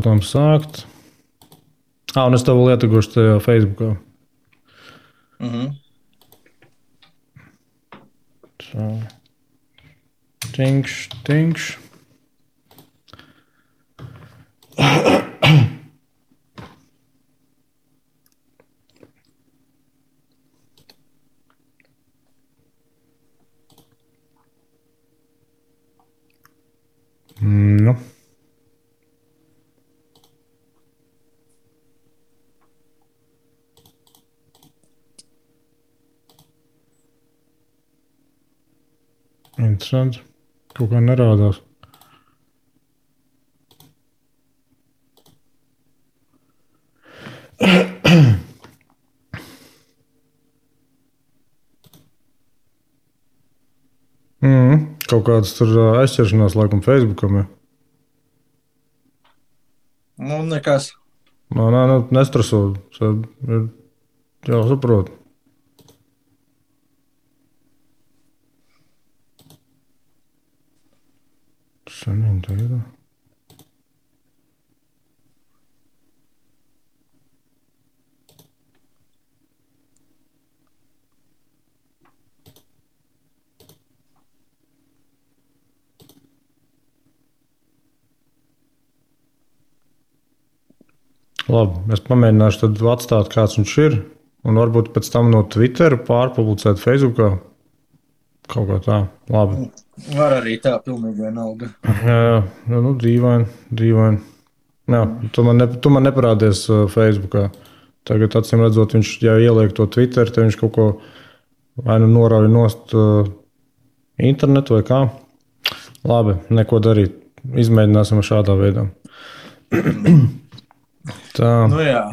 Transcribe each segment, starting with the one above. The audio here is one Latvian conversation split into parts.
Reklam sākt. Un es tev lietugošu tajā Facebookā. Tinkš. Nu. Interesanti. Kaut kā nerādās. Kaut kādas tur aizķeršanās laikam Facebookam. Nu, nekas. Nē, nestreso. Jā, saprotu. Šodien tā ir. Labi, es pamēģināšu tad atstāt, kāds viņš ir, un varbūt pēc tam no Twitter pārpublicēt Facebookā. Kaut kā tā. Labi. Var arī tā, pilnīgi vienalga. Jā, nu dīvaini. Jā, tu man neparādies Facebookā. Tagad, acīm redzot, viņš, ja ieliek to Twitter, tad viņš kaut ko vai nu norauj nost internetu vai kā. Labi, neko darīt. Izmēģināsim šādā veidā. Tā. Nu jā.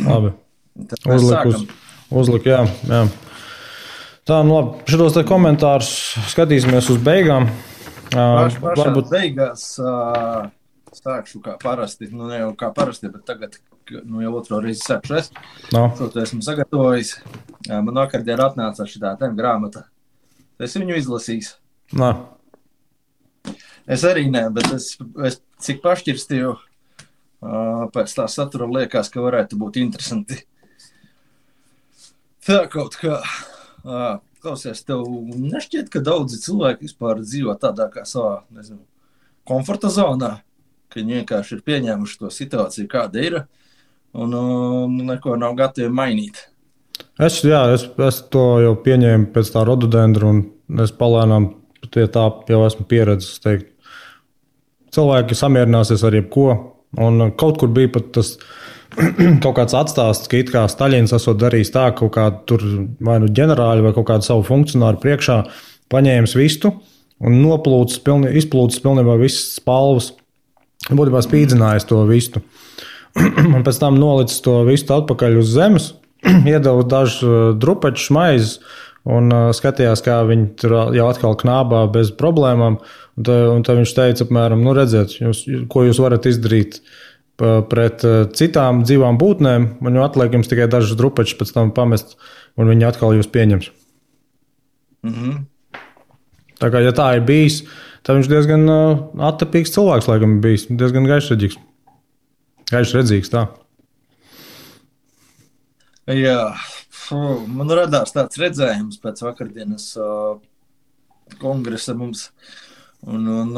Labi. Uzlik, jā. Tā, nu labi. Šitos te komentārus skatīsimies uz beigām. Varbūt beigās sākšu kā parasti. Nu, ne jau kā parasti, bet tagad jau otro reizi sākšu es. To esmu sagatavojis. Man vakardien atnāca šitā grāmata. Es viņu izlasīju. Es arī ne, bet es cik pašķirstīju pēc tā satura liekas, ka varētu būt interesanti. Tā kaut kā, klausies, tev nešķiet, ka daudzi cilvēki vispār dzīvo tādā kā savā, nezinu, komforta zonā, ka viņi vienkārši ir pieņēmuši to situāciju, kāda ir, un neko nav gatavi mainīt. Es to jau pieņēmu pēc tā rododendra, un es palēnām pie tā jau esmu pieredzis, teikt. Cilvēki samierināsies ar jebko. Un kaut kur bija pat tas kaut kāds atstāsts, ka it kā Staļins esot darījis tā, kaut kādu tur vai nu ģenerāļu vai kaut kādu savu funkcionāru priekšā paņēmis vistu un izplūcis pilnībā visas spalvas. Būtībā spīdzinājis to vistu. Un pēc tam nolicis to vistu atpakaļ uz zemes, iedeva dažu drupaču maizes un skatījās, kā viņi tur jau atkal knābā bez problēmām. Un tad viņš teica, apmēram, nu redziet, ko jūs varat izdarīt pret citām dzīvām būtnēm, un jau atliek jums tikai dažas drupačas pēc tam pamest, un viņi atkal jūs pieņems. Tā kā, ja tā ir bijis, tad viņš diezgan attapīgs cilvēks, laikam, ir bijis, diezgan gaišredzīgs. Gaišredzīgs, tā. Jā, man radās tāds redzējums pēc vakardienas kongresa mums. Un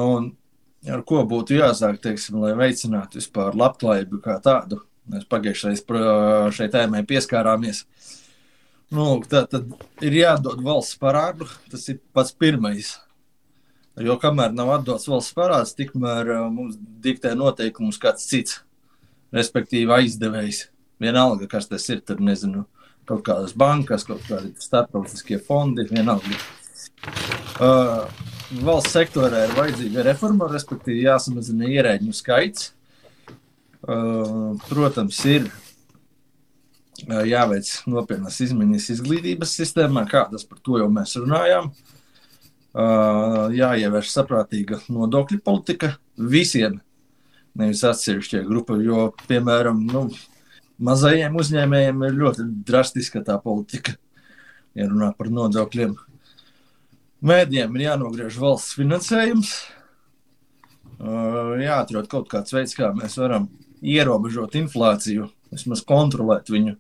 ar ko būtu jāsāk, teiksim, lai veicinātu vispār labklājību kā tādu. Mēs pagājušais šai tēmai pieskārāmies. Nu, tad ir jādod valsts parādu, tas ir pats pirmais. Jo kamēr nav atdots valsts parāds, tikmēr mums diktē noteikumus kāds cits, respektīvi aizdevējs. Vienalga, kas tas ir, tur nezinu, kaut kādas bankas, kaut kādi starptautiskie fondi, vienalga. Valsts sektorā ir vajadzīga reforma, respektīvi jāsamazina ierēģņu skaits. Protams, ir jāveic nopietnas izmaiņas izglītības sistēmā, kādas par to jau mēs runājām. Jāievieš saprātīga nodokļu politika visiem, nevis atsevišķie grupa, jo, piemēram, mazajiem uzņēmējiem ir ļoti drastiska tā politika, ja runā par nodokļiem. Mēdījiem ir jānogriež valsts finansējums, jāatrod kaut kāds veids, kā mēs varam ierobežot inflāciju, vismaz kontrolēt viņu.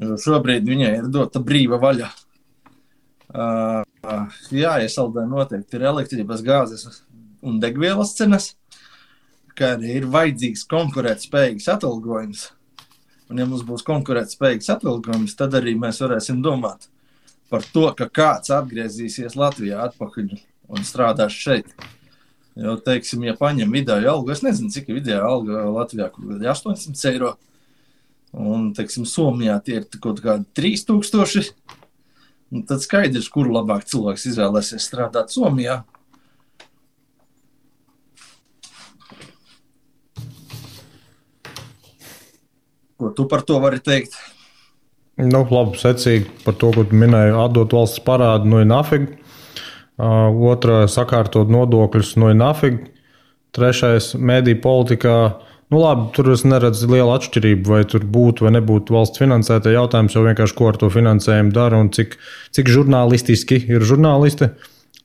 Jo šobrīd viņai ir dota brīva vaļa. Jāiesaldē noteikti ir elektrības, gāzes un degvielas cenas, kā arī ir vajadzīgs konkurētspējīgs atalgojums. Un ja mums būs konkurētspējīgs atalgojums, tad arī mēs varēsim domāt par to, ka kāds atgriezīsies Latvijā atpakaļ un strādās šeit. Jo, teiksim, ja paņem vidēju algu, es nezinu, cik ir vidējā alga Latvijā, kur ir 800 eiro, un, teiksim, Somijā tie ir kaut kādi 3000, un tad skaidrs, kuru labāk cilvēks izvēlēsies strādāt Somijā. Ko tu par to vari teikt? Nu, labi, secīgi par to, ko tu minēji, atdot valsts parādu, ir nafig. Otra sakārtot nodokļus, ir nafig. Trešais mediju politikā. Nu, labi, tur es neredzu lielu atšķirību, vai tur būtu vai nebūtu valsts finansēta jautājums, jau vienkārši ko ar to finansējumu dara un cik žurnālistiski ir žurnālisti.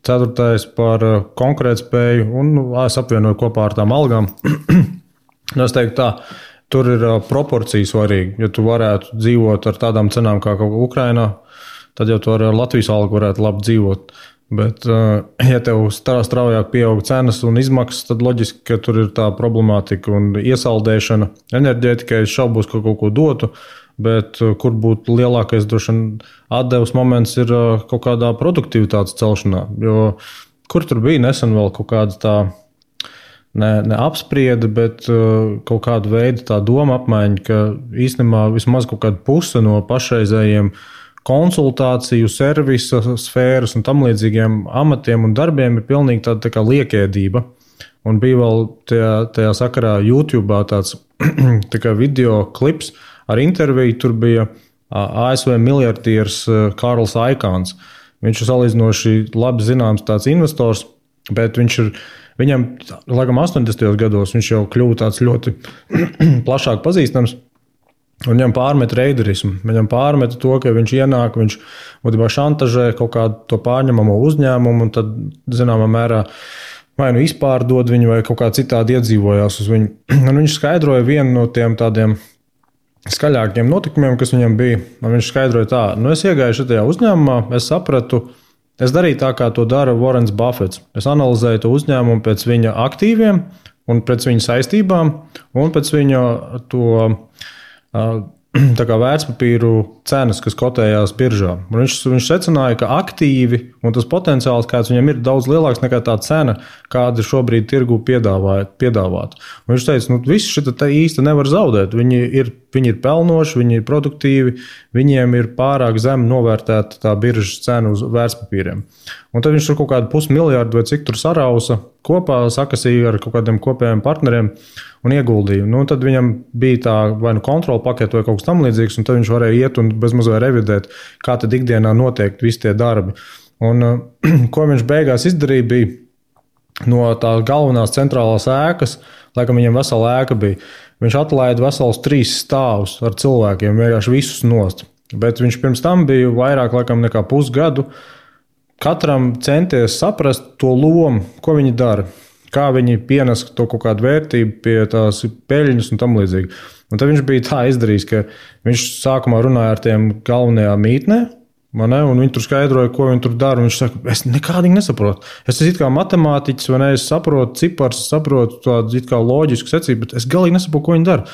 Ceturtais par konkurētspēju un es apvienoju kopā ar tām algām. Es teiktu tā. Tur ir proporcija svarīga. Ja tu varētu dzīvot ar tādām cenām kā Ukrainā, tad jau tu ar Latvijas algu varētu labi dzīvot. Bet, ja tev straujāk pieaug cenas un izmaksas, tad loģiski, ka tur ir tā problemātika un iesaldēšana. Enerģētikai es šaubos, ka kaut ko dotu, bet kur būtu lielākais droši vien atdevs moments ir kaut kādā produktivitātes celšanā. Jo kur tur bija nesen vēl kaut kāda tā ne apspriede, bet kaut kāda veida tā doma apmaiņa, ka īstenībā vismaz kaut kāda puse no pašreizējiem konsultāciju, servisa sfēras un tam līdzīgiem amatiem un darbiem ir pilnīgi tāda tā kā liekēdība. Un bija vēl tajā sakarā YouTube tāds tā kā video klips ar interviju. Tur bija ASV miljardieris Kārls Aikāns. Viņš ir salīdzinoši labi zināms tāds investors, bet viņam, laikam 80. gados, viņš jau kļuva tāds ļoti plašāk pazīstams. Un viņam pārmet reiderismu. Viņam pārmet to, ka viņš ienāk, viņš būtībā šantažē kaut kādu to pārņemamo uzņēmumu un tad, zināmā mērā, vai nu izpārdod viņu vai kaut kā citādi iedzīvojās uz viņu. Un viņš skaidroja vienu no tiem tādiem skaļākiem notikumiem, kas viņam bija. Un viņš skaidroja tā, es iegāju šajā uzņēmumā, es sapratu, es darīju tā, kā to dara Warrens Buffets. Es analizēju to uzņēmumu pēc viņa aktīviem un pēc viņa saistībām un pēc viņa to tā kā vērtspapīru cenas, kas kotējās biržā. Un viņš secināja, ka aktīvi un tas potenciāls, kāds viņam ir, daudz lielāks nekā tā cena, kāda šobrīd tirgu piedāvāt. Un viņš teica, viss šita īsti nevar zaudēt. Viņi ir pelnoši, viņi ir produktīvi, viņiem ir pārāk zem novērtēta tā biržas cena uz vērtspapīriem. Un tad viņš tur kaut kādu 500 miljardu vai cik tur sarausa kopā, sakasīja ar kaut kādiem kopējiem partneriem un ieguldīja. Tad viņam bija tā vai nu kontrola pakete vai kaut kas tam līdzīgs, un tad viņš varēja iet un bezmazliet revidēt, kā tad ikdienā notiek visi tie darbi. Un ko viņš beigās izdarīja, bija no tās galvenās centrālās ēkas, laikam viņam vesela ēka bija. Viņš atlaida vesels 3 stāvus ar cilvēkiem, vienkārši visus nost. Bet viņš pirms tam bija vairāk laikam nekā pusgadu katram centies saprast to lomu, ko viņi dara, kā viņi pienes to kaut kādu vērtību pie tās peļņas un tam līdzīgi. Un tad viņš bija tā izdarījis, ka viņš sākumā runāja ar tiem galvenajā mītnē, un viņi tur skaidroja, ko viņi tur dara. Viņš saka, es nekādīgi nesaprotu. Es esmu it kā matemātiķis, vai ne, es saprotu cipars, saprotu tādu it kā loģisku secību, bet es galīgi nesaprotu, ko viņi dara.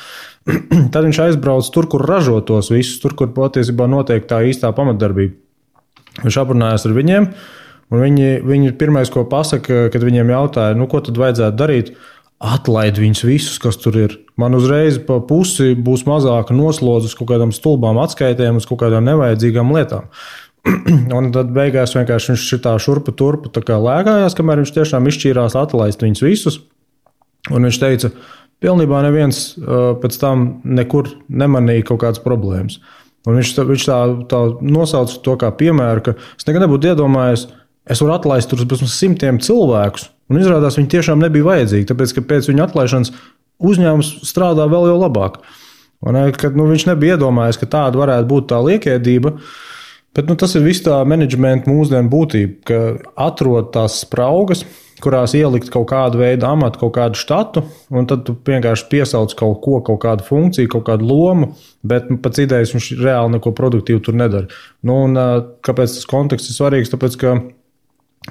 Tad viņš aizbrauc tur, kur ražo tos visus, tur, kur patiesībā notiek tā īstā pamatdarbība. Viņš aprunājās ar viņiem, un viņi pirmais, ko pasaka, kad viņiem jautāja, ko tad vajadzētu darīt, atlaid viņus visus, kas tur ir. Man uzreiz pa pusi būs mazāka noslodze uz kaut kādām stulbām atskaitēm, uz kaut kādām nevajadzīgām lietām. Un tad beigās vienkārši viņš šitā šurpa turpa tā kā lēkājās, kamēr viņš tiešām izšķīrās atlaist viņus visus. Un viņš teica, pilnībā neviens pēc tam nekur nemanīja kaut kādas problēmas. Un viņš tā nosauca to kā piemēru, ka es nekad nebūtu iedomājies, es varu atlaist tur bez 100 cilvēkus. Un izrādās, viņi tiešām nebija vajadzīgi, tāpēc, ka pēc viņa atlaišanas uzņēmums strādā vēl jau labāk. Un, kad, viņš nebija iedomājies, ka tāda varētu būt tā liekēdība, bet tas ir viss tā menedžmenta mūsdienu būtība, ka atrod tās spraugas, kurās ielikt kaut kādu veidu amatu, kaut kādu štatu, un tad tu vienkārši piesauc kaut ko, kaut kādu funkciju, kaut kādu lomu, bet pēc idejas viņš reāli neko produktīvu tur nedara. Nu, un kāpēc tas konteksts ir svarīgs? Tāpēc, ka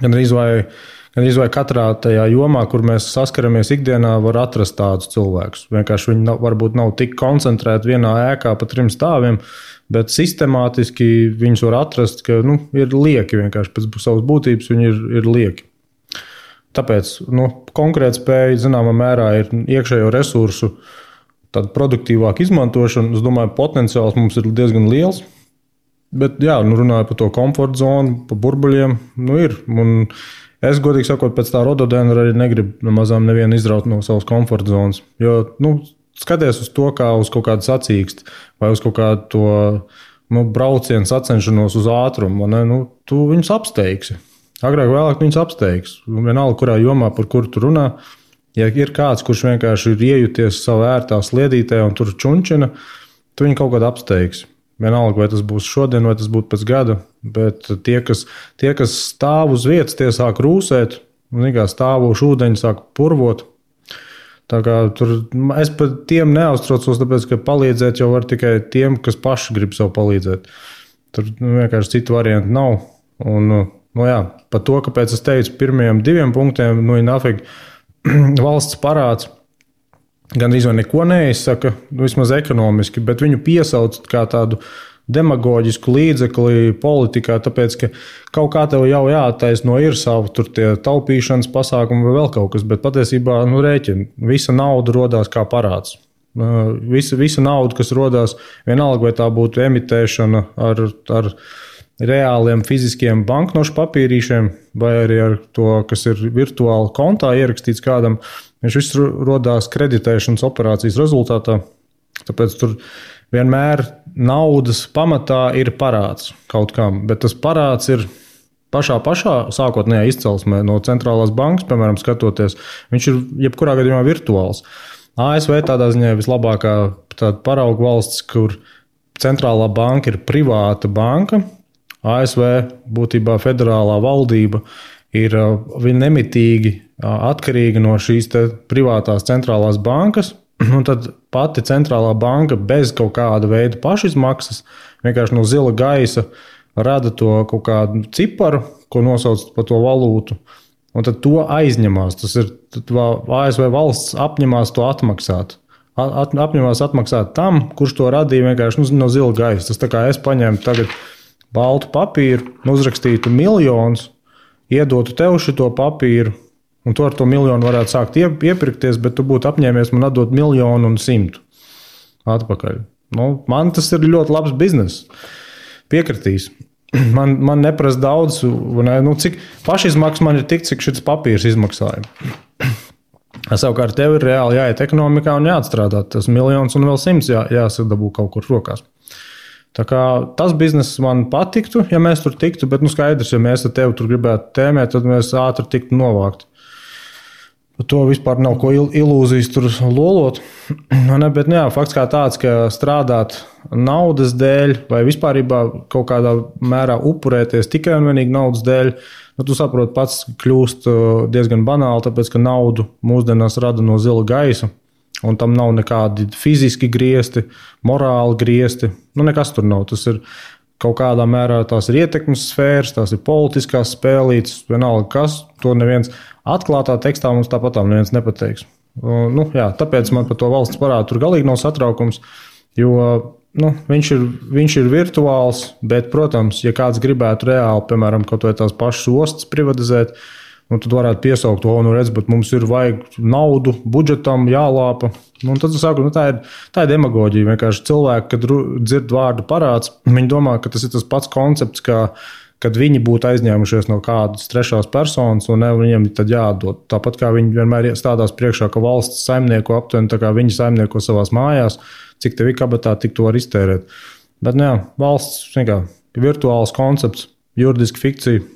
gandrīz vai katrā tajā jomā, kur mēs saskaramies ikdienā, var atrast tādus cilvēkus. Vienkārši viņi varbūt nav tik koncentrēti vienā ēkā pa 3 stāviem, bet sistemātiski viņus var atrast, ka ir lieki vienkārši pēc savas būtības, viņi ir lieki. Tāpēc konkurētspēja zināmā mērā ir iekšējo resursu tāda produktīvāka izmantošana. Es domāju, potenciāls mums ir diezgan liels. Bet, runāju par to komforta zonu, par burbuļiem, ir. Un es, godīgi sakot, pēc tā rododendra arī negribu nemazām nevienu izraut no savas komforta zonas. Jo, skaties uz to kā uz kaut kādu sacīksti vai uz kaut kādu to braucienu sacenšanos uz ātrumu. Tu viņus apsteigsi. Agrāk vēlāk viņus apsteigs. Vienalga, kurā jomā, par kuru tu runā. Ja ir kāds, kurš vienkārši ir iejuties savā ērtā sliedītē un tur čunčina, tu viņu kaut kādā apsteigs. Vienalga, vai tas būs šodien, vai tas būtu pēc gada. Bet tie, kas stāv uz vietas, tie sāk rūsēt, un stāvošu ūdeņi sāk purvot. Tā kā es par tiem neuztraucos, tāpēc, ka palīdzēt jau var tikai tiem, kas paši grib sev palīdzēt. Tur vienkārši citu variantu nav. Un, par to, kāpēc es teicu pirmajiem 2 punktiem, nafig valsts parāds gandrīz vai neko neizsaka, vismaz ekonomiski, bet viņu piesauc kā tādu demagoģisku līdzekli politikā, tāpēc, ka kaut kā tev jau jāattaisno ir savu tur tie taupīšanas pasākumi vai vēl kaut kas, bet patiesībā, rēķini, visa nauda rodās kā parāds. Visa nauda, kas rodās, vienalga, vai tā būtu emitēšana ar reāliem fiziskiem banknošu papīrīšiem, vai arī ar to, kas ir virtuāli kontā ierakstīts kādam, viņš viss rodās kreditēšanas operācijas rezultātā. Tāpēc tur vienmēr naudas pamatā ir parāds kaut kam, bet tas parāds ir pašā sākotnējā izcelsmē no centrālās bankas, piemēram, skatoties, viņš ir jebkurā gadījumā virtuāls. ASV tādā ziņā vislabākā tāda parauga valsts, kur centrālā banka ir privāta banka. ASV būtībā federālā valdība ir nemitīgi atkarīga no šīs privātās centrālās bankas, un tad pati centrālā banka bez kaut kāda veida pašizmaksas, vienkārši no zila gaisa rada to kaut kādu ciparu, ko nosauc par to valūtu, un tad to aizņemās. Tas ir ASV valsts apņemās to atmaksāt. Apņemās atmaksāt tam, kurš to radīja vienkārši no zila gaisa. Tas tā kā es paņēmu tagad baltu papīru, uzrakstītu miljonus, iedotu tev šito papīru, un tu ar to miljonu varētu sākt iepirkties, bet tu būtu apņēmies man atdot 1,100,000 atpakaļ. Man tas ir ļoti labs bizness. Piekritīs. Man neprasa daudz, cik pašizmaksas man ir tik, cik šis papīrs izmaksāja. Savukārt tev ir reāli jāiet ekonomikā un jāatstrādā. Tas 1,000,000 un vēl 100 jāsadabū kaut kur rokās. Tā kā tas bizness man patiktu, ja mēs tur tiktu, bet skaidrs, ja mēs ar tevi tur gribētu tēmēt, tad mēs ātri tiktu novākt. Par to vispār nav ko ilūzijas tur lolot. Bet fakts kā tāds, ka strādāt naudas dēļ vai vispārībā kaut kādā mērā upurēties tikai un vienīgi naudas dēļ, tu saproti pats kļūst diezgan banāli, tāpēc, ka naudu mūsdienās rada no zila gaisa. Un tam nav nekādi fiziski griesti, morāli griesti. Nekas tur nav. Tas ir kaut kādā mērā tās ir ietekmes sfēras, tās ir politiskās spēlītes, vienalga kas. To neviens atklātā tekstā mums tāpatām neviens nepateiks. Tāpēc man par to valsts parādu tur galīgi nav satraukums, jo viņš ir virtuāls, bet, protams, ja kāds gribētu reāli, piemēram, kaut vai tās pašas ostas privatizēt, tad varētu piesaukt, bet mums ir vajag naudu, budžetam jālāpa. Tad es saku, tā ir demagoģija. Vienkārši cilvēki, kad dzird vārdu parāds, viņi domā, ka tas ir tas pats koncepts, kad viņi būtu aizņēmušies no kādas trešās personas, un viņiem tad jādod. Tāpat kā viņi vienmēr stādās priekšā, ka valsts saimnieko aptuveni, tā kā viņi saimnieko savās mājās, cik tev ir kabatā, tik to var iztērēt. Bet valsts ir virtuāls koncepts, juridiski fikcija.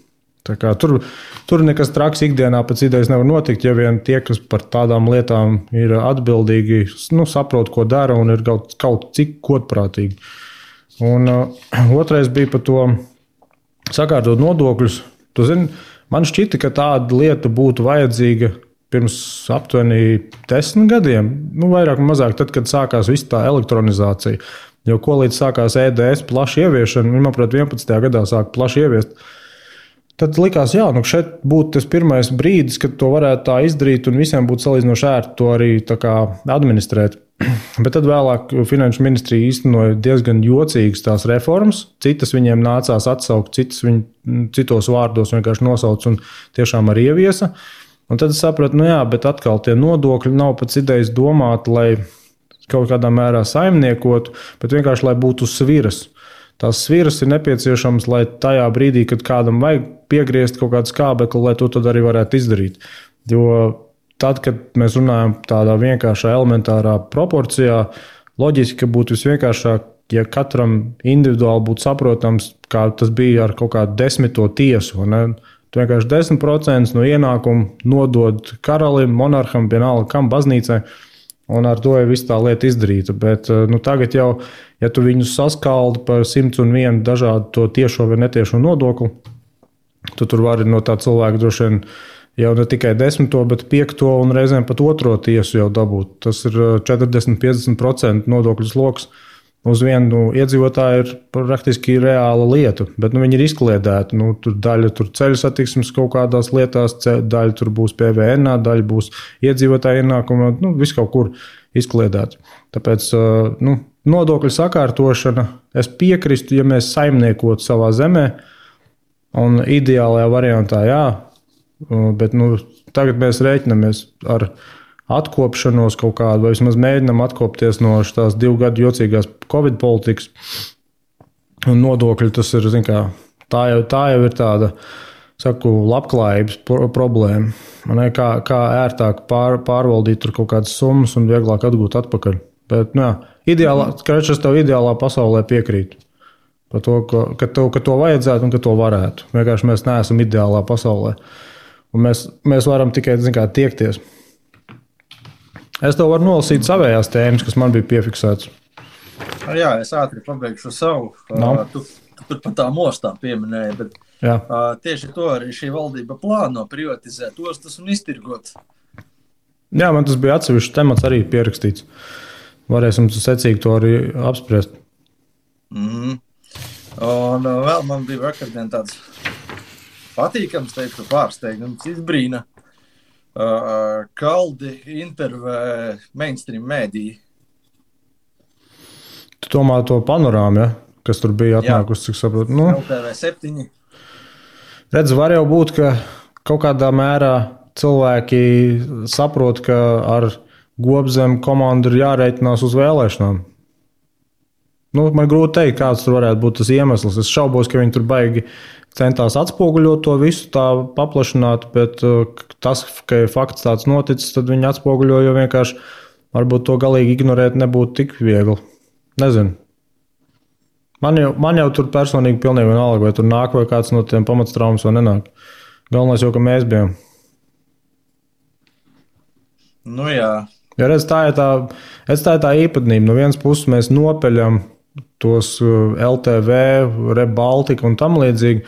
Tur nekas traks ikdienā pēc idejas nevar notikt, ja vien tie, kas par tādām lietām ir atbildīgi, saprot, ko dara un ir kaut cik godprātīgi. Un otrais bija par to sakārtot nodokļus. Tu zini, Man šķita, ka tāda lieta būtu vajadzīga pirms aptuveni 10 gadiem, vairāk vai mazāk, tad, kad sākās viss tā elektronizācija. Jo ko līdz sākās EDS plaši ieviešana, manuprāt, 11. gadā sāka plaši ieviest. Tad likās, jā, šeit būtu tas pirmais brīdis, kad to varētu tā izdarīt, un visiem būtu salīdzinoši ērti to arī tā kā administrēt. Bet tad vēlāk Finanšu ministrija īstenoja diezgan jocīgas tās reformas. Citas viņiem nācās atsaukt, citas viņi citos vārdos vienkārši nosauc un tiešām arī ieviesa. Un tad es sapratu, jā, bet atkal tie nodokļi nav pēc idejas domāti, lai kaut kādā mērā saimniekotu, bet vienkārši, lai būtu sviras. Tās sviras ir nepieciešamas, lai tajā brīdī, kad kādam vajag piegriezt kaut kādu skābekli, lai to tad arī varētu izdarīt. Jo tad, kad mēs runājam tādā vienkāršā elementārā proporcijā, loģiski būtu visvienkāršāk, ja katram individuāli būtu saprotams, kā tas bija ar kaut kādu 10. tiesu. Tu vienkārši 10% no ienākuma nodod karalim, monarham, vienalga kam, baznīcai. Un ar to jau viss tā lieta izdarīta. Bet tagad jau, ja tu viņus saskaldi par 101 dažādu to tiešo vai netiešo nodokli, tu tur vari no tā cilvēka droši vien jau ne tikai 10, bet 5 un reizēm pat 2 tiesu jau dabūt. Tas ir 40-50% nodokļu sloks. Uz vienu iedzīvotāju ir praktiski reāla lieta, bet viņi ir izkliedēti. Tur daļa ceļu satiksmes kaut kādās lietās, daļa tur būs PVN, daļa būs iedzīvotāju ienākuma, viss kaut kur izkliedēts. Tāpēc nodokļu sakārtošana, es piekrīstu, ja mēs saimniekotu savā zemē, un ideālajā variantā jā, bet tagad mēs rēķinamies ar atkopšanos kaut kādu, vai vismaz mēģinam atkopties no tās 2 gadu jocīgās Covid politikas. Un nodokļi tas ir, tā jau ir tāda, labklājības problēma. Kā ērtāk pārvaldīt tur kaut kādas summas un vieglāk atgūt atpakaļ. Bet, es tev ideālā pasaulē piekrītu. Par to, ka to vajadzētu un ka to varētu. Vienkārši mēs neesam ideālā pasaulē. Un mēs varam tikai, tiekties. Es tev varu nolasīt savējās tēmas, kas man bija piefiksētas. Jā, es ātri pabeigšu savu. Tu tur pat tā mostā pieminēji, bet tieši to arī šī valdība plāno privatizēt ostas un iztirgot. Jā, man tas bija atsevišķs temats arī pierakstīts. Varēsim secīgi to arī apspriest. Un vēl man bija vakardien tāds patīkams, teiktu, pārsteigums, izbrīna. Kaldi intervē mainstream mēdī. Tu domā to panorāmu, ja? Kas tur bija atnākusi, cik saprotu? LTV 7. Redz, var jau būt, ka kaut kādā mērā cilvēki saprot, ka ar Gobzemu komandu ir jārēķinās uz vēlēšanām. Man grūti teikt, kāds tur varētu būt tas iemesls. Es šaubos, ka viņi tur baigi centās atspoguļot to visu tā paplašināt, bet tas, ka fakts tāds noticis, tad viņi atspoguļo, jo vienkārši varbūt to galīgi ignorēt nebūtu tik viegli. Nezinu. Man jau tur personīgi pilnīgi vienalga, vai tur nāk vai kāds no tiem pamatstraumas vai nenāk. Galvenais jau, ka mēs bijām. Jā. Ja redz, tā ir tā īpatnība. No vienas puses mēs nopeļam tos LTV, Rebaltika un tam līdzīgi,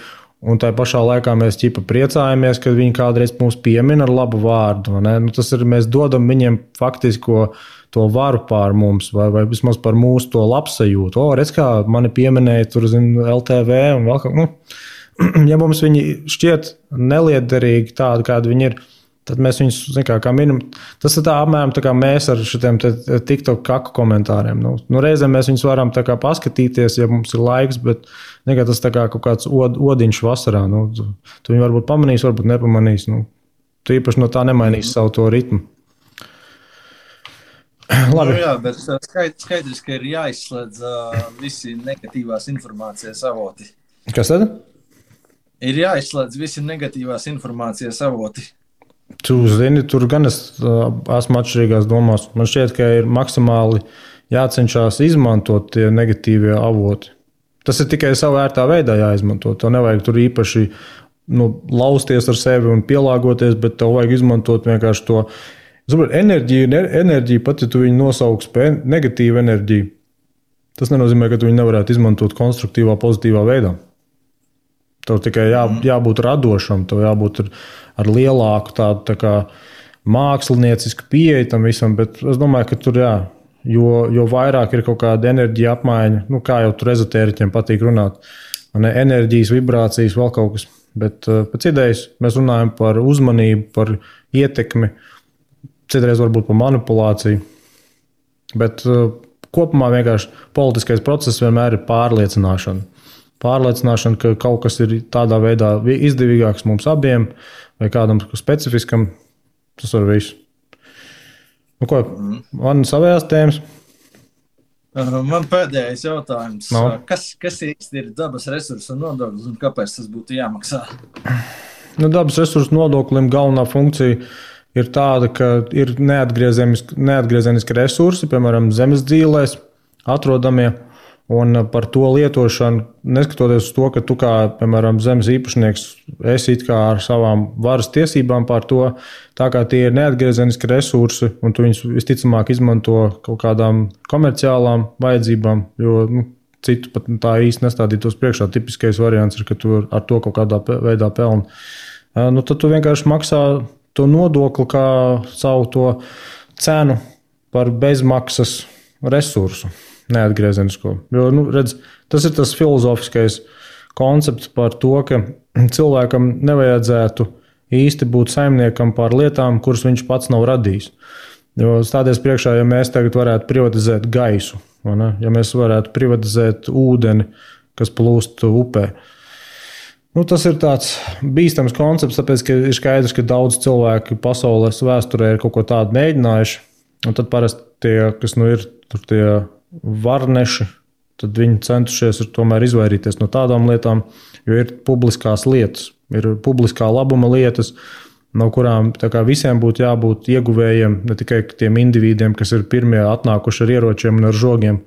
un tā pašā laikā mēs priecājamies, kad viņi kādreiz mūs piemin ar labu vārdu. Tas ir, mēs dodam viņiem faktisko to varu pār mums, vai vismaz par mūsu to labsajūtu. Redz, kā mani pieminēja tur, LTV un vēl kaut. Ja mums viņi šķiet neliederīgi tādi, kādi viņi ir, tad mēs viņus, kā minimum, tas ir tā apmēram tā kā mēs ar šitiem TikTok kaku komentāriem. Reizēm mēs viņus varam tā kā paskatīties, ja mums ir laiks, bet tas tā kā kaut kāds odiņš vasarā. Tu viņu varbūt pamanīs, varbūt nepamanīs. Tu īpaši no tā nemainīs savu to ritmu. Labi. Jā, bet skaidrs, ka ir jāizslēdz visi negatīvās informācijas avoti. Kas tad? Ir jāizslēdz visi negatīvās informācijas avoti. Tu zini, tur gan es esmu atšķirīgās domās. Man šķiet, ka ir maksimāli jācenšas izmantot tie negatīvie avoti. Tas ir tikai savā ērtā veidā jāizmanto. Tev nevajag tur īpaši lausties ar sevi un pielāgoties, bet tev vajag izmantot vienkārši to enerģiju, pat ja tu viņu nosauks par negatīvu enerģiju. Tas nenozīmē, ka tu viņu nevarētu izmantot konstruktīvā, pozitīvā veidā. Tev tikai jābūt radošam, tev jābūt ar lielāku tādu tā kā māksliniecisku pieeju tam visam, bet es domāju, ka tur jo vairāk ir kaut kāda enerģija apmaiņa, kā jau tur ezotēriķiem patīk runāt, enerģijas, vibrācijas, vēl kaut kas. Bet pēc idejas mēs runājam par uzmanību, par ietekmi, citreiz varbūt par manipulāciju, bet kopumā vienkārši politiskais process vienmēr ir pārliecināšana. Pārliecināšana, ka kaut kas ir tādā veidā izdevīgāks mums abiem vai kādam specifiskam, tas var visu. Ko, man savējās tēmas? Man pēdējais jautājums. No. Kas īsti ir dabas resursu nodoklis un kāpēc tas būtu jāmaksā? Dabas resursu nodoklim galvenā funkcija ir tāda, ka ir neatgriezeniski resursi, piemēram, zemes dzīvēs atrodamie, un par to lietošanu, neskatoties uz to, ka tu kā, piemēram, zemes īpašnieks esi it kā ar savām varas tiesībām pār to, tā kā tie ir neatgriezeniski resursi, un tu viņus visticamāk izmanto kaut kādām komerciālām vajadzībām, jo citu pat tā īsti nestādītos priekšā. Tipiskais variants ir, ka tu ar to kaut kādā veidā pelni. Tad tu vienkārši maksā to nodokli kā savu to cenu par bezmaksas resursu. Neatgriezenisko. Jo, redz, tas ir tas filozofiskais koncepts par to, ka cilvēkam nevajadzētu īsti būt saimniekam pār lietām, kuras viņš pats nav radījis. Jo stāties priekšā, ja mēs tagad varētu privatizēt gaisu, ja mēs varētu privatizēt ūdeni, kas plūst upē. Tas ir tāds bīstams koncepts, tāpēc, ka ir skaidrs, ka daudz cilvēki pasaules vēsturē ir kaut ko tādu mēģinājuši, un tad parasti tie, kas ir tur tie varneši, tad viņi centušies tomēr izvairīties no tādām lietām, jo ir publiskās lietas, ir publiskā labuma lietas, no kurām visiem būtu jābūt ieguvējiem, ne tikai tiem individiem, kas ir pirmie atnākuši ar ieročiem un ar žogiem.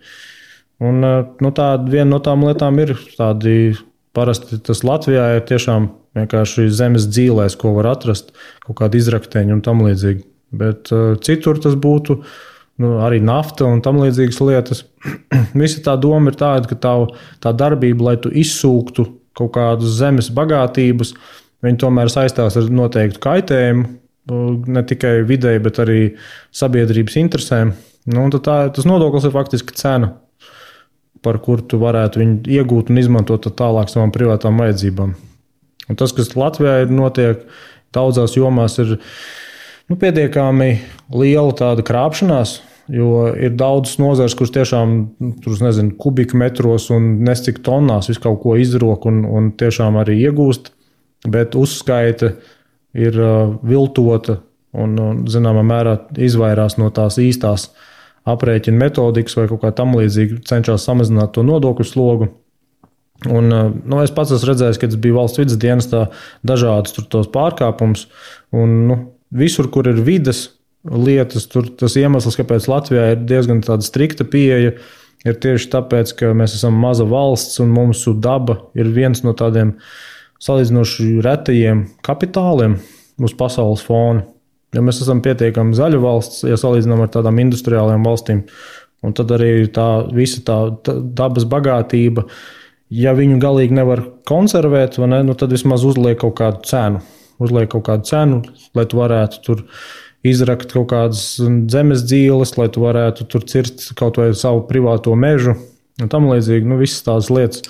Un viena no tām lietām ir tādi, parasti tas Latvijā ir tiešām vienkārši zemes dzīvēs, ko var atrast, kaut kādi izrakteņi un tam līdzīgi. Bet citur tas būtu arī nafta un tam līdzīgas lietas. Visa tā doma ir tāda, ka tā darbība, lai tu izsūktu kaut kādus zemes bagātības, viņi tomēr saistās ar noteiktu kaitējumu, ne tikai videi, bet arī sabiedrības interesēm. Tas nodoklis ir faktiski cena, par kuru tu varētu viņu iegūt un izmantot tālāk savām privātām vajadzībām. Un tas, kas Latvijā ir notiek, daudzās jomās ir pietiekami liela tāda krāpšanās, jo ir daudzas nozares, kuras tiešām kubikmetros un nescik tonnās visu kaut ko izrok un tiešām arī iegūst, bet uzskaita ir viltota un zināmā mērā izvairās no tās īstās aprēķina metodikas vai kaut kā tam līdzīgi, cenšas samazināt to nodokļu slogu. Un, es pats esmu redzējis, ka tas bija valsts vidas dienestā dažādas tos pārkāpumus, un visur, kur ir vides lietas, tur tas iemesls, kāpēc Latvijā ir diezgan tāda strikta pieeja, ir tieši tāpēc, ka mēs esam maza valsts un mūsu daba ir viens no tādiem salīdzinoši retajiem kapitāliem uz pasaules fona. Ja mēs esam pietiekami zaļa valsts, ja salīdzinām ar tādām industriālajām valstīm, un tad arī visa tā dabas bagātība, ja viņu galīgi nevar konservēt, tad vismaz uzliek kaut kādu cenu. Lai tu varētu tur izrakt kaut kādas zemes dzīves, lai tu varētu tur cirst kaut vai savu privāto mežu un tam līdzīgi, visas tās lietas,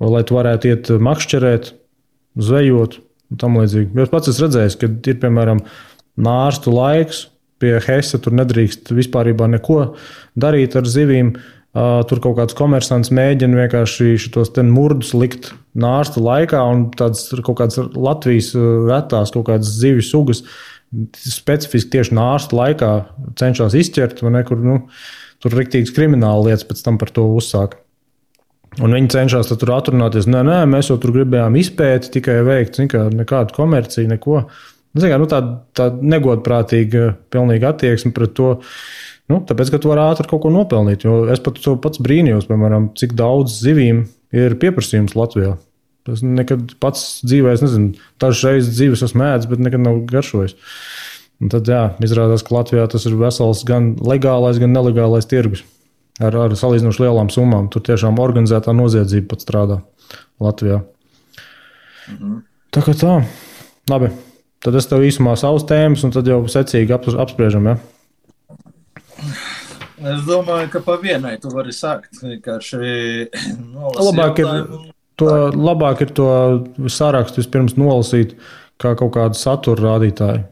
lai tu varētu iet makšķerēt, zvejot un tam līdzīgi. Jo es pats esmu redzējis, ka ir, piemēram, nārstu laiks, pie Hese tur nedrīkst vispārībā neko darīt ar zivīm. Tur kaut kāds komersants mēģina vienkārši šitos murdus likt nārsta laikā, un tādas kaut kādas Latvijas retās kaut kādas zivju sugas specifiski tieši nārsta laikā cenšas izķert, kur tur riktīgas krimināla lietas pēc tam par to uzsāk. Un viņi cenšas tur atrunāties, nē, mēs jau tur gribējām izpēti tikai veikt, nekādu komerciju, neko. Tā negodprātīga pilnīga attieksme pret to, tāpēc, ka tu vari ātri kaut ko nopelnīt. Jo es pats brīnījos, piemēram, cik daudz zivīm ir pieprasījums Latvijā. Es nekad pats dzīvē, dažas reizes zivis esmu ēdis, bet nekad nav garšojis. Un tad, izrādās, ka Latvijā tas ir vesels gan legālais, gan nelegālais tirgus ar salīdzinoši lielām summām. Tur tiešām organizētā noziedzība pat strādā Latvijā. Tā kā tā. Labi. Tad es tev īsumā savus tēmas, un tad jau secīgi apspriežam. Ja? Es domāju, ka pa vienai tu vari sākt. Vienkārši labāk ir to sarakstu vispirms nolasīt kā kaut kādu satura rādītāju.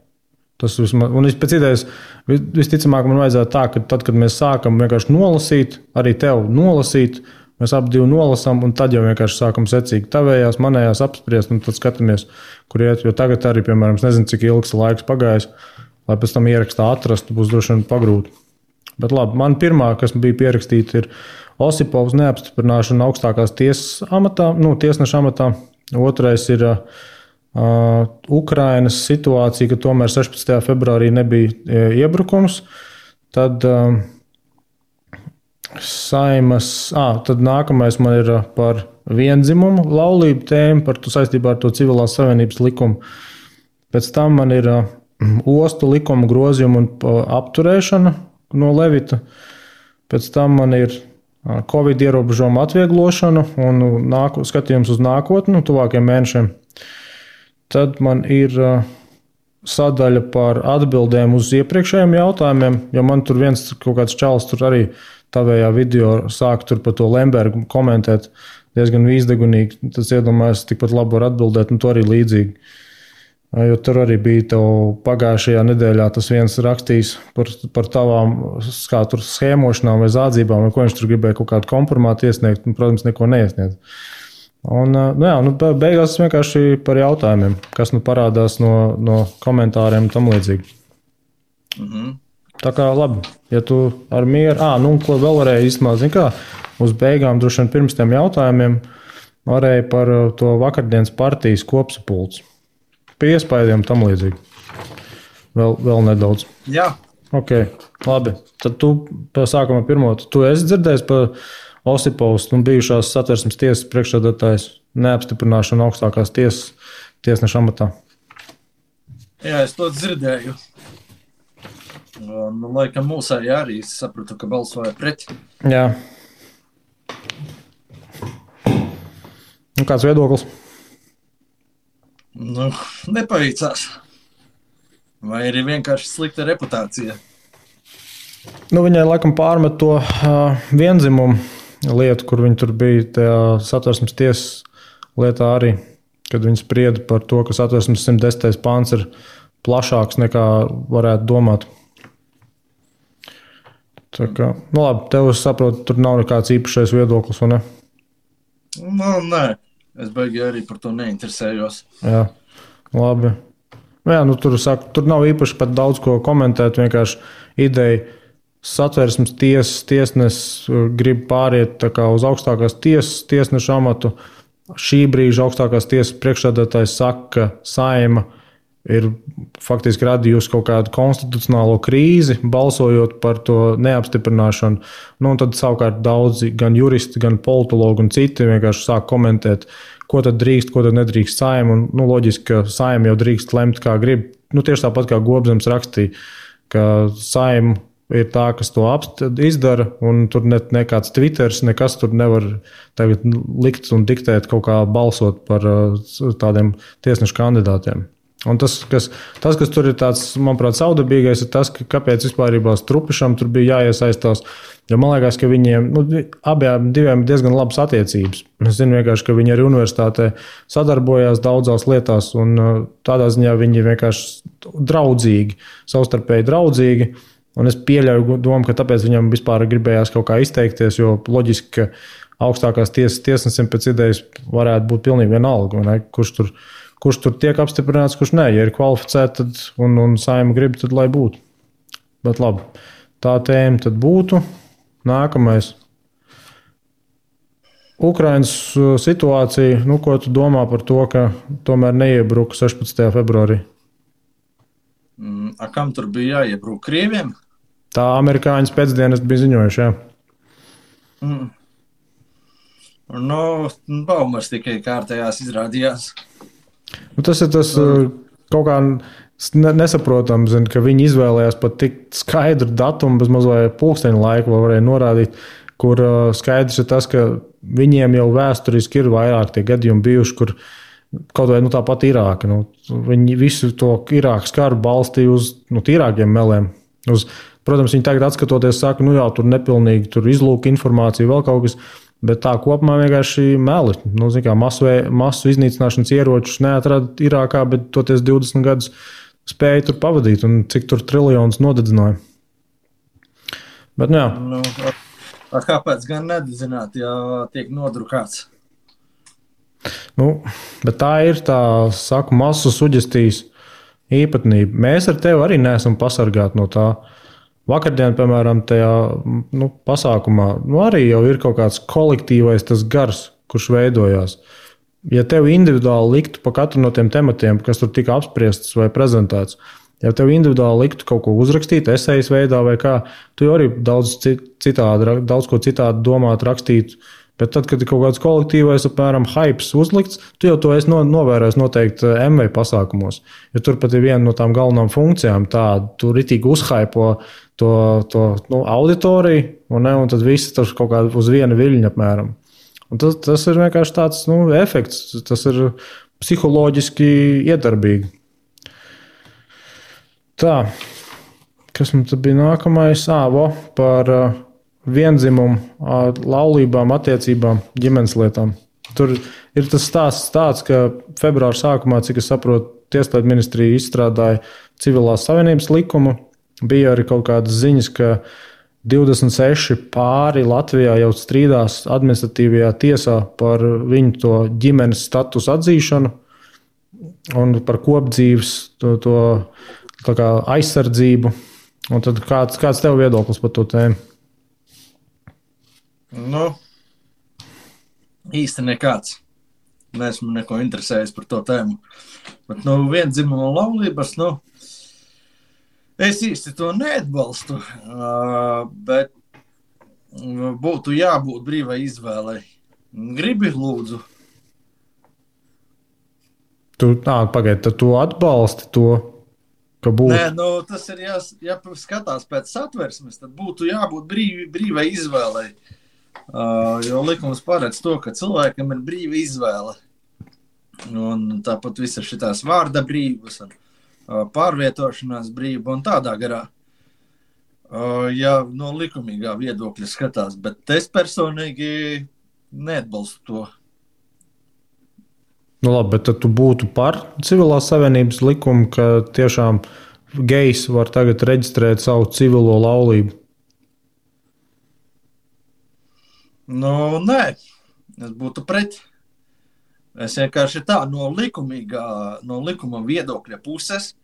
Tas vismaz, un pēc idejas visticamāk man vajadzētu tā, ka tad, kad mēs sākam vienkārši nolasīt, arī tev nolasīt, mēs abi divi nolasām, un tad jau vienkārši sākam secīgi tavējās, manējās apspriest, un tad skatāmies, kur iet. Jo tagad arī, piemēram, es nezinu, cik ilgs laiks pagājis, lai pēc tam ierakstā atrastu, būs droši vien pagrūti. Bet labi, man pirmā, kas bija pierakstīta, ir Osipovs neapstiprināšana augstākās tiesas amatā, tiesneša amatā. Otrais ir Ukrainas situācija, ka tomēr 16. februārī nebija iebrukums. Tad tad nākamais man ir par viendzimumu laulību tēmu, saistībā ar to civilās savienības likumu. Pēc tam man ir ostu likuma grozījuma un apturēšana no Levita. Pēc tam man ir Covid ierobežojuma atvieglošana un skatījums uz nākotni, tuvākiem mēnešiem. Tad man ir sadaļa par atbildēm uz iepriekšējiem jautājumiem, jo man tur viens kaut kāds čalis tur arī tavējā video sāk tur par to Lembergu komentēt diezgan vīzdegunīgi. Tas iedomājas tikpat labi var atbildēt, un to arī līdzīgi. Jo tur arī bija tev pagājušajā nedēļā tas viens rakstījis par tavām kā tur schēmošanām vai zādzībām, vai ko viņš tur gribēja kaut kādu kompromātu iesniegt, un, protams, neko neiesniedz. Un, beigās vienkārši par jautājumiem, kas parādās no komentāriem un tam līdzīgi. Tā kā labi, ja tu ar mieru, ko vēl varēja īstenībā, uz beigām droši vien pirms tiem jautājumiem varēja par to vakardienas partijas kopsapulci. Pie iespējām tam līdzīgi. Vēl nedaudz. Jā. Ok, labi. Tad tu sākumā pirmo, tu esi dzirdējis par Osipovs, bijušās Satversmes tiesas priekšsēdētājs neapstiprināšanu augstākās tiesas tiesneša amatā. Jā, es to dzirdēju. Laikam mūsēji arī sapratu, ka balsoja pret. Jā. Kāds viedoklis? Nepaveicās. Vai arī vienkārši slikta reputācija? Viņai laikam pārmet to vienzimumu lietu, kur viņi tur bija tajā Satversmes tiesas lietā arī, kad viņi sprieda par to, ka Satversmes 110. pāns ir plašāks nekā varētu domāt. Tā kā, labi, tev es saprotu, tur nav nekāds īpašais viedoklis, vai ne? Nē, es baigi arī par to neinteresējos. Jā, labi. Tur nav īpaši pat daudz ko komentēt, vienkārši ideja. Satversmes tiesnesis grib pāriet uz augstākās tiesas tiesneša amatu. Šī brīža augstākās tiesas priekšsēdētājs saka, ka Saeima ir faktiski radījusi kaut kādu konstitucionālo krīzi, balsojot par to neapstiprināšanu. Un tad savukārt daudzi, gan juristi, gan politologi un citi vienkārši sāk komentēt, ko tad drīkst, ko tad nedrīkst Saeima. Loģiski, ka Saeima jau drīkst lemt, kā grib. Tieši tāpat kā Gobzems rakstīja, ka Saeima ir tā, kas to izdara, un tur nekāds Twitters, nekas tur nevar tagad likt un diktēt kaut kā balsot par tādiem tiesnešu kandidātiem. Un tas, kas tur ir tāds, manuprāt, saudabīgais, ir tas, ka kāpēc vispārībā Strupišam tur bija jāiesaistās, jo man liekas, ka viņiem, abiem diviem ir diezgan labas attiecības. Es zinu vienkārši, ka viņi arī universitātē sadarbojās daudzās lietās, un tādā ziņā viņi vienkārši draudzīgi, savstarpēji draudzīgi. Un es pieļauju domu, ka tāpēc viņam vispār gribējās kaut kā izteikties, jo loģiski, ka augstākās tiesas tiesnesim pēc idejas varētu būt pilnīgi vienalga, kurš tur tiek apstiprināts, kurš nē. Ja ir kvalificēti un Saeima grib, tad lai būtu. Bet labi, tā tēma tad būtu. Nākamais. Ukrainas situācija, ko tu domā par to, ka tomēr neiebruka 16. februārī? Kam tur bija jāiebruk? Krieviem? Tā amerikāņu pēcdienas bija ziņojuši, jā. Baumas tikai kārtējās izrādījās. Tas ir tas kaut kā nesaprotams, ka viņi izvēlējās pat tik skaidru datumu, bez mazliet pulksteņa laiku varēja norādīt, kur skaidrs ir tas, ka viņiem jau vēsturiski ir vairāk tie gadījumi bijuši, kur kaut vai tāpat Irāka. Viņi visu to Irākas karu balstīja uz tīrākiem meliem. Protams, viņi tagad atskatoties saka, jā, tur nepilnīgi, tur izlūka informācija, vēl kaut kas, bet tā kopumā vienkārši meli. Masu iznīcināšanas ieročus neatrada Irākā, bet toties 20 gadus spēja tur pavadīt un cik tur triljonus nodedzināja. Bet, jā. Kāpēc gan nededzināt, ja tiek nodrukāts? Bet tā ir masu suģestijas īpatnība. Mēs ar tevi arī neesam pasargāti no tā. Vakardien, piemēram, tajā pasākumā arī jau ir kaut kāds kolektīvais tas gars, kurš veidojās. Ja tev individuāli liktu pa katru no tiem tematiem, kas tur tika apspriests vai prezentēts, ja tev individuāli liktu kaut ko uzrakstīt, esejas veidā vai kā, tu jau arī daudz ko citādi domāt, rakstīt. Bet tad, kad ir kaut kāds kolektīvais, apmēram, hypes uzlikts, tu jau to esi novērojis noteikti MV pasākumos. Jo tur pat ir viena no tām galvenām funkcijām, tu ritīgi uzhypo to auditoriju, un tad visi tur kaut kā uz viena viļņa apmēram. Un tas ir vienkārši tāds efekts, tas ir psiholoģiski iedarbīgi. Tā, kas man tad bija nākamais? Par viendzimumu, laulībām, attiecībām, ģimenes lietām. Tur ir tas stāsts tāds, ka februāra sākumā, cik es saprotu, Tieslietu ministrija izstrādāja civilās savienības likumu. Bija arī kaut kādas ziņas, ka 26 pāri Latvijā jau strīdās administratīvajā tiesā par viņu to ģimenes statusu atzīšanu un par kopdzīves to aizsardzību. Un tad kāds tev viedoklis par to tēmu? Īsti nekāds. Neesmu neko interesējis par to tēmu. Bet viendzimuma laulības, es īsti to neatbalstu, bet būtu jābūt brīvai izvēlei. Gribi, lūdzu. Pagaid, tad tu atbalsti to, ka būtu? Nē, tas ir jāskatās pēc satversmes, tad būtu jābūt brīvai izvēlei. Jo likums paredz to, ka cilvēkam ir brīva izvēle. Un tāpat visas šitās vārda brīvas un pārvietošanās brīva un tādā garā. Ja no likumīgā viedokļa skatās, bet es personīgi neatbalstu to. Labi, bet tad tu būtu par civilās savienības likumu, ka tiešām gejs var tagad reģistrēt savu civilo laulību? Nē, es būtu pret. Es vienkārši no likuma viedokļa puses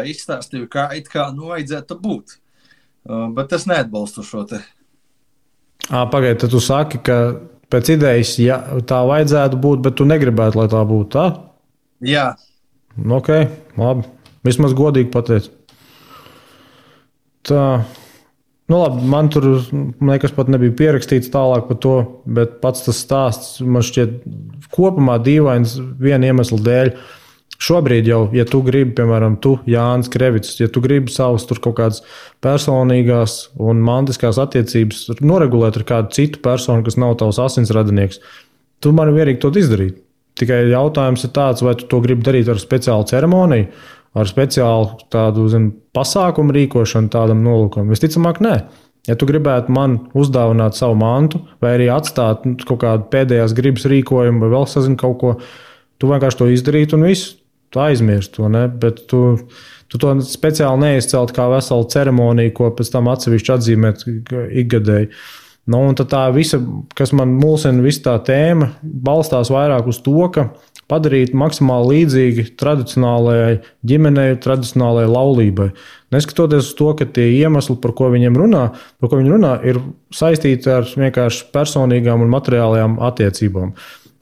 izstāstīju, kā vajadzētu būt. Bet es neatbalstu šo te. Pagaid, tad tu saki, ka pēc idejas tā vajadzētu būt, bet tu negribētu, lai tā būtu tā? Jā. Ok, labi. Vismaz godīgi pateic. Tā. Labi, man tur nekas pat nebija pierakstīts tālāk par to, bet pats tas stāsts man šķiet kopumā dīvains viena iemesla dēļ. Šobrīd jau, ja tu gribi, piemēram, Jānis Krevits, ja tu gribi savus tur kaut kādas personīgās un mantiskās attiecības noregulēt ar kādu citu personu, kas nav tavs asinsradinieks, tu man vienīgi to izdarīt. Tikai jautājums ir tāds, vai tu to gribi darīt ar speciālu ceremoniju, ar speciālu tādu pasākumu rīkošanu tādam nolūkam. Visticamāk, nē. Ja tu gribētu man uzdāvināt savu mantu vai arī atstāt kaut kādu pēdējās gribas rīkojumu vai vēl sazini kaut ko, tu vienkārši to izdarītu un visu. Tu aizmirsti to, ne? Bet tu to speciāli neizcelt kā veselu ceremoniju, ko pēc tam atsevišķi atzīmēt ikgadēji. Un tad tā visa, kas man mulsina, visa tā tēma, balstās vairāk uz to, ka padarīt maksimāli līdzīgi tradicionālajai ģimenei, tradicionālajai laulībai. Neskatoties uz to, ka tie iemesli, par ko viņi runā, ir saistīti ar vienkārši personīgām un materiālajām attiecībām.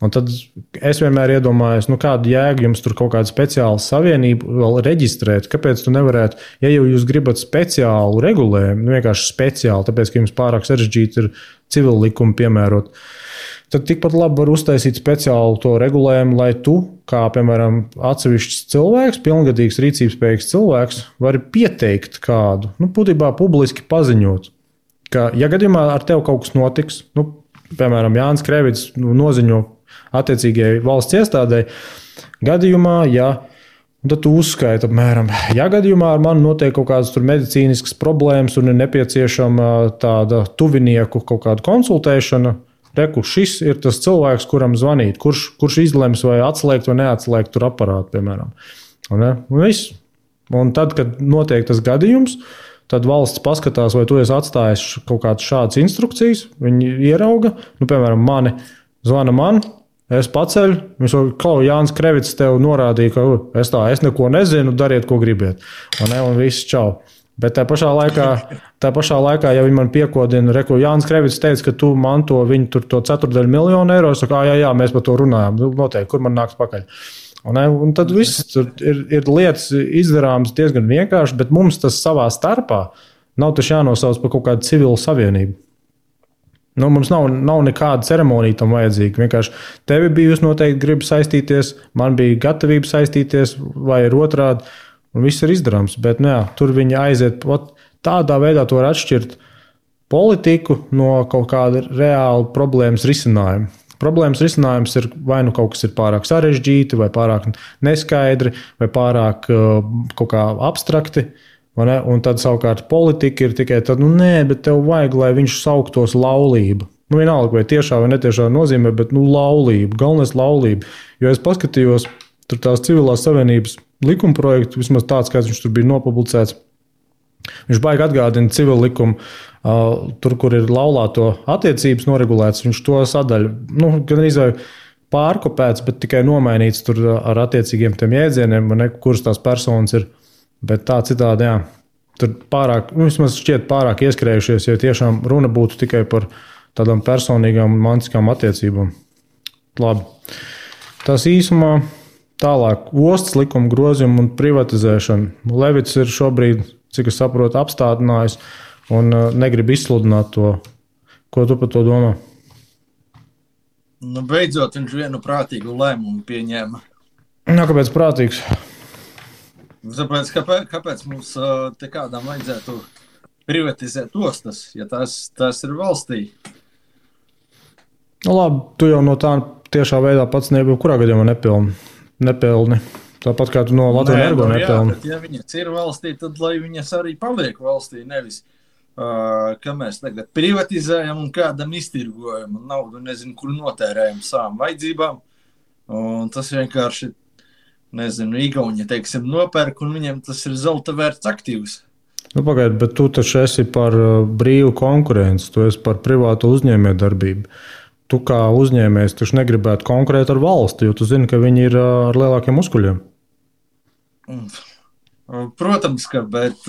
Un tad es vienmēr iedomājos, kādu jēgu jums tur kaut kādu speciālu savienību vēl reģistrēt. Kāpēc tu nevarētu, ja jau jūs gribat speciālu regulējumu, vienkārši speciāli, tāpēc, ka jums pārāk sarežģīti ir civil likumu piemērot, tad tikpat labi var uztaisīt speciālu to regulējumu, lai tu, kā, piemēram, atsevišķs cilvēks, pilngadīgs rīcības spējīgs cilvēks, vari pieteikt kādu, būtībā publiski paziņot, ka, ja gadījumā ar tevi kaut kas notiks, piemēram, Jānis Krevits noziņo attiecīgajai valsts iestādē. Gadījumā, ja tad tu uzskaiti apmēram, ja gadījumā ar mani notiek kaut kādas medicīniskas problēmas un ir nepieciešama tāda tuvinieku kaut kāda konsultēšana, reku, šis ir tas cilvēks, kuram zvanīt, kurš izlems vai atslēgt vai neatslēgt tur aparātu, piemēram. Un tad, kad notiek tas gadījums, tad valsts paskatās, vai tu esi atstājis kaut kādas šādas instrukcijas, viņi ierauga, piemēram, mani zvana man, es paceļu, viņš saka, Jānis Krevits tev norādīja, ka es neko nezinu, dariet, ko gribiet. Un viss čau. Bet tā pašā laikā, ja viņi man piekodina, Jānis Krevits teica, ka tu manto viņu to 1/4 eiro, es saku, jā, mēs par to runājam, noteikti, kur man nāks pakaļ. Un tad viss ir lietas izdarāmas diezgan vienkārši, bet mums tas savā starpā nav taču jānosauc par kaut kādu civilu savienību. Mums nav nekāda ceremonija tam vajadzīga. Vienkārši tevi bijusi noteikti griba saistīties, man bija gatavība saistīties, vai ir otrādi, un viss ir izdarāms. Bet tur viņi aiziet. Tādā veidā to var atšķirt politiku no kaut kāda reāla problēmas risinājuma. Problēmas risinājums ir vai nu kaut kas ir pārāk sarežģīti, vai pārāk neskaidri, vai pārāk kaut kā abstrakti. Un tad savukārt politika ir tikai tāda, bet tev vajag, lai viņš sauktos laulība. Vienalga, vai tiešā vai netiešā nozīmē, bet laulība, galvenais laulība. Jo es paskatījos, tur tās civilās savienības likumprojektu, vismaz tāds, kāds viņš tur bija nopublicēts. Viņš baigi atgādina civilu likumu, tur, kur ir laulāto attiecības noregulēts, viņš to sadaļu, gan arī pārkopēts, bet tikai nomainīts tur ar attiecīgiem tiem jēdzieniem, kuras tās personas ir. Bet tā citādi, jā, tur pārāk, vismaz šķiet pārāk ieskrējušies, ja tiešām runa būtu tikai par tādām personīgām un mantiskām attiecībām. Labi. Tas īsumā tālāk ostas likuma grozījuma un privatizēšana. Levits ir šobrīd, cik es saprotu, apstādinājis un negrib izsludināt to. Ko tu par to domā? Beidzot, viņš vienu prātīgu lēmumu pieņēma. Kāpēc prātīgs? Tāpēc, kāpēc mums te kādām vajadzētu privatizēt ostas, ja tās ir valstī? Labi, tu jau no tā tiešā veidā pats kurā gadījumā nepelni. Tāpat kā tu no Latvijas Energo nepelni. Ja viņas ir valstī, tad lai viņas arī paliek valstī, nevis ka mēs tagad privatizējam un kādam iztirgojam un naudu nezinu, kur notērējam savām vajadzībām. Un tas vienkārši Igauņi, teiksim, nopērk, un viņiem tas ir zelta vērts aktīvs. Pagaid, bet tu taču esi par brīvu konkurenci, tu esi par privātu uzņēmējdarbību. Tu kā uzņēmējs taču negribētu konkurēt ar valsti, jo tu zini, ka viņi ir ar lielākiem muskuļiem. Protams, bet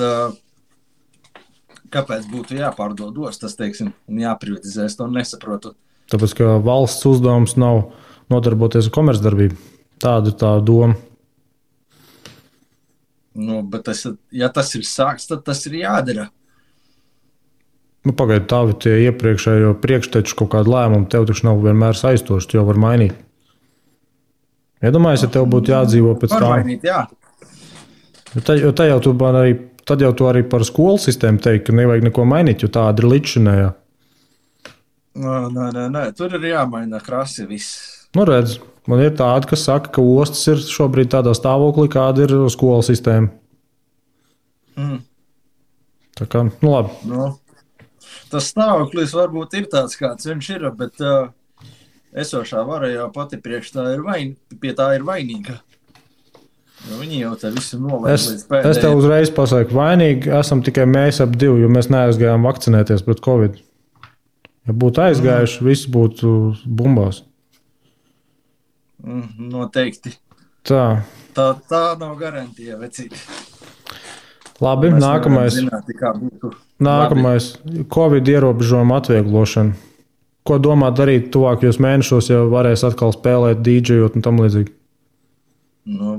kāpēc būtu jāpārdod ostas, teiksim, un jāprivatizēs, to nesaprotu. Tāpēc, ka valsts uzdevums nav nodarboties ar komercdarbību. Tāda ir tā doma. Bet ja tas ir sāks, tad tas ir jādara. Pagaid, tavi tie iepriekšējo priekšteču kaut kādu lēmumu tev taču nav vienmēr saistoši, tu jau var mainīt. Iedomājies, ja tev būtu jādzīvo pēc tā. Var mainīt, jā. Tad jau tu arī par skolu sistēmu teikt, ka nevajag neko mainīt, jo tāda ir līdzšinējā. Nē, tur ir jāmaina krasi viss. Redz, man ir tādi, kas saka, ka ostas ir šobrīd tādā stāvoklī, kāda ir skolu sistēma. Tā kā, labi. Tas stāvoklis varbūt ir tāds, kāds viņš ir, bet esošā vara jau pati priekš pie tā ir vainīga. Viņi jau te visu nolaid līdz pēdējiem. Es tev uzreiz pasaku, vainīgi esam tikai mēs ap divi, jo mēs neaizgājām vakcinēties pret Covid. Ja būtu aizgājuši, viss būtu bumbās. Noteikti. Tā nav garantija, vecīt. Labi, nākamais. Nākamais Covid ierobežojuma atvieglošana. Ko domā darīt tuvākajos mēnešos, ja varēs atkal spēlēt dīdžejot un tam līdzīgi?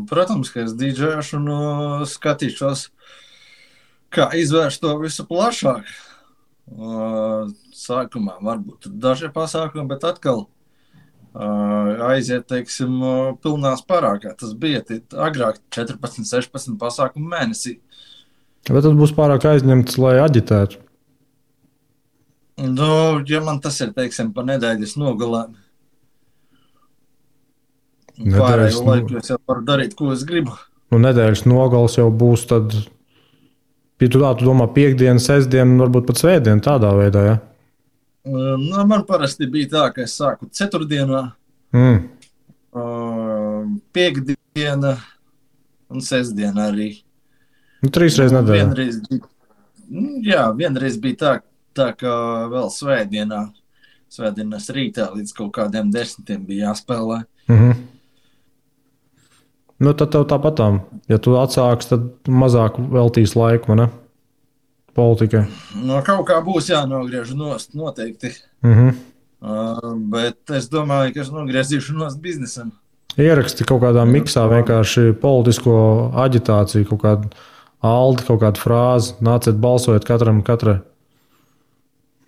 Protams, ka es dīdžejošu un skatīšos, kā izvērst to visu plašāk. Sākumā varbūt daži pasākumi, bet atkal aiziet, teiksim, pilnās parā, kā tas bija agrāk 14, 16 pasākumu mēnesī. Bet tas būs pārāk aizņemts, lai aģitētu. Ja man tas ir, teiksim, pa nedēļas nogalēm, Pārējo laiku es jau varu darīt, ko es gribu. Nu, nedēļas nogals jau būs tad, ja tu domā piekdienu, sestdienu, varbūt pat svētdienu tādā veidā, ja? Nu, man parasti bija tā, ka es sāku ceturtdienā, piekdiena un sestdiena arī. Nu, 3 reizes nedēļā. Vienreiz bija tā ka vēl svētdienas rītā līdz kaut kādiem 10 bija jāspēlē. Nu, tad tev tāpatām, ja tu atsāks, tad mazāk veltīs laiku, ne? Politikai. No kaut kā būs jānogriež nost, noteikti. Bet es domāju, ka es nogriezīšu nost biznesam. Ieraksti kaut kādā miksā vienkārši politisko aģitāciju, kaut kādu aldi, kaut kādu frāzi, nāciet balsojot katrai.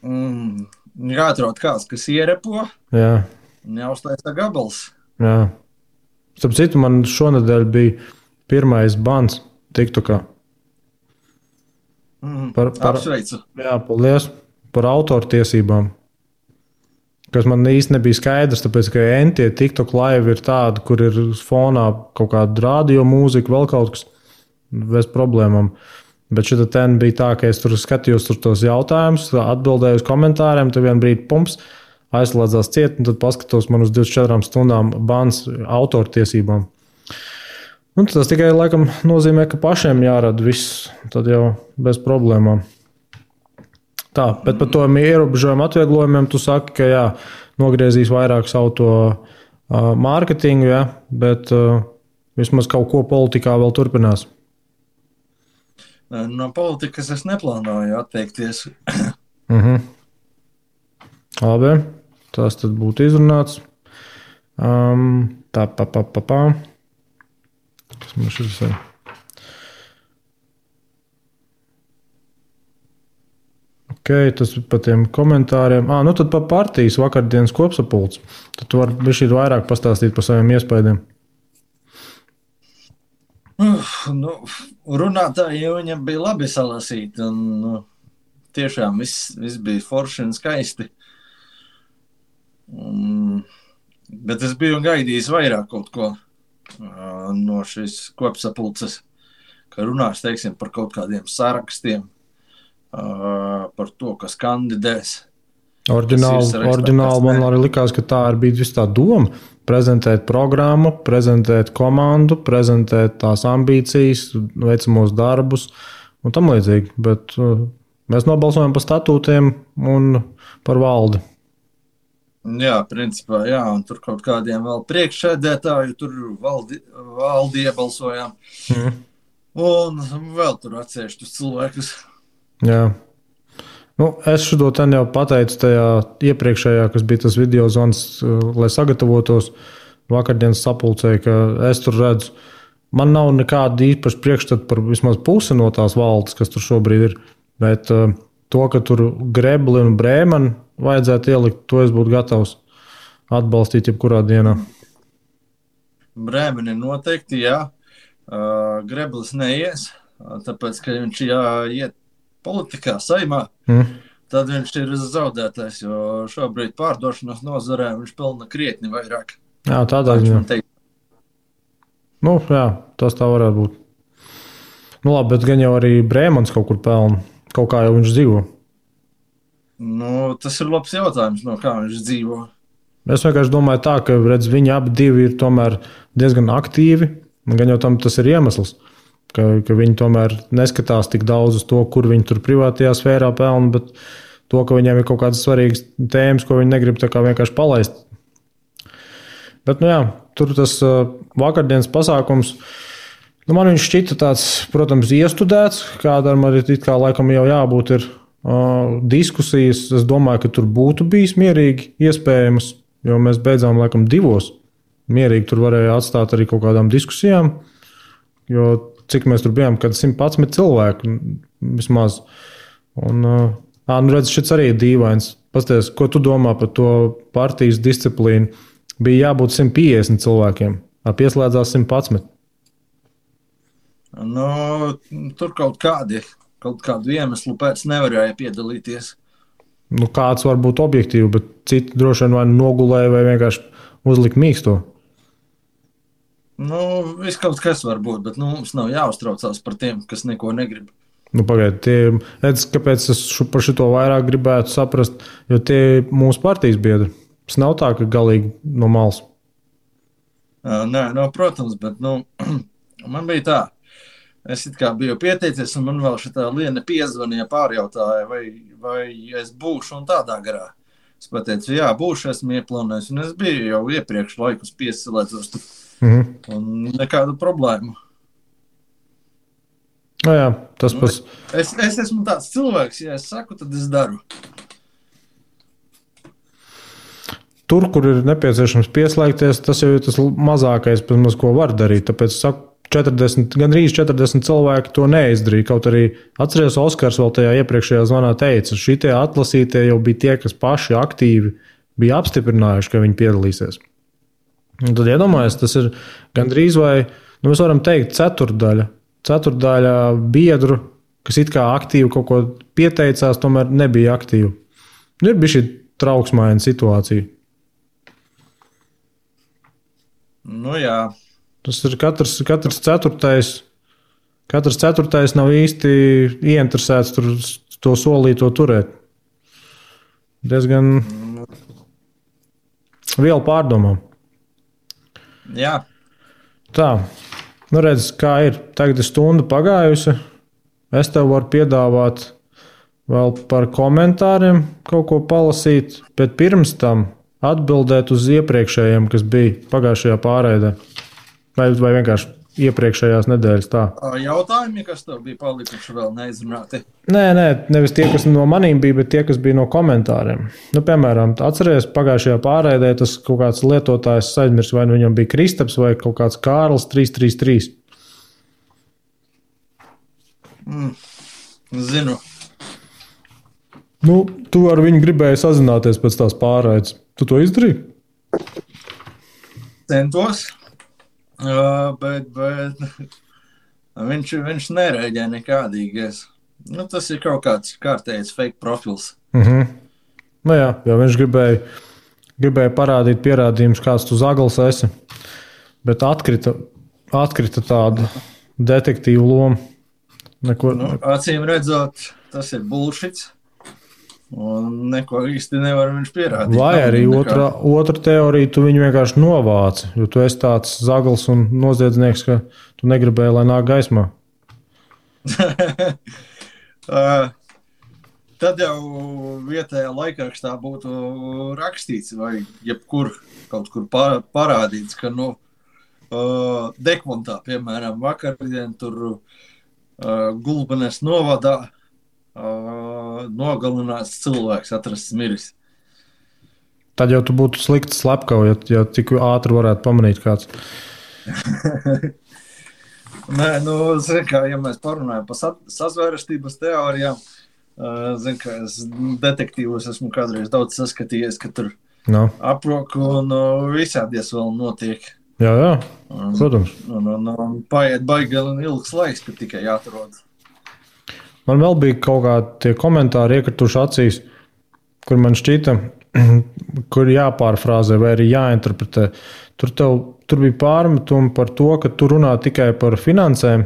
Jāatrod kāds, kas ierepo. Jā. Neuztaisa gabals. Jā. Starp citu, man šonedēļ bija pirmais bans TikTokā. Apsveicu. Jā, paldies par autortiesībām. Kas man īsti nebija skaidrs, tāpēc, ka entie TikTok live ir tādi, kur ir fonā kaut kāda radio mūzika, vēl kaut kas bez problēmām. Bet šita ten bija tā, ka es tur skatījos tos jautājumus, atbildēju uz komentāriem, tad vien brīdi pumps, aizslēdzās ciet, un tad paskatos man uz 24 stundām bans autortiesībām. Un tas tikai laikam nozīmē, ka pašiem jārada viss, tad jau bez problēmām. Tā, bet par to ierobežojumu atvieglojumiem tu saki, ka jā, nogriezīs vairāk savu to mārketingu, jā, bet vismaz kaut ko politikā vēl turpinās. No politikas es neplānoju atteikties. Labi, tas tad būtu izrunāts. Kas man šis ir? Ok, tas ir par tiem komentāriem. Nu tad par partijas vakardienas kopsapulci. Tad tu vari bišķīt vairāk pastāstīt par saviem iespējiem. Runātāji viņam bija labi salasīti, un tiešām viss bija forši un skaisti. Bet es biju gaidījis vairāk kaut ko no šīs kopsapulces, ka runās, teiksim, par kaut kādiem sarakstiem, par to, kas kandidēs. Oriģināli man arī likās, ka tā bija viss tā doma. Prezentēt programmu, prezentēt komandu, prezentēt tās ambīcijas, veicamos darbus un tam līdzīgi. Bet mēs nobalsojam par statūtiem un par valdi. Jā, principā, jā, un tur kaut kādiem vēl priekšsēdētāju, tur valdi iebalsojām. Un vēl tur atsevišķus cilvēkus. Jā. Es šo ten jau pateicu tajā iepriekšējā, kas bija tas video zvans, lai sagatavotos vakardienas sapulcē, ka es tur redzu, man nav nekāda īpaša priekšstata par vismaz pusi no tās valdes, kas tur šobrīd ir, bet to, ka tur Grebli un Brēmani vajadzētu ielikt, to es būtu gatavs atbalstīt jebkurā dienā. Brēmani noteikti, jā. Greblis neies, tāpēc, ka viņš jāiet politikā, saimā, tad viņš ir zaudētājs, jo šobrīd pārdošanas nozarē viņš pelna krietni vairāk. Jā, tādā ziņā. Jā, tas tā varētu būt. Labi, bet gan jau arī Brēmans kaut kur pelna, kaut kā jau viņš dzīvo. Tas ir labs jautājums, no kā viņš dzīvo. Es vienkārši domāju tā, ka viņi abi divi ir tomēr diezgan aktīvi, un gan jau tam tas ir iemesls. Ka viņi tomēr neskatās tik daudz uz to, kur viņi tur privātajā sfērā pelna, bet to, ka viņiem ir kaut kādas svarīgas tēmas, ko viņi negrib tā kā vienkārši palaist. Bet, tur tas vakardienas pasākums, man viņš šķita tāds, protams, iestudēts, kādam arī it kā laikam jau jābūt ir diskusijas. Es domāju, ka tur būtu bijis mierīgi iespējams, jo mēs beidzām laikam 2. Mierīgi tur varēja atstāt arī kaut kādām diskusijām, jo cik mēs tur bijām, kad 111 cilvēku vismaz. Un, redz, šis arī ir dīvains. Pasties, ko tu domā par to partijas disciplīnu? Bija jābūt 150 cilvēkiem, pieslēdzās 111. Tur kaut kādu iemeslu pēc nevarēja piedalīties. Kāds var būt objektīvi, bet citi droši vien vai nogulēja vai vienkārši uzlika mīksto. Nu, viss kaut kas var būt, bet mums nav jāuztraucās par tiem, kas neko negrib. Pagaidiet, kāpēc es par šito vairāk gribētu saprast, jo tie ir mūsu partijas biedri. Tas nav tā, ka galīgi no malas. Nē, protams, bet man bija tā. Es biju pieteicies, un man vēl šitā Liena piezvanīja, pārjautāja, vai es būšu un tādā garā. Es pateicu, jā, būšu, esmu ieplānojis, un es biju jau iepriekš laikus piesilēdzos tur. Un nekādu problēmu. Jā, tas pats. Es esmu tāds cilvēks, ja es saku, tad es daru. Tur, kur ir nepieciešams pieslēgties, tas jau ir tas mazākais, ko var darīt. Tāpēc es saku, gandrīz 40 cilvēki to neizdarīja. Kaut arī atceries, Oskars vēl tajā iepriekšējā zvanā teica, šitie atlasītie jau bija tie, kas paši aktīvi bija apstiprinājuši, ka viņi piedalīsies. Un tad iedomājies, tas ir gandrīz vai, mēs varam teikt, ceturtdaļa biedru, kas it kā aktīvi kaut ko pieteicās, tomēr nebija aktīvi. Ir bija šī trauksmaina situācija. Jā. Tas ir katrs ceturtais nav īsti ieinteresēts to solīto turēt. Diezgan vielu pārdomām. Jā. Tā, redz, kā ir. Tagad ir stunda pagājusi. Es tev varu piedāvāt vēl par komentāriem kaut ko palasīt, bet pirms tam atbildēt uz iepriekšējiem, kas bija pagājušajā pārraidē. Vai vienkārši iepriekšējās nedēļas tā. Jautājumi, kas tev bija palikuši vēl neizrunāti? Nē, nevis tie, kas no manīm bija, bet tie, kas bija no komentāriem. Piemēram, atceries, pagājušajā pārraidē tas kaut kāds lietotājs aizmirs, vai viņam bija Kristaps vai kaut kāds Kārlis 333. Zinu. Tu ar viņu gribēji sazināties pēc tās pārraides. Tu to izdarīji? Centos, bet viņš nereaģē nekādīgais. Tas ir kaut kāds kārtējs fake profils. Jā, viņš gribēja parādīt pierādījumus, kāds tu zagals esi, bet atkrita tāda detektīva loma. Acīm redzot, tas ir bullshits. Un neko īsti nevar viņš pierādīt. Vai arī otra teorija, tu viņu vienkārši novāci, jo tu esi tāds zagals un noziedznieks, ka tu negribēji, lai nāk gaismā. Tad jau vietējā laikrakstā būtu rakstīts vai jebkur kaut kur parādīts, ka Dekmontā, piemēram, vakardien tur Gulbenes novadā nogalināts cilvēks, atrasts miris. Tad jau tu būtu slikti slepkava, ja tik ātri varētu pamanīt kāds. Nē, ja mēs parunājam par sazvērestības teorijām, ka es detektīvos esmu kādreiz daudz saskatījies, ka tur aproku un visādies vēl notiek. Jā, protams. Paiet baigi ilgs laiks, kad tikai jāatrod. Man vēl bija kaut kādi komentāri iekrituši acīs, kur man šķita, kur jāpārfrāzē vai arī jāinterpretē. Tur bija pārmetumi par to, ka tu runā tikai par finansēm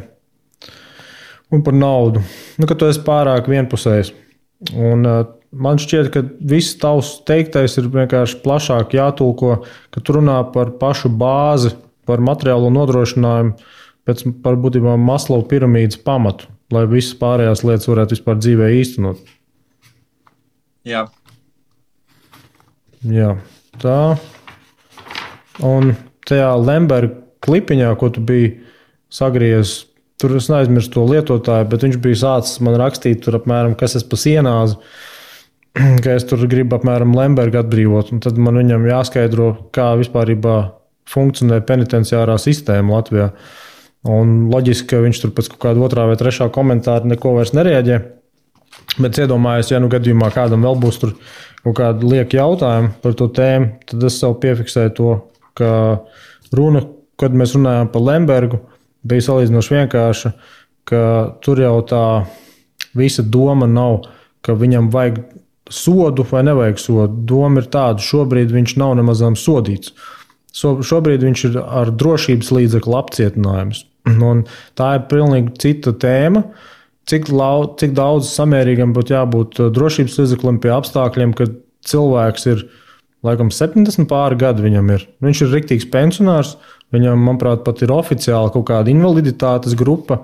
un par naudu. Ka tu esi pārāk vienpusējs. Un man šķiet, ka viss tavs teiktais ir vienkārši plašāk jātulko, ka tu runā par pašu bāzi, par materiālo nodrošinājumu, par būtībā Maslow piramīdas pamatu, lai visas pārējās lietas varētu vispār dzīvē īstenot. Jā. Jā, tā. Un tajā Lemberga klipiņā, ko tu biji sagriezis, tur es neaizmirstu to lietotāju, bet viņš bija sācis man rakstīt tur apmēram, kas es pa sienāzi, ka es tur gribu apmēram Lembergu atbrīvot. Un tad man viņam jāskaidro, kā vispārībā funkcionē penitenciārā sistēma Latvijā. Un loģiski, ka viņš tur pēc kaut kāda otrā vai trešā komentāra neko vairs nereaģē. Bet iedomājos, ja gadījumā kādam vēl būs tur kaut kādi lieki jautājumi par to tēmu, tad es sev piefiksēju to, ka runa, kad mēs runājām par Lembergu, bija salīdzinoši vienkārša, ka tur jau tā visa doma nav, ka viņam vajag sodu vai nevajag sodu. Doma ir tāda, šobrīd viņš nav nemazām sodīts. Šobrīd viņš ir ar drošības līdzekļu apcietinājumus. Un tā ir pilnīgi cita tēma. Cik daudz samērīgam būtu jābūt drošības līdzeklim pie apstākļiem, kad cilvēks ir, laikam, 70 pāri gadi viņam ir. Viņš ir riktīgs pensionārs, viņam, manuprāt, pat ir oficiāli kaut kāda invaliditātes grupa.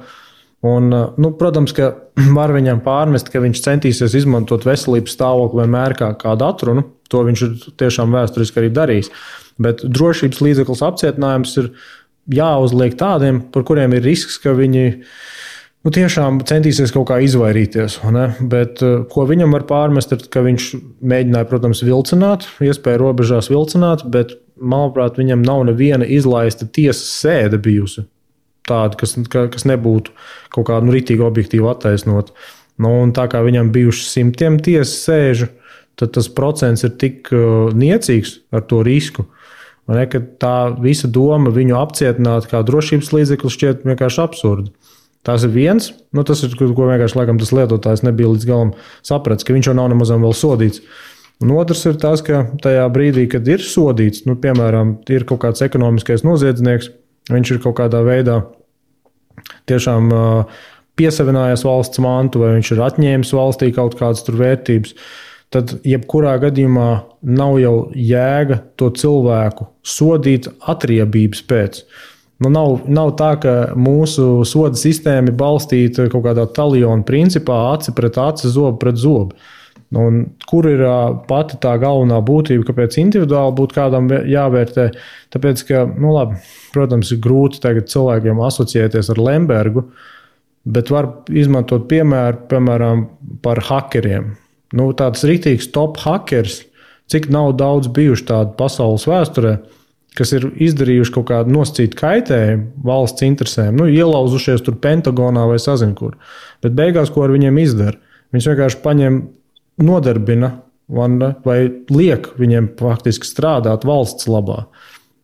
Un, protams, ka var viņam pārmest, ka viņš centīsies izmantot veselības stāvokli vienmēr kā kādu atrunu. To viņš ir tiešām vēsturiski arī darījis. Bet drošības līdzeklis apcietinājums ir jāuzliek tādiem, par kuriem ir risks, ka viņi tiešām centīsies kaut kā izvairīties. Bet ko viņam var pārmest, ir, ka viņš mēģināja, protams, vilcināt, iespēja robežās vilcināt, bet, manuprāt, viņam nav neviena izlaista tiesas sēde bijusi. Tāda, kas nebūtu kaut kādu ritīgi objektīvu attaisnot. Un tā kā viņam bijuši simtiem tiesas sēžu, tad tas procents ir tik niecīgs ar to risku, ka tā visa doma viņu apcietināt kā drošības līdzeklis šķiet vienkārši absurdi. Tas ir viens, tas ir, ko vienkārši laikam tas lietotājs nebija līdz galam sapratis, ka viņš jau nav nemazam vēl sodīts. Un otrs ir tas, ka tajā brīdī, kad ir sodīts, piemēram, ir kaut kāds ekonomiskais noziedznieks, viņš ir kaut kādā veidā tiešām piesavinājies valsts mantu, vai viņš ir atņēmis valstī kaut kādas tur vērtības, tad jebkurā gadījumā nav jau jēga to cilvēku sodīt atriebības pēc. Nav tā, ka mūsu soda sistēma ir balstīta kaut kādā taljona principā, aci pret aci, zobu pret zobu. Un kur ir pati tā galvenā būtība, kāpēc individuāli būtu kādam jāvērtē? Tāpēc, ka, protams, ir grūti tagad cilvēkiem asociēties ar Lembergu, bet var izmantot piemēram, par hakeriem. Tāds riktīgs top hakers, cik nav daudz bijuši tādu pasaules vēsturē, kas ir izdarījuši kaut kādu nosacītu kaitējumu valsts interesēm, ielauzušies tur Pentagonā vai sazin kur. Bet beigās, ko ar viņiem izdara? Viņus vienkārši paņem, nodarbina vai liek viņiem faktiski strādāt valsts labā.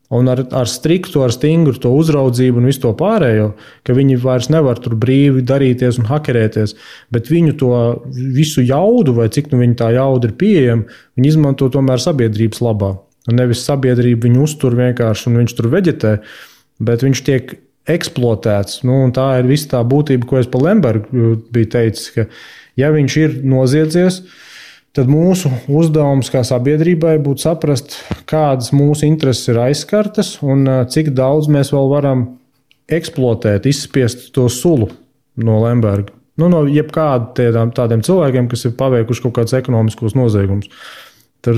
Un ar striktu, ar stingru to uzraudzību un visu to pārējo, ka viņi vairs nevar tur brīvi darīties un hakerēties, bet viņu to visu jaudu, vai cik viņa tā jauda ir pieejama, viņi izmanto tomēr sabiedrības labā. Un nevis sabiedrība viņu uztur vienkārši un viņš tur veģetē, bet viņš tiek eksploatēts. Un tā ir visa tā būtība, ko es par Lembergu biju teicis, ka ja viņš ir noziedzies, tad mūsu uzdevums kā sabiedrībai būtu saprast, kādas mūsu intereses ir aizskartas un cik daudz mēs vēl varam eksploatēt, izspiest to sulu no Lemberga. No jebkādiem tādiem cilvēkiem, kas ir paveikuši kaut kādus ekonomiskos noziegumus. Tur,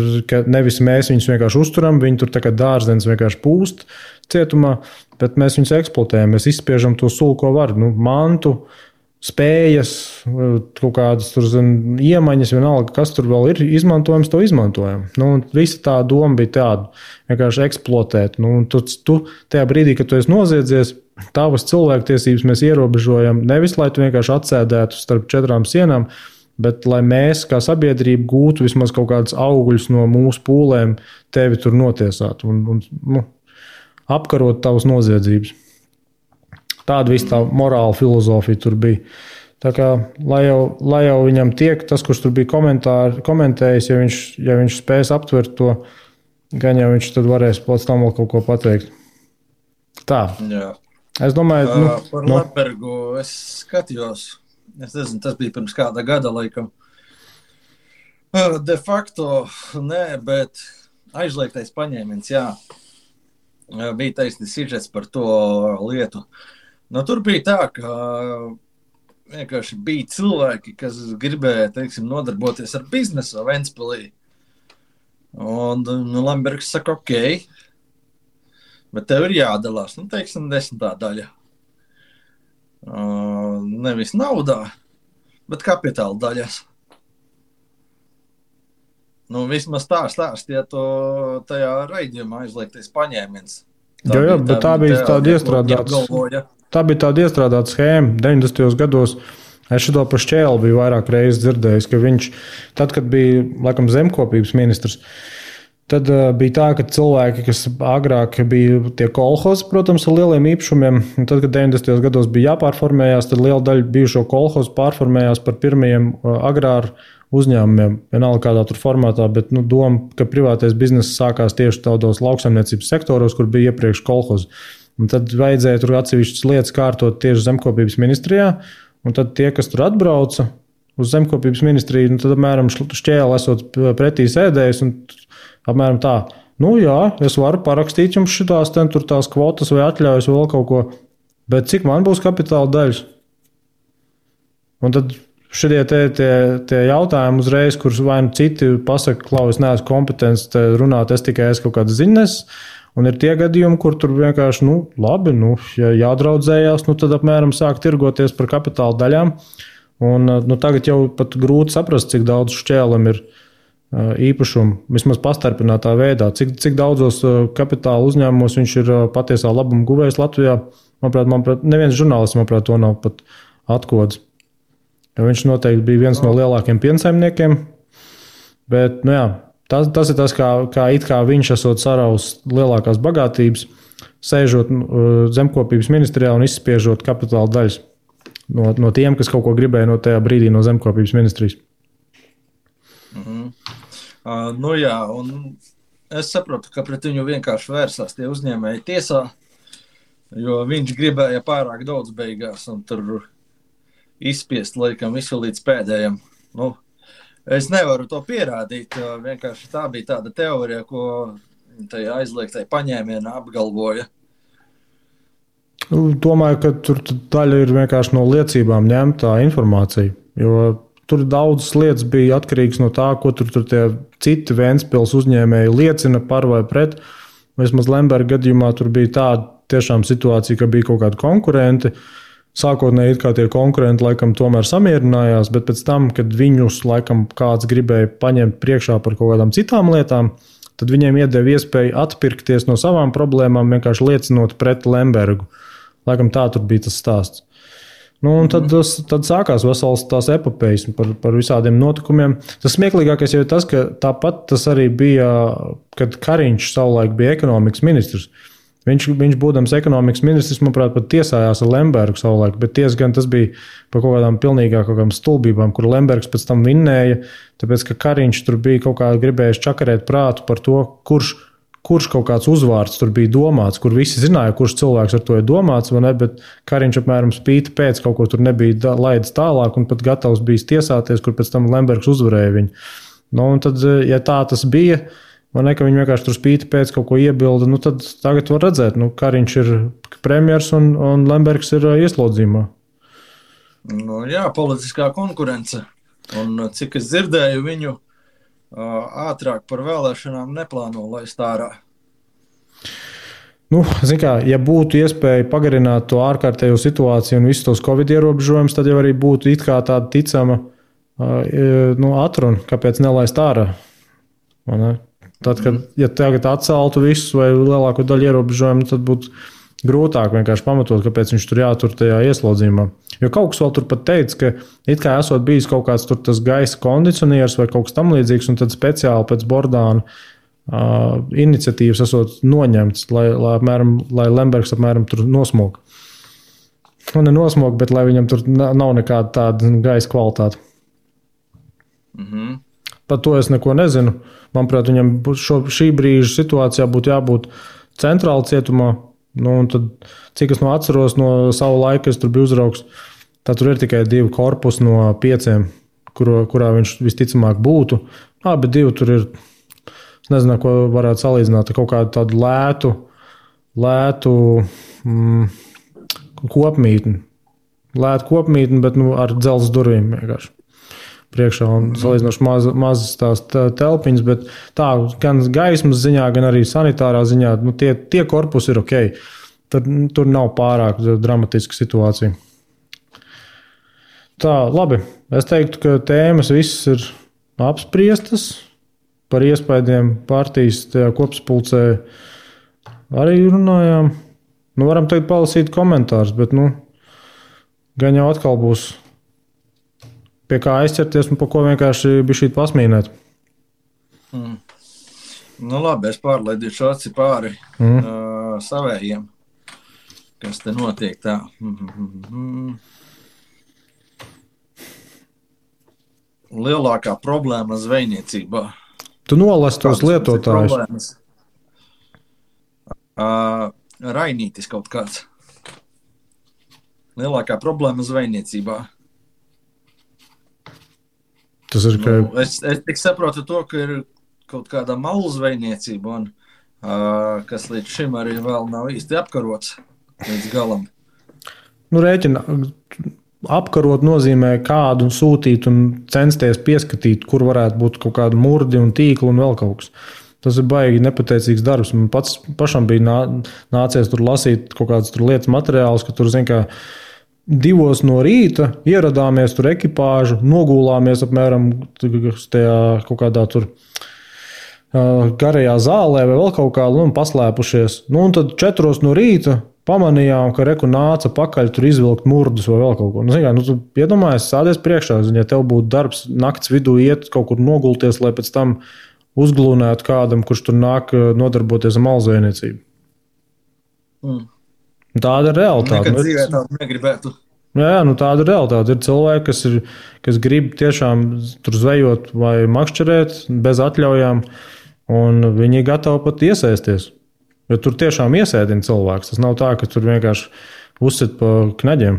nevis mēs viņus vienkārši uzturam, viņi tur tā kā dārzens vienkārši pūst cietumā, bet mēs viņus eksploatējam, mēs izspiežam to sulu, ko var. Mantu, spējas, kaut kādas tur iemaņas, vienalga, kas tur vēl ir izmantojams, to izmantojam. Visa tā doma bija tāda, vienkārši eksploatēt. Tu tajā brīdī, kad tu esi noziedzies, tavas cilvēktiesības mēs ierobežojam, nevis, lai tu vienkārši atsēdētu starp 4 sienām, bet lai mēs kā sabiedrība gūtu vismaz kaut kādus augļus no mūsu pūlēm, tevi tur notiesāt un apkarot tavas noziedzības. Tāda viss tā morāla filozofija tur bija. Tā kā, lai jau viņam tiek, tas, kurš tur bija komentējis, ja viņš spēs aptvert to, gan jau viņš tad varēs pēc tam vēl kaut ko pateikt. Tā. Jā. Es domāju... Par Lembergu es skatījos. Es nezinu, tas bija pirms kāda gada, laikam. De facto, nē, bet aizliegtais paņēmiens, jā. Bija taisnīgs sižets par to lietu. Tur bija tā, ka vienkārši bija cilvēki, kas gribēja, nodarboties ar biznesu Ventspilī. Un Lembergs saka, ok, bet tev ir jādalās, 10. daļa. Nevis naudā, bet kapitāla daļas. Vismaz tā stāstīja to tajā raidījumā aizliegtais paņēmiens. Bet tā bija tāda iestrādāta schēma 90. gados. Es šo par Šķēli biju vairāk reizes dzirdējis, ka viņš, tad, kad bija laikam zemkopības ministrs, tad bija tā, ka cilvēki, kas agrāk bija tie kolhozi, protams, ar lieliem īpašumiem, un tad, kad 90. gados bija jāpārformējās, tad liela daļa bijušo kolhozu pārformējās par pirmajiem agrāru uzņēmumiem, vienalga kādā tur formātā, bet doma, ka privātais bizness sākās tieši tādos lauksaimniecības sektoros, kur bija iepriekš kolhozi. Un tad vajadzēja tur atsevišķas lietas kārtot tieši zemkopības ministrijā, un tad tie, kas tur atbrauca uz zemkopības ministriju, tad apmēram šķēli esot pretī sēdējis, un apmēram tā, jā, es varu parakstīt jums šitās tur tās kvotas vai atļaujas vai vēl kaut ko, bet cik man būs kapitāla daļas? Un tad šitie tie jautājumi uzreiz, kurus vai citi pasaka, klau, es neesmu kompetents runāt, es tikai esmu kaut kāds ziņas, un ir tie gadījumi, kur tur vienkārši, labi, ja jādraudzējās, tad apmēram sāk tirgoties par kapitāla daļām, un tagad jau pat grūti saprast, cik daudz šķēlam ir īpašumu, vismaz pastarpinātā veidā, cik daudzos kapitāla uzņēmumos viņš ir patiesā labuma guvējs Latvijā. Manuprāt, neviens žurnālists, to nav pat atkods. Viņš noteikti bija viens no lielākiem piensaimniekiem, bet tas ir tas, kā viņš esot saraus lielākās bagātības, sēžot zemkopības ministrijā un izspiežot kapitāla daļas no tiem, kas kaut ko gribēja no tajā brīdī no zemkopības ministrijas. Un es saprotu, ka pret viņu vienkārši vērsās tie uzņēmēji tiesā, jo viņš gribēja pārāk daudz beigās un tur izspiest laikam visu līdz pēdējiem. Es nevaru to pierādīt, vienkārši tā bija tāda teorija, ko tajā aizliegtai paņēmienā apgalvoja. Domāju, ka tur daļa ir vienkārši no liecībām ņemtā informācija, jo tur daudzas lietas bija atkarīgas no tā, ko tur tie citi Ventspils uzņēmēji liecina par vai pret. Vismaz Lemberga gadījumā tur bija tāda tiešām situācija, ka bija kaut kādi konkurenti. Sākotnēji it kā tie konkurenti laikam tomēr samierinājās, bet pēc tam, kad viņus laikam kāds gribēja paņemt priekšā par kaut kādām citām lietām, tad viņiem iedeva iespēju atpirkties no savām problēmām, vienkārši liecinot pret Lembergu. Laikam tā tur bija tas stāsts. Un tad sākās vesels tās epopejas par visādiem notikumiem. Tas smieklīgākais jau ir tas, ka tāpat tas arī bija, kad Kariņš savulaik bija ekonomikas ministrs. Viņš būdams ekonomikas ministrs, manuprāt, pat tiesājās ar Lembergu savulaik, bet gan tas bija par kaut kādām stulbībām, kur Lembergs pēc tam vinnēja, tāpēc, ka Kariņš tur bija kaut kā gribējis čakarēt prātu par to, kurš kaut kāds uzvārds tur bija domāts, kur visi zināja, kurš cilvēks ar to ir domāts, vai ne, bet Kariņš apmēram spīti pēc kaut ko tur nebija laidis tālāk un pat gatavs bijis tiesāties, kur pēc tam Lembergs uzvarēja viņu. Un tad, ja tā tas bija, vai ne, ka viņi vienkārši tur spīti pēc kaut ko iebilda, tad tagad var redzēt, Kariņš ir premjers un Lembergs ir ieslodzījumā. Politiskā konkurence. Un cik es dzirdēju, viņu ātrāk par vēlēšanām neplāno laist ārā. Ja būtu iespēja pagarināt to ārkārtējo situāciju un visus tos Covid ierobežojumus, tad jau arī būtu it kā tāda ticama atruna, kāpēc nelaist ārā. Tad, ja tagad atceltu visus vai lielāko daļu ierobežojumu, tad būtu grūtāk vienkārši pamatot, kāpēc viņš tur jātur tajā ieslodzījumā. Jo kaut kas vēl tur pat teica, ka it kā esot bijis kaut kāds tur tas gaisa kondicionieris vai kaut kas tam līdzīgs, un tad speciāli pēc Bordāna iniciatīvas esot noņemts, lai Lembergs apmēram tur nosmog. Ne nosmog, bet lai viņam tur nav nekāda tāda gaisa kvalitāte. Par to es neko nezinu. Manuprāt, viņam šī brīža situācijā būtu jābūt centrāla cietumā. Un tad, cik es atceros no savu laiku, es tur biju uzraugs, tad tur ir tikai 2 korpusi no 5, kurā viņš visticamāk būtu. Bet 2 tur ir, es nezinu, ko varētu salīdzināt, kaut kādu tādu lētu kopmītni. Lētu kopmītni, bet ar dzelzs durvīm vienkārši priekšā un salīdzinoši mazas tās telpiņas, bet tā gan gaismas ziņā, gan arī sanitārā ziņā, tie korpusi ir ok. Tur nav pārāk dramatiska situācija. Tā, labi. Es teiktu, ka tēmas visas ir apspriestas. Par iespaidiem partijas tajā kopsapulcē arī runājām. Varam teikt palasīt komentārus, bet gan jau atkal būs pie kā aizķerties un pa ko vienkārši bišķīt pasmīnēt. Labi, es pārlaidīšu aci pāri savējiem, kas te notiek tā. lielākā problēma zvejniecībā. Tu nolasi tos lietotājus. Rainītis kaut kāds. Lielākā problēma zvejniecībā. Tas ir, ka... Es tik saprotu to, ka ir kaut kāda malu zvejniecība, un, kas līdz šim arī vēl nav īsti apkarots līdz galam. Rēķina, apkarot nozīmē kādu sūtīt un censties pieskatīt, kur varētu būt kaut kāda murdi un tīkla un vēl kaut kas. Tas ir baigi nepateicīgs darbs. Man pašam bija nācies tur lasīt kaut kādas tur lietas materiālus, ka tur, zin kā, 2 no rīta ieradāmies tur ekipāžu, nogulāmies apmēram tajā kaut kādā tur garajā zālē vai vēl kaut kā, un paslēpušies. Un tad 4 no rīta pamanījām, ka reku nāca pakaļ tur izvilkt murdus vai vēl kaut ko. Tu iedomājies, sādies priekšā, ja tev būtu darbs nakts vidū iet kaut kur nogulties, lai pēc tam uzglūnētu kādam, kurš tur nāk nodarboties ar malzvejniecību. Tāda ir realitāte. Nekad dzīvē tādu negribētu. Jā, tāda ir realitāte. Ir cilvēki, kas grib tiešām tur zvejot vai makšķerēt bez atļaujām, un viņi ir gatavi pat iesaisties. Jo tur tiešām iesēdina cilvēks. Tas nav tā, ka tur vienkārši uzsit pa knaģiem.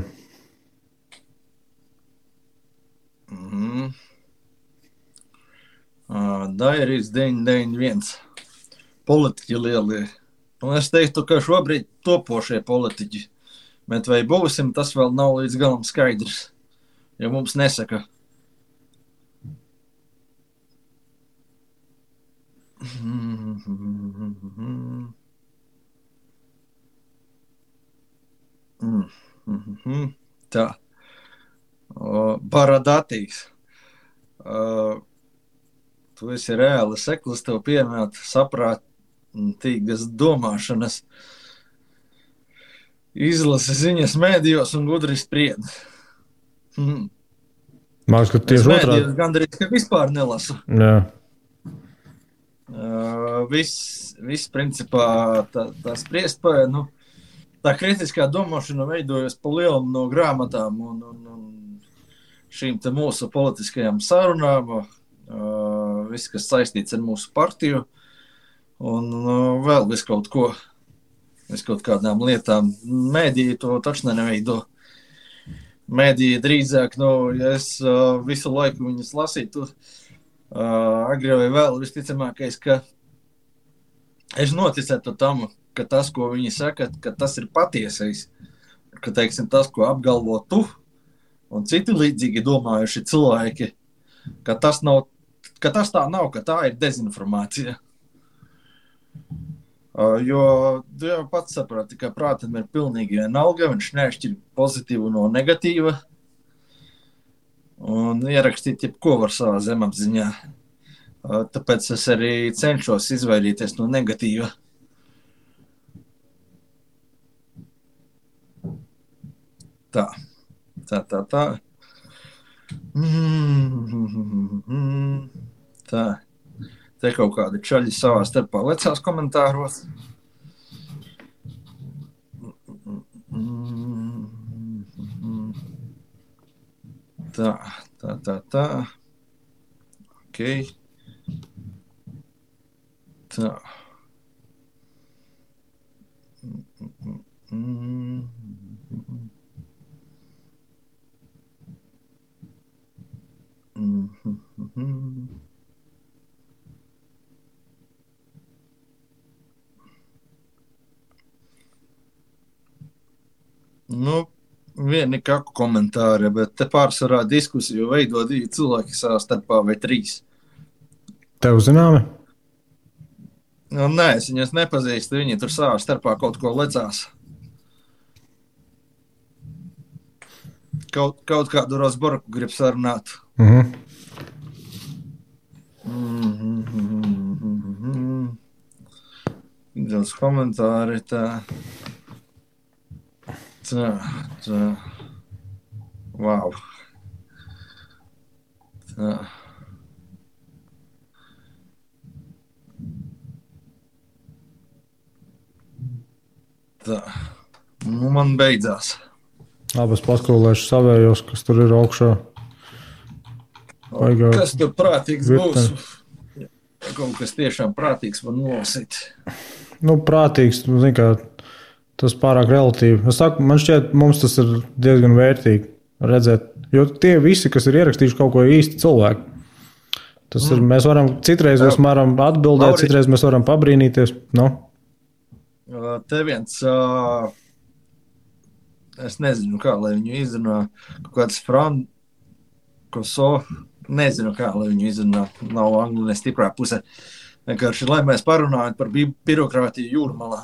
Dairis 991. Politiķi lielie. Un es teiktu, ka šobrīd topošie politiķi. Bet vai būsim, tas vēl nav līdz galam skaidrs. Jo mums nesaka. Tā. Baradatīs. Tu esi reāli seklis, tev piemēt saprātīgas domāšanas, izlasi ziņas mēdījos un gudri spried. Māks, ka tieši otrādi. Mēdījos gandrīz, ka vispār nelasu. Jā. Viss principā tā spriestpēja, tā kritiskā domāšana veidojas pa lielam no grāmatām un šīm te mūsu politiskajām sarunām, viss, kas saistīts ar mūsu partiju un vēl viss kaut kādām lietām. Mēdīji to taču neveido. Mēdīji drīzāk, ja es visu laiku viņus lasītu, agri vai vēl visticamākais, ka es noticētu tam, ka tas, ko viņi saka, ka tas ir patiesais, ka, teiksim, tas, ko apgalvo tu un citi līdzīgi domājuši cilvēki, ka tas tā nav, ka tā ir dezinformācija. Jo tu jau pats saprati, ka prātam ir pilnīgi vienalga, viņš neatšķir pozitīvu no negatīva un ierakstīt jebko var savā zemapziņā. Tāpēc es arī cenšos izvairīties no negatīva. Tā. Tā. Te kaut kādi čaļi savā starpā lecās komentāros. Tā. Ok. Tā. Vieni kaku komentāri, bet te pārsvarā diskusiju veido 2 cilvēki savā starpā vai 3. Tev zināmi? Nē, es viņus nepazīstu, viņi tur savā starpā kaut ko lecās. Kaut kādu Rosborku grib sarunāt. Daudz komentāri tā. Wow. Tā. Man beidzās. Labi, es paskolēšu savējos, kas tur ir augšā. Kas tur prātīgs būs? Kaut kas tiešām prātīgs var nolasīt. Prātīgs, zin kā, tas pārāk relatīvi. Es saku, man šķiet, mums tas ir diezgan vērtīgi redzēt, jo tie visi, kas ir ierakstījuši kaut ko īsti cilvēki, tas ir, mēs varam, citreiz mēs varam atbildēt, citreiz mēs varam pabrīnīties. Te viens, es nezinu kā, lai viņu izrunā, kaut kāds Frankoso, nezinu kā, lai viņu izrunā, nav angļu nestiprā pusē. Vienkārši, lai mēs parunājam par birokrātiju jūrmalā.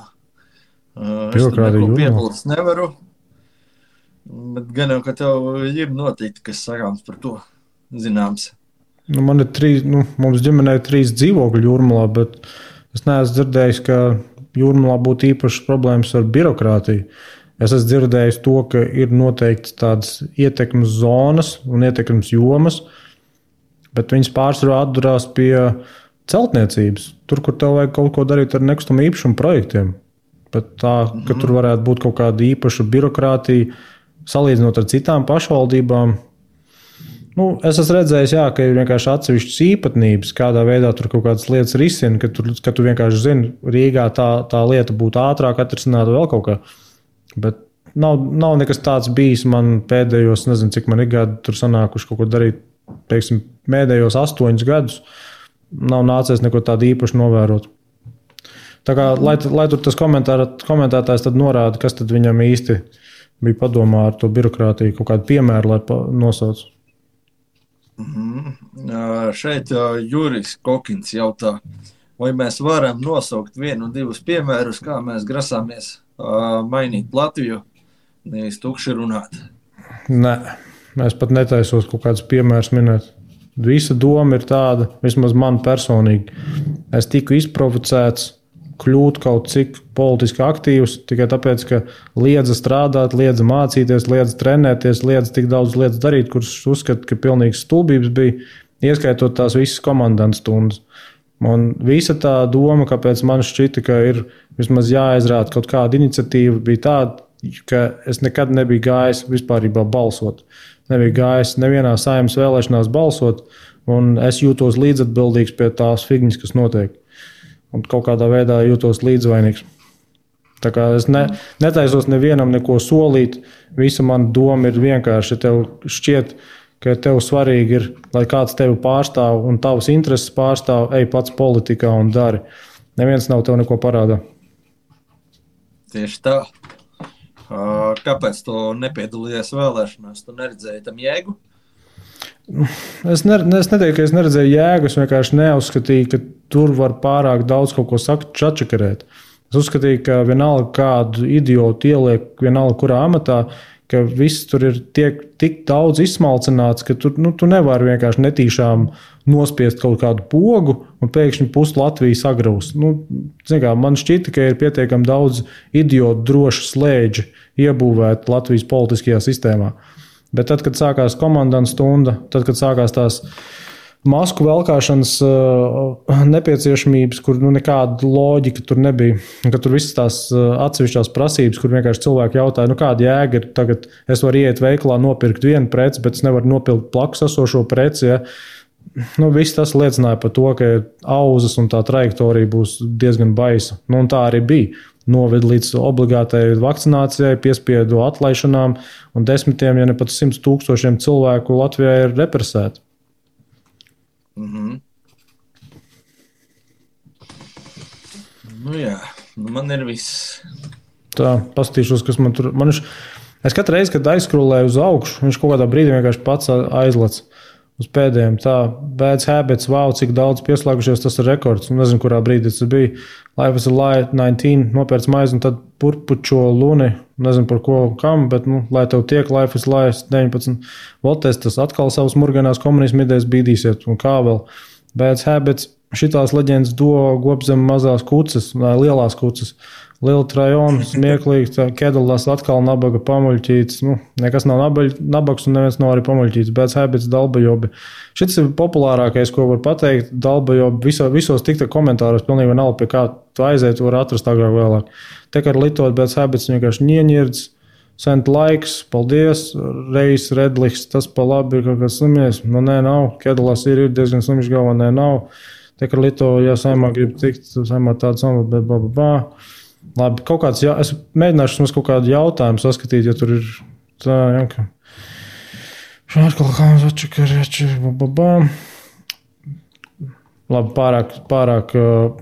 Es tur neko piebilst nevaru, bet gan jau, ka tev ir noteikti, kas sakāms par to zināms. Man ir mums ģimenē 3 dzīvokļi jūrmalā, bet es neesmu dzirdējis, ka jūrmalā būtu īpašas problēmas ar birokrātiju. Es esmu dzirdējis to, ka ir noteikti tādas ietekmes zonas un ietekmes jomas, bet viņas pārsvarā atdurās pie celtniecības. Tur, kur tev vajag kaut ko darīt ar nekustamo īpašumu projektiem. Bet tā, ka tur varētu būt kaut kāda īpaša birokrātija, salīdzinot ar citām pašvaldībām. Es esmu redzējis, ka ir vienkārši atsevišķas īpatnības, kādā veidā tur kaut kādas lietas risina, ka tu vienkārši zini, Rīgā tā lieta būtu ātrāk atrisināta vēl kaut kā. Bet nav nekas tāds bijis man pēdējos, nezinu, cik man ir gadi tur sanākuši kaut ko darīt, teiksim, pēdējos 8 gadus. Nav nācies neko tādu īpaši novērot. Tā kā, lai tur tas komentētājs tad norāda, kas tad viņam īsti bija padomā ar to birokrātiju, kaut kādu piemēru, lai nosauc. Šeit Jurijs Kokins jautā, vai mēs varam nosaukt 1-2 piemērus, kā mēs grasāmies mainīt Latviju, nevis tukši runāt. Nē, es pat netaisos kaut kādus piemērus minēt. Visa doma ir tāda, vismaz man personīgi. Es tiku izprovocēts kļūt kaut cik politiski aktīvs, tikai tāpēc, ka liedza strādāt, liedza mācīties, liedza trenēties, liedza tik daudz lietas darīt, kuras uzskata, ka pilnīgs stulbības bija, ieskaitot tās visas komandantas stundas. Un visa tā doma, kāpēc man šķita, ka ir vismaz jāizrāda kaut kāda iniciatīva, bija tāda, ka es nekad nebiju gājis vispārībā balsot. Nebiju gājis nevienā Saeimas vēlēšanās balsot, un es jūtos līdzatbildīgs pie tās figņas, kas notiek. Un kaut kādā veidā jūtos līdzvainīgs. Tā kā es netaisos nevienam neko solīt, visa mana doma ir vienkārši, ja tev šķiet, ka tev svarīgi ir, lai kāds tevi pārstāv un tavas intereses pārstāv, ej pats politikā un dari. Neviens nav tev neko parādā. Tieši tā. Kāpēc tu nepiedalījies vēlēšanās? Tu neredzēji tam jēgu? Es neteiktu, ka es neredzēju jēgu, es vienkārši neuzskatīju, ka tur var pārāk daudz kaut ko čačakarēt. Es uzskatīju, ka vienalga kādu idiotu ieliek vienalga kurā amatā, ka viss tur ir tik daudz izsmalcināts, ka tu nevari vienkārši netīšām nospiest kaut kādu pogu un pēkšņi pusi Latviju sagraus. Man šķita, ka ir pietiekami daudz idiotu droši slēdži iebūvēt Latvijas politiskajā sistēmā. Bet tad, kad sākās komandantas stunda, tad, kad sākās tās masku velkāšanas nepieciešamības, kur nekāda loģika tur nebija, ka tur visas tās atsevišķās prasības, kur vienkārši cilvēki jautāja, kāda jēga ir tagad, es varu iet veikalā nopirkt vienu preci, bet es nevaru nopirkt blakus esošo preci, ja? Viss tas liecināja par to, ka auzas un tā trajektorija būs diezgan baisa. Un tā arī bija. Noved līdz obligātai vakcinācijai, piespiedu atlaišanām, un 10, ja ne pat 100 000 cilvēku Latvijā ir represēti. Jā, man ir viss. Tā, paskatīšos, kas man tur... Es katru reizi, kad aizskrolēju uz augšu, viņš kaut kādā brīdī vienkārši pats aizlec uz pēdējiem. Tā, Bad Habits, wow, cik daudz pieslēgušies, tas ir rekords. Nezinu, kurā brīdī tas bija. Life is a Lie 19, nopērts maizi un tad purpučo luni. Nezinu par ko, kam, bet, lai tev tiek Life is a Lie 19. Votes, tas atkal savas murganās komunismu idejas bīdīsiet. Un kā vēl? Bad Habits, šitās leģendas gobzem mazās kucas, lielās kucas. Liela trajona, smieklīgi, Kedalās atkal nabaga pamuļķīts. Nekas nav nabaks un neviens nav arī pamuļķīts. Bad Habits, dalbajobi. Šis ir populārākais, ko var pateikt. Dalbajobi visos tikta komentāros pilnīgi vienalga, pie kā tu aiziet, var atrast agrāk vēlāk. Te kā ar litot Bad Habits vienkārši ņieņirds, Sent laiks, paldies, Reis, Redliks, tas pa labi ir kaut kāds slimies. Nu, nē, nav. Kedalas ir diezgan slims galvā, nē, nav. Te, ka Lito, ja saimā grib tikt, saimā tādu samu, bet Labi, kaut kāds, es mēģināšu mums kaut kādu jautājumu saskatīt, ja tur ir tā, ja, ka... Labi, pārāk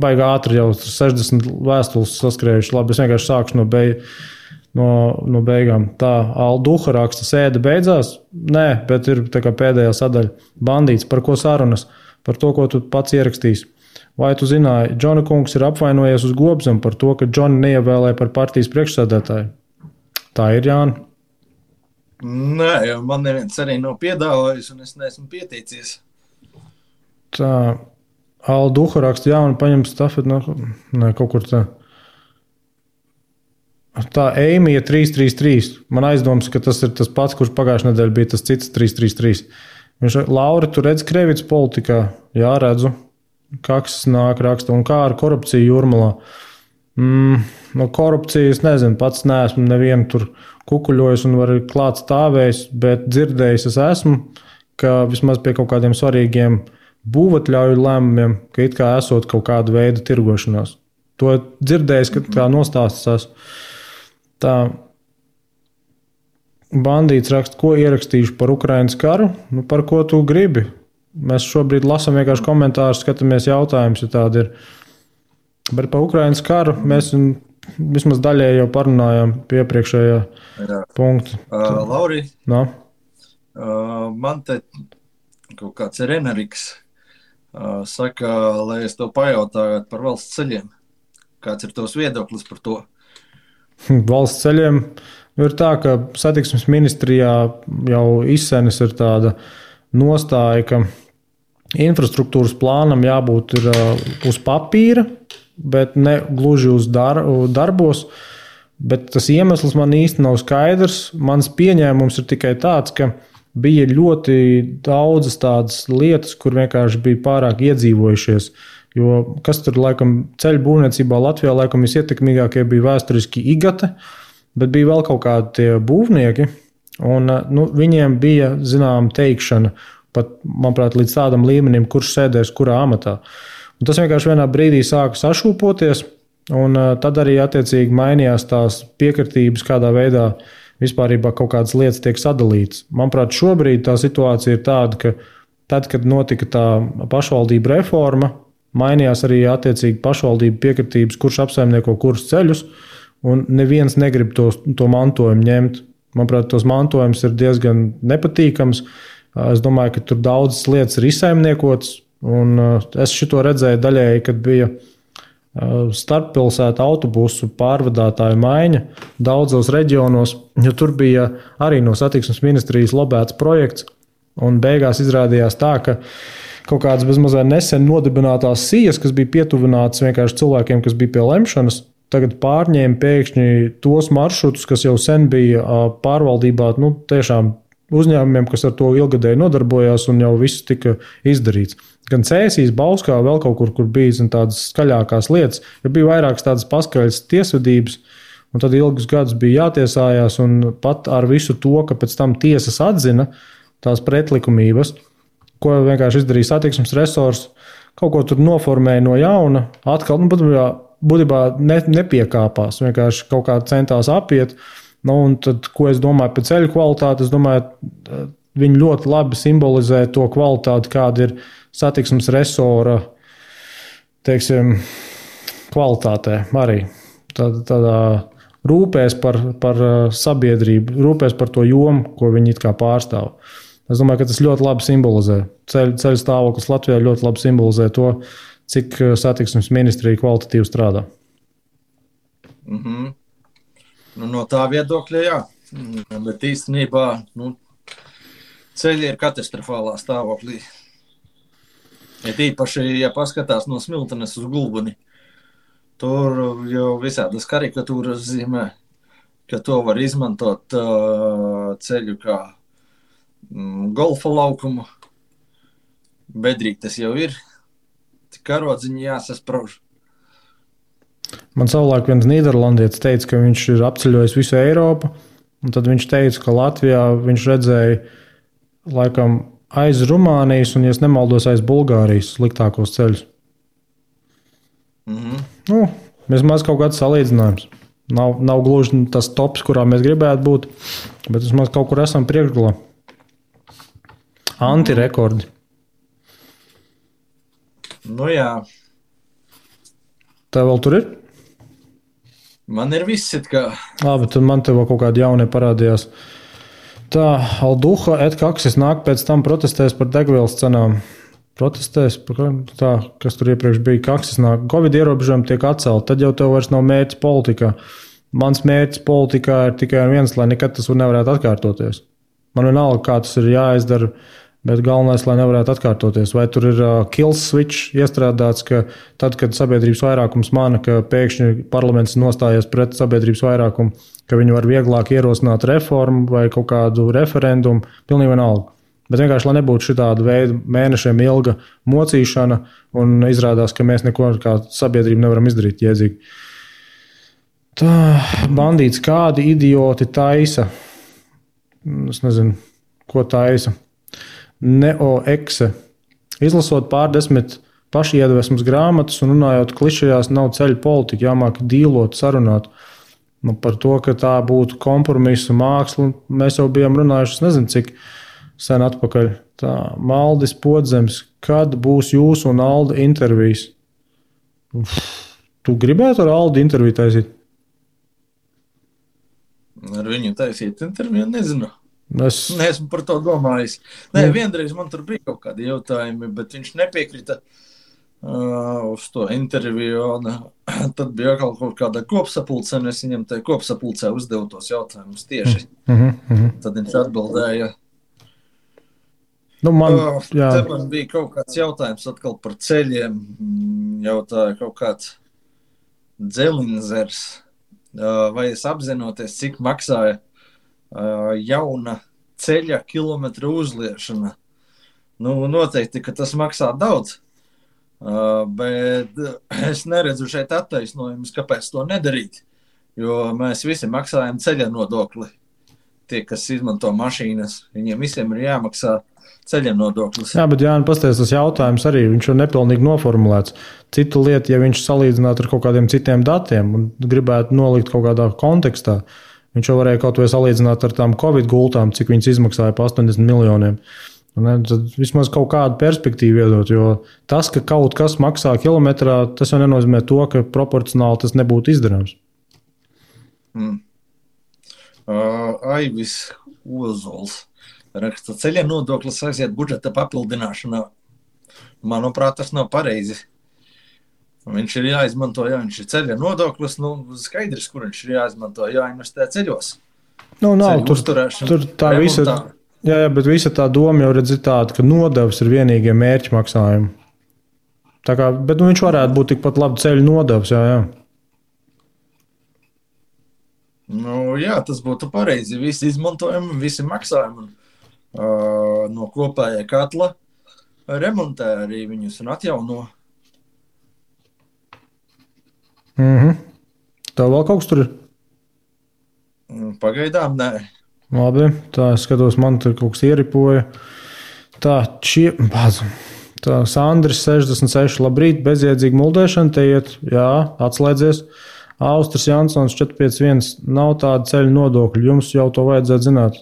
baigā ātri jau 60 vēstules saskrējuši. Labi, es vienkārši sākšu no beigām. Tā, Alduha raksta, sēde beidzās? Nē, bet ir tā kā pēdējā sadaļa. Bandīts, par ko sarunas? Par to, ko tu pats ierakstīsi. Vai tu zināji, Džona kungs ir apvainojies uz Gobzemu par to, ka Džonu neievēlēja par partijas priekšsēdētāju? Tā ir, Jāni? Nē, jo man neviens arī nav piedāvājis, un es neesmu pieteicies. Tā, Alduha raksta, jā, un paņem stafeti no... Nē, kaut kur tā. Tā, Eimija 333. Man aizdoms, ka tas ir tas pats, kurš pagājušajā nedēļā bija tas cits 333. Viņš, Lauri, tu redz Krevits politikā? Jā, redzu. Kaks nāk raksta. Un kā ar korupciju Jūrmalā? No korupcijas, nezinu, pats neesmu nevienu tur kukuļojis un var klāt stāvējis, bet dzirdējis es esmu, ka vismaz pie kaut kādiem svarīgiem būvatļauju lēmumiem, ka it kā esot kaut kāda veida tirgošanās. To dzirdējis, ka tā nostāstas. Tā Bandīts raksta, ko ierakstīšu par Ukrainas karu? Nu, par ko tu gribi? Mēs šobrīd lasām vienkārši komentārus, skatāmies jautājumus, ja tādi ir. Bet par Ukrainas karu mēs vismaz daļēji jau parunājām pie iepriekšējā punkta. Lauri, no? Man te kaut kāds Reneriks saka, lai es to pajautāju par valsts ceļiem. Kāds ir tavs viedoklis par to? Valsts ceļiem ir tā, ka satiksmes ministrijā jau izsenis ir tāda nostāja, ka infrastruktūras plānam jābūt ir uz papīra, bet ne gluži uz darbos. Bet tas iemesls man īsti nav skaidrs. Mans pieņēmums ir tikai tāds, ka bija ļoti daudzas tādas lietas, kur vienkārši bija pārāk iedzīvojušies. Jo kas tur laikam ceļu būvniecībā Latvijā laikam visietekmīgākie bija vēsturiski Igate, bet bija vēl kaut kādi tie būvnieki, un viņiem bija zinām teikšana, pat, manuprāt, līdz tādam līmenim, kurš sēdēs kurā amatā. Un tas vienkārši vienā brīdī sāka sašūpoties, un tad arī attiecīgi mainījās tās piekritības, kādā veidā vispārībā kaut kādas lietas tiek sadalītas. Manuprāt, šobrīd tā situācija ir tāda, ka tad, kad notika tā pašvaldība reforma, mainījās arī attiecīgi pašvaldību piekritības, kurš apsaimnieko kurus ceļus, un neviens negrib to mantojumu ņemt. Manuprāt, tos mantojums ir diezgan nepatīkams. Es domāju, ka tur daudzas lietas ir izsaimniekotas, un es šito redzēju daļēji, kad bija starppilsētu autobusu pārvadātāju maiņa daudzos reģionos, jo tur bija arī no satiksmes ministrijas lobēts projekts, un beigās izrādījās tā, ka kaut kādas bezmazliet nesen nodibinātās sijas, kas bija pietuvinātas vienkārši cilvēkiem, kas bija pie lemšanas, tagad pārņēma pēkšņi tos maršrutus, kas jau sen bija pārvaldībā, tiešām uzņēmumiem, kas ar to ilgadēji nodarbojās, un jau viss tika izdarīts. Gan Cēsīs, Bauskā, vēl kaut kur bija tādas skaļākās lietas, jo bija vairākas tādas paskaļas tiesvedības, un tad ilgus gadus bija jātiesājās, un pat ar visu to, ka pēc tam tiesas atzina tās pretlikumības, ko vienkārši izdarīja satiksmes resors, kaut ko tur noformēja no jauna, atkal, būtībā nepiekāpās, vienkārši kaut kā centās apiet. Un tad, ko es domāju par ceļu kvalitāti, es domāju, viņi ļoti labi simbolizē to kvalitāti, kāda ir satiksmes resora, teiksim, kvalitātē arī. Tādā rūpēs par sabiedrību, rūpēs par to jomu, ko viņi it kā pārstāv. Es domāju, ka tas ļoti labi simbolizē. Ceļu stāvoklis Latvijā ļoti labi simbolizē to, cik satiksmes ministrija kvalitatīvi strādā. Mhm. No tā viedokļa, jā. Bet īstenībā ceļi ir katastrofālā stāvoklī. Ja tīpaši, ja paskatās no Smiltenes uz Gulbeni, tur jau visādas karikatūras zīmē, ka to var izmantot ceļu kā golfa laukumu. Bedrīgi tas jau ir. Karodziņi jāsasprauž. Man savulaik viens nīderlandietis teica, ka viņš ir apceļojis visu Eiropu, Un tad viņš teica, ka Latvijā viņš redzēja laikam aiz Rumānijas un, ja nemaldos, aiz Bulgārijas sliktākos ceļus. Vismaz kaut kāds salīdzinājums. Nav gluži tas tops, kurā mēs gribētu būt, bet vismaz kaut kur esam priekšgalā. Antirekordi. Nu jā. Tev vēl tur ir? Man ir viss it kā. Labi, tad man tev kaut kādi jaunie parādījās. Tā, Alduha Kaksis nāk pēc tam protestēs par degvielas cenām. Protestēs par tā, kas tur iepriekš bija. Kaksis nāk, Covid ierobežojumi tiek atcelti, tad jau tev vairs nav mērķis politikā. Mans mērķis politikā ir tikai viens, lai nekad tas nevarētu atkārtoties. Man vienalga, kā tas ir jāizdara, bet galvenais, lai nevarētu atkārtoties. Vai tur ir kill switch iestrādāts, ka tad, kad sabiedrības vairākums mana, ka pēkšņi parlaments nostājies pret sabiedrības vairākumu, ka viņi var vieglāk ierosināt reformu vai kaut kādu referendumu, pilnīgi vienalga. Bet vienkārši, lai nebūtu šitāda veida mēnešiem ilga mocīšana un izrādās, ka mēs neko kā sabiedrība nevaram izdarīt jēdzīgi. Tā, bandīts, kādi idioti taisa? Es nezinu, ko taisa. Neoekse. Izlasot pārdesmit pašiedvesmas grāmatas un runājot klišejās, nav ceļu politika, jāmāk dīlot, sarunāt. Par to, ka tā būtu kompromisa māksla, mēs jau bijām runājuši, nezinu, cik sen atpakaļ. Tā, Maldis Podzems, kad būs jūsu un Alda intervijas? Tu gribētu ar Aldu interviju taisīt? Ar viņu taisīt interviju, nezinu. Neesmu par to domājis. Nē, vienreiz man tur bija kaut kādi jautājumi, bet viņš nepiekrita uz to interviju. Tad bija kaut kāda kopsapulce, un es viņam tajā kopsapulcē uzdevu tos jautājumus tieši. Tad viņš atbildēja. Man bija kaut kāds jautājums atkal par ceļiem. Jautāja kaut kāds Dzelinzers. Vai es apzinoties, cik maksāja jauna ceļa kilometra uzliešana. Noteikti, ka tas maksā daudz, bet es neredzu šeit attaisnojumus, kāpēc to nedarīt, jo mēs visi maksājam ceļa nodokli. Tie, kas izmanto mašīnas, viņiem visiem ir jāmaksā ceļa nodoklis. Jā, bet Jāni, pasties, tas jautājums arī, viņš ir nepilnīgi noformulēts. Citu lietu, ja viņš salīdzinātu ar kaut kādiem citiem datiem un gribētu nolikt kaut kādā kontekstā, viņš jau varēja kaut vai salīdzināt ar tām Covid gultām, cik viņas izmaksāja pa 80 miljoniem. Tad vismaz kaut kādu perspektīvu iedot, jo tas, ka kaut kas maksā kilometrā, tas jau nenozīmē to, ka proporcionāli tas nebūtu izdarāms. Aivis Ozols raksta, ceļa nodoklis aiziet budžeta papildināšanā. Manuprāt, tas nav pareizi. Viņš ir jāizmanto, ja viņš ir ceļa nodoklis, skaidrs, kur viņš ir jāizmanto, jāinvestē ceļos. Nav, tur tā visa, jā, bet visa tā doma jau redz tāda, ka nodevs ir vienīgie mērķi maksājumi. Tā kā, bet viņš varētu būt tikpat labi ceļu nodevs, jā. Jā, tas būtu pareizi. Visi izmantojumi, visi maksājumi no kopējā katla remontē arī viņus un atjauno. Tev vēl kaut kas tur ir? Pagaidām, nē. Labi, tā es skatos, man tur kaut kas ieripoja. Tā, Sandris 66, labrīt, bezjēdzīga muldēšana, te iet, jā, atslēdzies. Austris Jansons 451, nav tāda ceļu nodokļu, jums jau to vajadzētu zināt.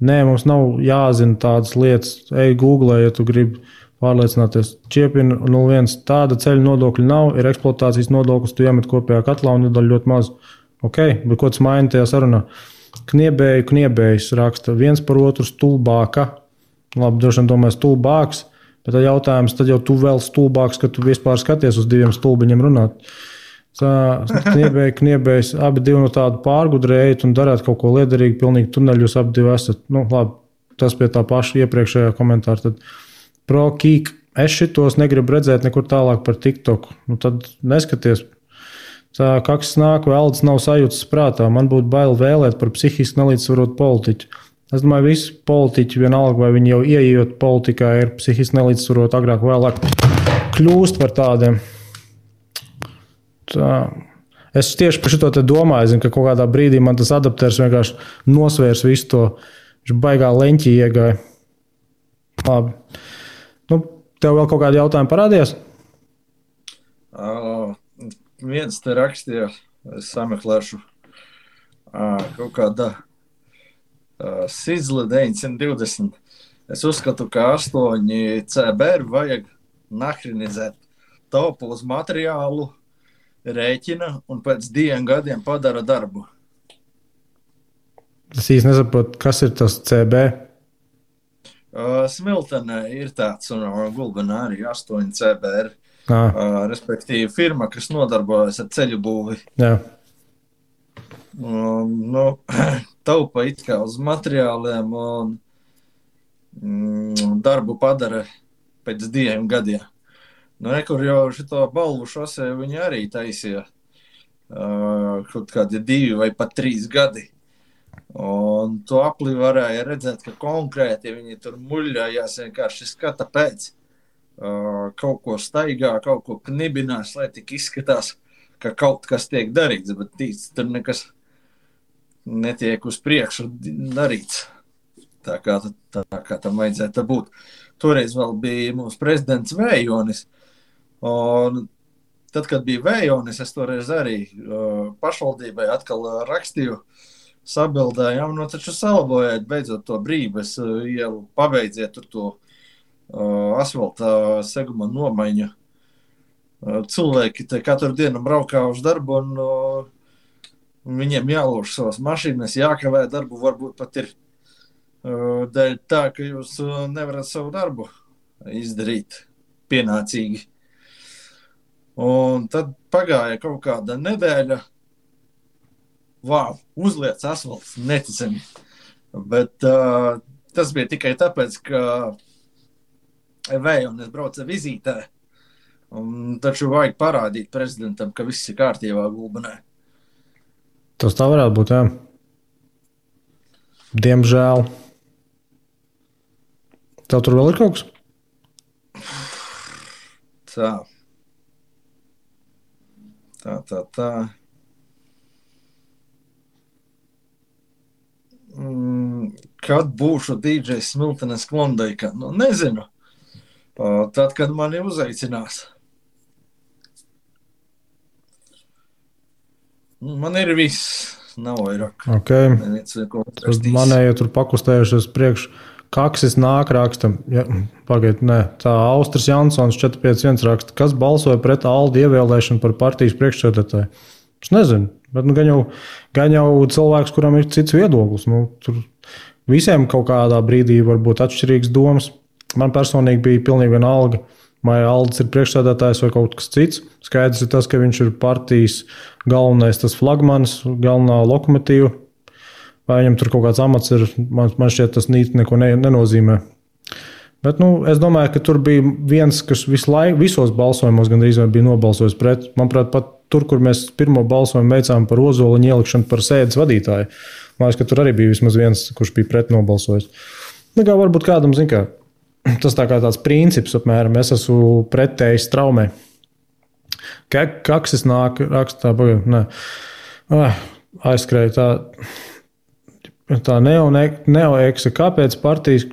Nē, mums nav jāzina tādas lietas. Ej Google, ja tu gribi pārliecināties. Čiepina 01, tāda ceļu nodokļu nav, ir eksploatācijas nodoklis, tu iemet kopējā katlā un iedod ļoti maz. Ok, bet ko tas maina tajā sarunā? Kniebējs raksta, viens par otru stulbāka. Labi, droši vien domāju stulbāks, bet tad jautājums, tad jau tu vēl stulbāks, ka tu vispār skaties uz diviem stulbiņiem runāt. Kniebējs, abi divi no tādu pārgudrējat un darāt kaut ko liederīgu, pilnīgi tuneļus abi divi esat. Labi, tas pie tā paša iepriekšējā komentāra. Tad pro-kīk, es šitos negribu redzēt nekur tālāk par TikTok. Tad neskaties. Kaksis nāk, Velds nav sajūtas prātā. Man būtu bail vēlēt par psihiski nelīdzsvarotu politiķu. Es domāju, visi politiķi vienalga, vai viņi jau ieejot politikā, ir psihiski nelīdzsvaroti, agrāk vēlāk kļūst par tādiem. Tā. Es tieši par šo te domāju, zinu, ka kaut kādā brīdī man tas adapters vienkārši nosvērs visu to, viņš baigā leņķī iegāja. Labi. Nu, tev vēl kaut kādi jautājumi parādījās? Viens te rakstīja, es sameklēšu kaut kāda Sizle 920. Es uzskatu, ka 8 CBR vajag nahrinizēt. Taupa uz materiālu, rēķina un pēc 2 gadiem padara darbu. Es īsti nesaprotu, kas ir tas CB. Smiltenē ir tāds un Gulbenā arī 8 CBR. Respektīvi firma, kas nodarbojas ar ceļu būvi. Jā. Taupa it kā uz materiāliem un darbu padara pēc 2 gadiem. Nekur jau šito balvu šosē viņi arī taisīja kaut kādi 2 vai pat 3 gadi. Un to aplī varēja redzēt, ka konkrēti viņi tur muļļājās vienkārši skata pēc. Kaut ko staigā, kaut ko knibinās, lai tik izskatās, ka kaut kas tiek darīts, bet tur nekas netiek uz priekšu darīts. Tā kā tam vajadzētu būt. Toreiz vēl bija mūsu prezidents Vējonis. Un tad, kad bija Vējonis, es toreiz arī pašvaldībai atkal rakstīju, sabildējām, taču salabojāt beidzot to Brības ielu, pabeidziet tur to asfalta seguma nomaiņu. Cilvēki te katru dienu braukā uz darbu un viņiem jālož savas mašīnas, jākavē darbu, varbūt pat ir dēļ tā, ka jūs nevarat savu darbu izdarīt pienācīgi. Un tad pagāja kaut kāda nedēļa, uzliec asfalts, neticami. Bet tas bija tikai tāpēc, ka Vējonis brauca vizītē. Taču vajag parādīt prezidentam, ka viss ir kārtībā Gulbenē. Tas tā varētu būt, jā. Diemžēl. Tev tur vēl ir kaut kas? Tā. Kad būšu DJs Smiltenes Klondaikā? Nezinu. Tad, kad mani uzaicinās. Man ir viss. Nav vairāk. Okay. Manēja tur pakustējušies priekš. Kaksis nāk rakstam. Ja, pagaid, nē. Tā Austris Jansons 451 raksta. Kas balsoja pret Aldi ievēlēšanu par partijas priekšsēdētāju? Es nezinu. Bet gan jau cilvēks, kuram ir cits viedoklis. Tur visiem kaut kādā brīdī var būt atšķirīgs domas. Man personīgi bija pilnīgi vienalga, vai Aldis ir priekšsēdētājs vai kaut kas cits. Skaidrs ir tas, ka viņš ir partijas galvenais tas flagmanis, galvenā lokomotīva. Vai viņam tur kaut kāds amats ir, man šķiet tas neko nenozīmē. Bet es domāju, ka tur bija viens, kas visos balsojumos gandrīz bija nobalsojis pret. Manuprāt, pat tur, kur mēs pirmo balsojumu veicām par Ozoliņu ielikšanu par sēdes vadītāju. Man liekas, ka tur arī bija vismaz viens, kurš bija pret nobalsojis. Varbūt kādam, tas tā kā tāds princips apmēram, es esmu pretējis traumē. Kaksis nāk, rakstā, aizskrēja tā neoeksa, kāpēc partijas,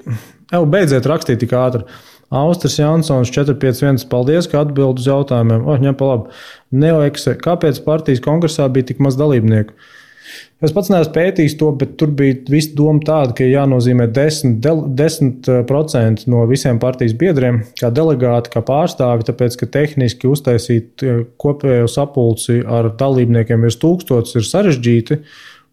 beidziet rakstīt tik ātri. Austris Jansons 451, paldies, ka atbild uz jautājumiem. Ņem pa labi. Neoeksa, kāpēc partijas kongresā bija tik maz dalībnieku? Es pats neesmu pētījis to, bet tur bija visa doma tāda, ka jānozīmē 10% no visiem partijas biedriem, kā delegāti, kā pārstāvi, tāpēc, ka tehniski uztaisīt kopējo sapulci ar dalībniekiem virs 1000 ir sarežģīti,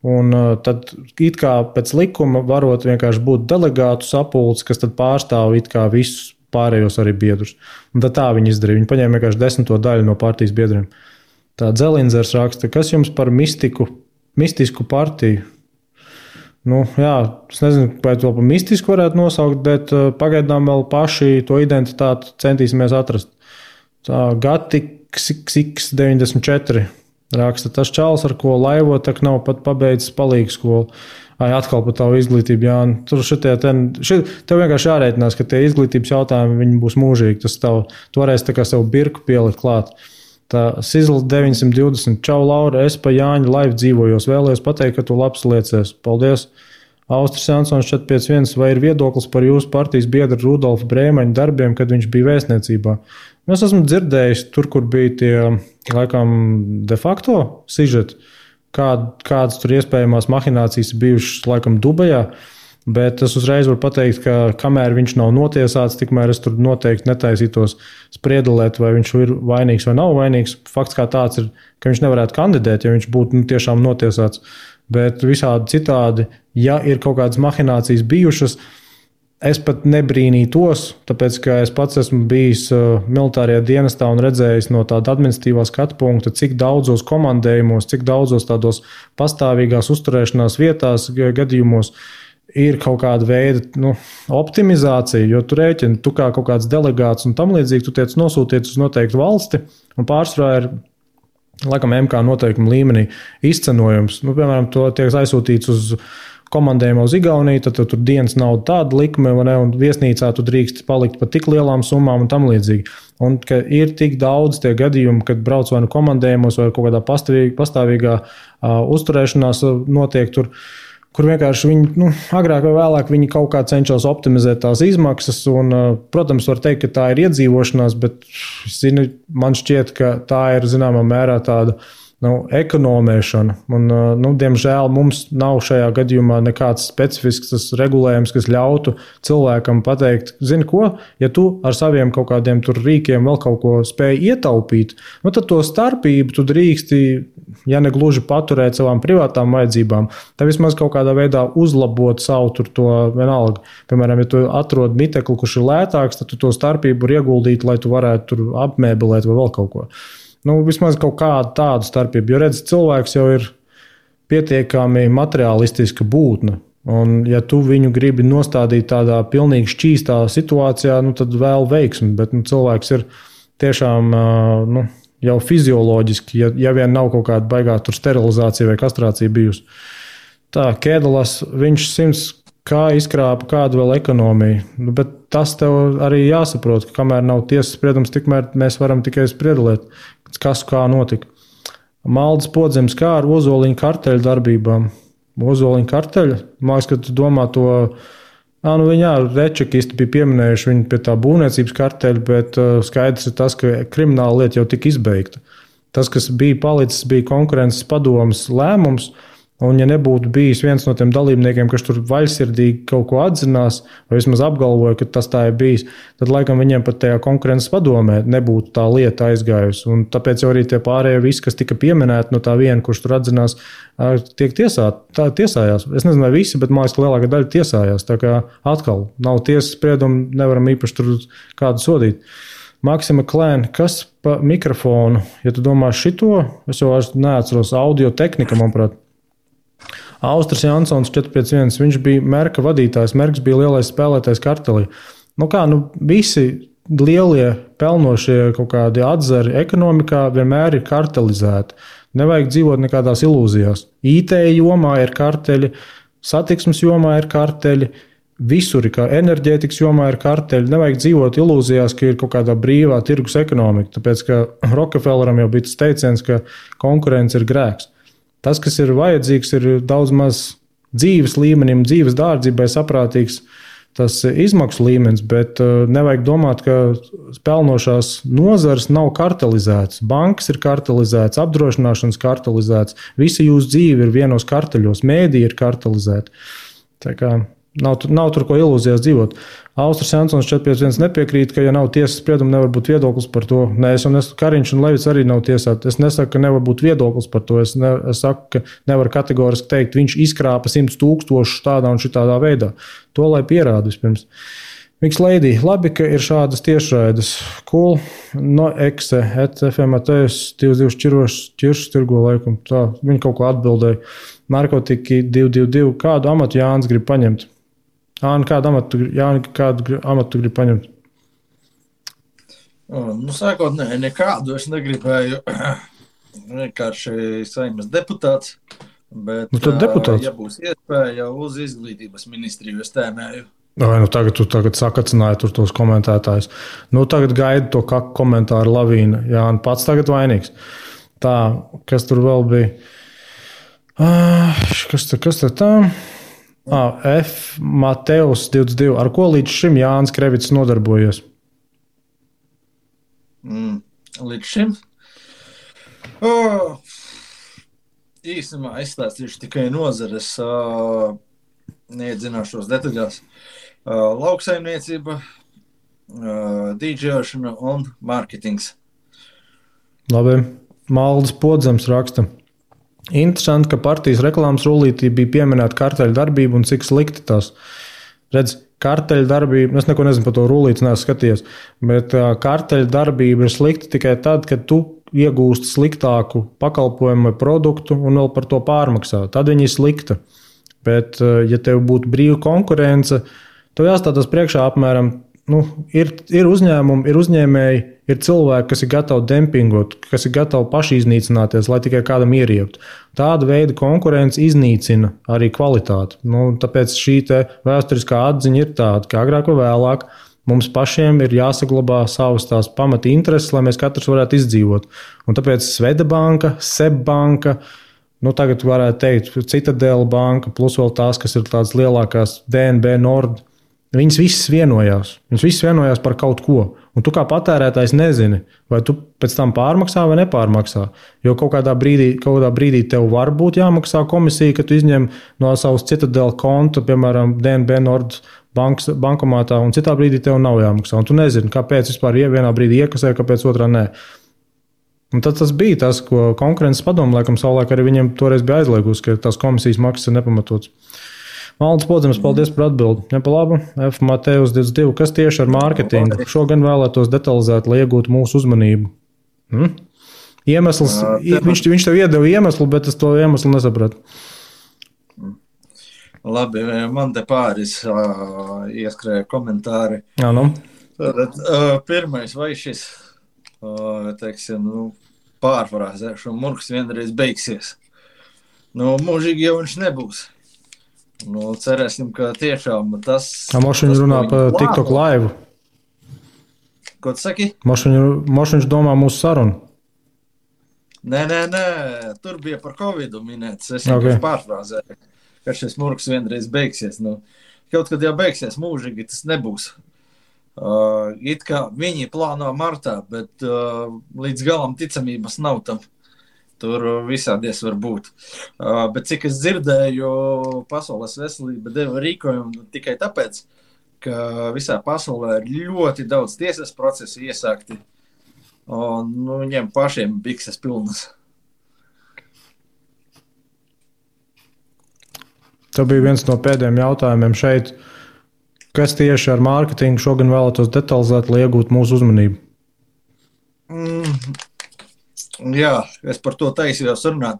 un tad it kā pēc likuma varot vienkārši būt delegātu sapulci, kas tad pārstāv it kā visus pārējos arī biedrus. Un tad tā viņi izdarīja. Viņi paņēma vienkārši 10. daļu no partijas biedriem. Tā Dzelinzers raksta, kas jums par mistisku partiju? Jā, es nezinu, vai to par mistisku varētu nosaukt, bet pagaidām vēl paši to identitāti centīsimies atrast. Tā Gatiks 94 raksta, tas čāls, ar ko laivo, tak nav pat pabeidzis palīgu skolu. Atkal par tavu izglītību, Jāni. Tur tev vienkārši jārēķinās, ka tie izglītības jautājumi viņi būs mūžīgi. Tu varēsi tā kā sev birku pielikt klāt. Tā Sizls 920. Čau, Laura, es pa Jāņa laivu dzīvojos. Vēlējos pateikt, ka tu labs liecies. Paldies! Austris Jansons 451. Vai ir viedoklis par jūsu partijas biedru Rudolfa Brēmaņa darbiem, kad viņš bija vēstniecībā? Es esmu dzirdējis tur, kur bija tie, laikam, de facto sižeti, kādas tur iespējamās mahinācijas bijušas, laikam, Dubajā. Bet es uzreiz varu pateikt, ka kamēr viņš nav notiesāts, tikmēr es tur noteikti netaisītos spriedelēt, vai viņš ir vainīgs vai nav vainīgs. Fakts kā tāds ir, ka viņš nevarētu kandidēt, ja viņš būtu tiešām notiesāts. Bet visādi citādi, ja ir kaut kādas mahinācijas bijušas, es pat nebrīnītos, tāpēc, ka es pats esmu bijis militārajā dienestā un redzējis no tāda administratīvā skatu punkta, cik daudzos komandējumos, cik daudzos tādos pastāvīgās uzturēšanās vietās, gadījumos ir kaut kāda veida optimizācija, jo tu rēķini, tu kā kaut kāds delegāts un tam līdzīgi, tu tiec nosūtīts uz noteiktu valsti, un pārsvarā ir laikam MK noteikuma līmenī izcenojums. Piemēram, to tiek aizsūtīts uz komandējumu uz Igauniju, tad tur dienas nauda tāda likme, un viesnīcā tu drīkst palikt par tik lielām summām un tam līdzīgi. Un ka ir tik daudz tie gadījumi, kad brauc vai nu komandējumos vai kaut kādā pastāvīgā uzturēšanās notiek tur, kur vienkārši viņi, agrāk vai vēlāk viņi kaut kā cenšas optimizēt tās izmaksas. Un, protams, var teikt, ka tā ir iedzīvošanās, bet man šķiet, ka tā ir zināmā mērā tāda ekonomēšana. Un, diemžēl mums nav šajā gadījumā nekāds specifisks regulējums, kas ļautu cilvēkam pateikt, zini ko, ja tu ar saviem kaut kādiem tur rīkiem vēl kaut ko spēj ietaupīt, tad to starpību tu drīksti, ja ne gluži paturēt savām privātām vajadzībām, tad vismaz kaut kādā veidā uzlabot savu tur to vienalga. Piemēram, ja tu atrod mitekli, kurš ir lētāks, tad tu to starpību var ieguldīt, lai tu varētu tur apmēbelēt vai vēl kaut ko. Vismaz kaut kādu tādu starpību, jo redz, cilvēks jau ir pietiekami materialistiska būtne, un ja tu viņu gribi nostādīt tādā pilnīgi šķīstā situācijā, tad vēl veiksmi, bet cilvēks ir tiešām jau fizioloģiski, ja vien nav kaut kāda baigā tur sterilizācija vai kastrācija bijusi. Tā, Kēdalas, viņš 100 kā izkrāpa kādu vēl ekonomiju, bet tas tev arī jāsaprot, ka kamēr nav tiesas spriedums, tikmēr mēs varam tikai spriedelēt, kas kā notika. Maldis Podzems kā ar Ozoliņa karteļu darbībām. Ozoliņa karteļa? Māks, ka tu domā to, rečekisti bija pieminējuši viņu pie tā būvniecības karteļa, bet skaidrs ir tas, ka krimināla lieta jau tika izbeigta. Tas, kas bija palicis, bija konkurences padomes lēmums, un ja nebūtu bijis viens no tiem dalībniekiem, kas tur vaļsirdīgi kaut ko atzinās, vai vismaz apgalvoja, ka tas tā ir bijis, tad laikam viņiem pat tajā konkurences padomē nebūtu tā lieta aizgājusi. Un tāpēc jau arī tie pārējie visi, kas tika pieminēti no tā viena, kurš tur atzinās, tiek tiesājās. Es nezinu, vai visi, bet man liekas, ka lielākā daļa tiesājās. Tā kā atkal nav tiesas spriedumu, nevaram īpaši tur kādu sodīt. Maksima Klēna, kas pa mikrofonu? Ja tu domā šito, es jau neatceros audio tehnika, manuprāt. Austris Jansons 451, viņš bija Merka vadītājs, Merks bija lielais spēlētājs kartelī. Visi lielie pelnošie kaut kādi atzari ekonomikā vienmēr ir kartelizēti. Nevajag dzīvot nekādās ilūzijās. IT jomā ir karteļi, satiksmes jomā ir karteļi, visur ir enerģētikas jomā ir karteļi. Nevajag dzīvot ilūzijās, ka ir kaut kādā brīvā tirgus ekonomika, tāpēc ka Rockefelleram jau bija tas teiciens, ka konkurence ir grēks. Tas, kas ir vajadzīgs, ir daudz maz dzīves līmenim, dzīves dārdzībai saprātīgs tas izmaksu līmenis, bet nevajag domāt, ka pelnošās nozares nav kartelizētas. Bankas ir kartelizētas, apdrošināšanas kartelizētas, visa jūsu dzīve ir vienos karteļos, mēdī ir kartelizēta. Tā kā nav tur ko ilūzijās dzīvot. Austris Jansons 451 nepiekrīt, ka ja nav tiesas sprieduma, nevar būt viedoklis par to. Nē, Kariņš un Levits arī nav tiesāti. Es nesaku, ka nevar būt viedoklis par to. Es saku, ka nevar kategoriski teikt, viņš izkrāpa 100 000 tādā un šitādā veidā. To lai pierāda vispirms. Miks Leidī, labi, ka ir šādas tiešraides. Cool. No ekse, FMATS 22 ķiršus tirgo laikam. Tā, viņi kaut ko atbildēja. Narkotiki 222. Kādu amatu Jānis grib paņemt? Kādu amatu grib paņemt? Sākotnēji nekādu es negribēju. Vienkārši Saeimas deputāts. Bet, tad deputāts. Ja būs iespēja uz izglītības ministriju, es tēmēju. Vai tagad tu sakacināji tur tos komentētājus. Tagad gaida to komentāru lavīnu. Jā, un pats tagad vainīgs. Tā, kas tur vēl bija? Kas te tā? F. Mateus 22. Ar ko līdz šim Jānis Krevits nodarbojies? Līdz šim? Īsumā izstāstīšu tikai nozares, neiedzināšos detaļās. Lauksaimniecība, dīdžejošana un mārketings. Labi. Maldis Podzems raksta. Interesanti, ka partijas reklāmas rullītī bija pieminēta karteļu darbība un cik slikti tās. Redz, karteļu darbība, es neko nezinu par to rullīti, neesmu skatījies, bet karteļu darbība ir slikta tikai tad, kad tu iegūsti sliktāku pakalpojumu vai produktu un vēl par to pārmaksā. Tad viņa ir slikta. Bet, ja tev būtu brīva konkurence, tev jāstātas priekšā apmēram, ir uzņēmumi, ir uzņēmēji, ir cilvēki, kas ir gatavi dempingot, kas ir gatavi paši iznīcināties, lai tikai kādam ieriektu. Tāda veida konkurence iznīcina arī kvalitāti. Tāpēc šī vēsturiskā atziņa ir tāda, ka agrāk vai vēlāk mums pašiem ir jāsaglabā savas tās pamata intereses, lai mēs katrs varētu izdzīvot. Un tāpēc Svedabanka, Sebbanka, tagad varētu teikt Citadela banka, plus vēl tās, kas ir tādas lielākās DNB Nord, viņas visas vienojās. Viņas visas vienojās par kaut ko. Un tu kā patērētājs nezini, vai tu pēc tam pārmaksā vai nepārmaksā. Jo kaut kādā brīdī tev var būt jāmaksā komisija, ka tu izņem no savas Citadela konta, piemēram, DNB Nord bankomātā, un citā brīdī tev nav jāmaksā. Un tu nezini, kāpēc vispār vienā brīdī iekasē, kāpēc otrā nē. Un tad tas bija tas, ko konkurences padomu laikam savulaik arī viņiem toreiz bija aizliegusi, ka tās komisijas maksas ir nepamatotas. Maldis Podzems, paldies par atbildi. Ja pa labu, F. Mateus 22. Kas tieši ar mārketingu? Šogan vēlētos detalizēt, lai iegūtu mūsu uzmanību. Iemesls, viņš tev iedeva iemeslu, bet es to iemeslu nesapratu. Labi, man te pāris ieskrēja komentāri. Jā, Tātad, pirmais, vai šis, pārfrāzēšu, murgs vienreiz beigsies. Mūžīgi jau viņš nebūs. Cerēsim, ka tiešām tas... Mošiņš runā par TikTok live. Ko tu saki? Mošiņš domā mūsu sarunu. Nē, tur bija par Covidu minēts. Es vienkārši pārfrāzēju, ka šis murgs vienreiz beigsies. Kaut kad jau beigsies mūžīgi, tas nebūs. It kā viņi plāno martā, bet līdz galam ticamības nav tam. Tur visādies var būt. Bet cik es dzirdēju, Pasaules veselība deva rīkojumu tikai tāpēc, ka visā pasaulē ir ļoti daudz tiesas procesu iesākti. Un viņiem pašiem bikses pilnas. Tā bija viens no pēdējiem jautājumiem šeit. Kas tieši ar mārketingu šogan vēlētos detalizēt, lai iegūtu mūsu uzmanību? Jā, es par to taisījos runāt.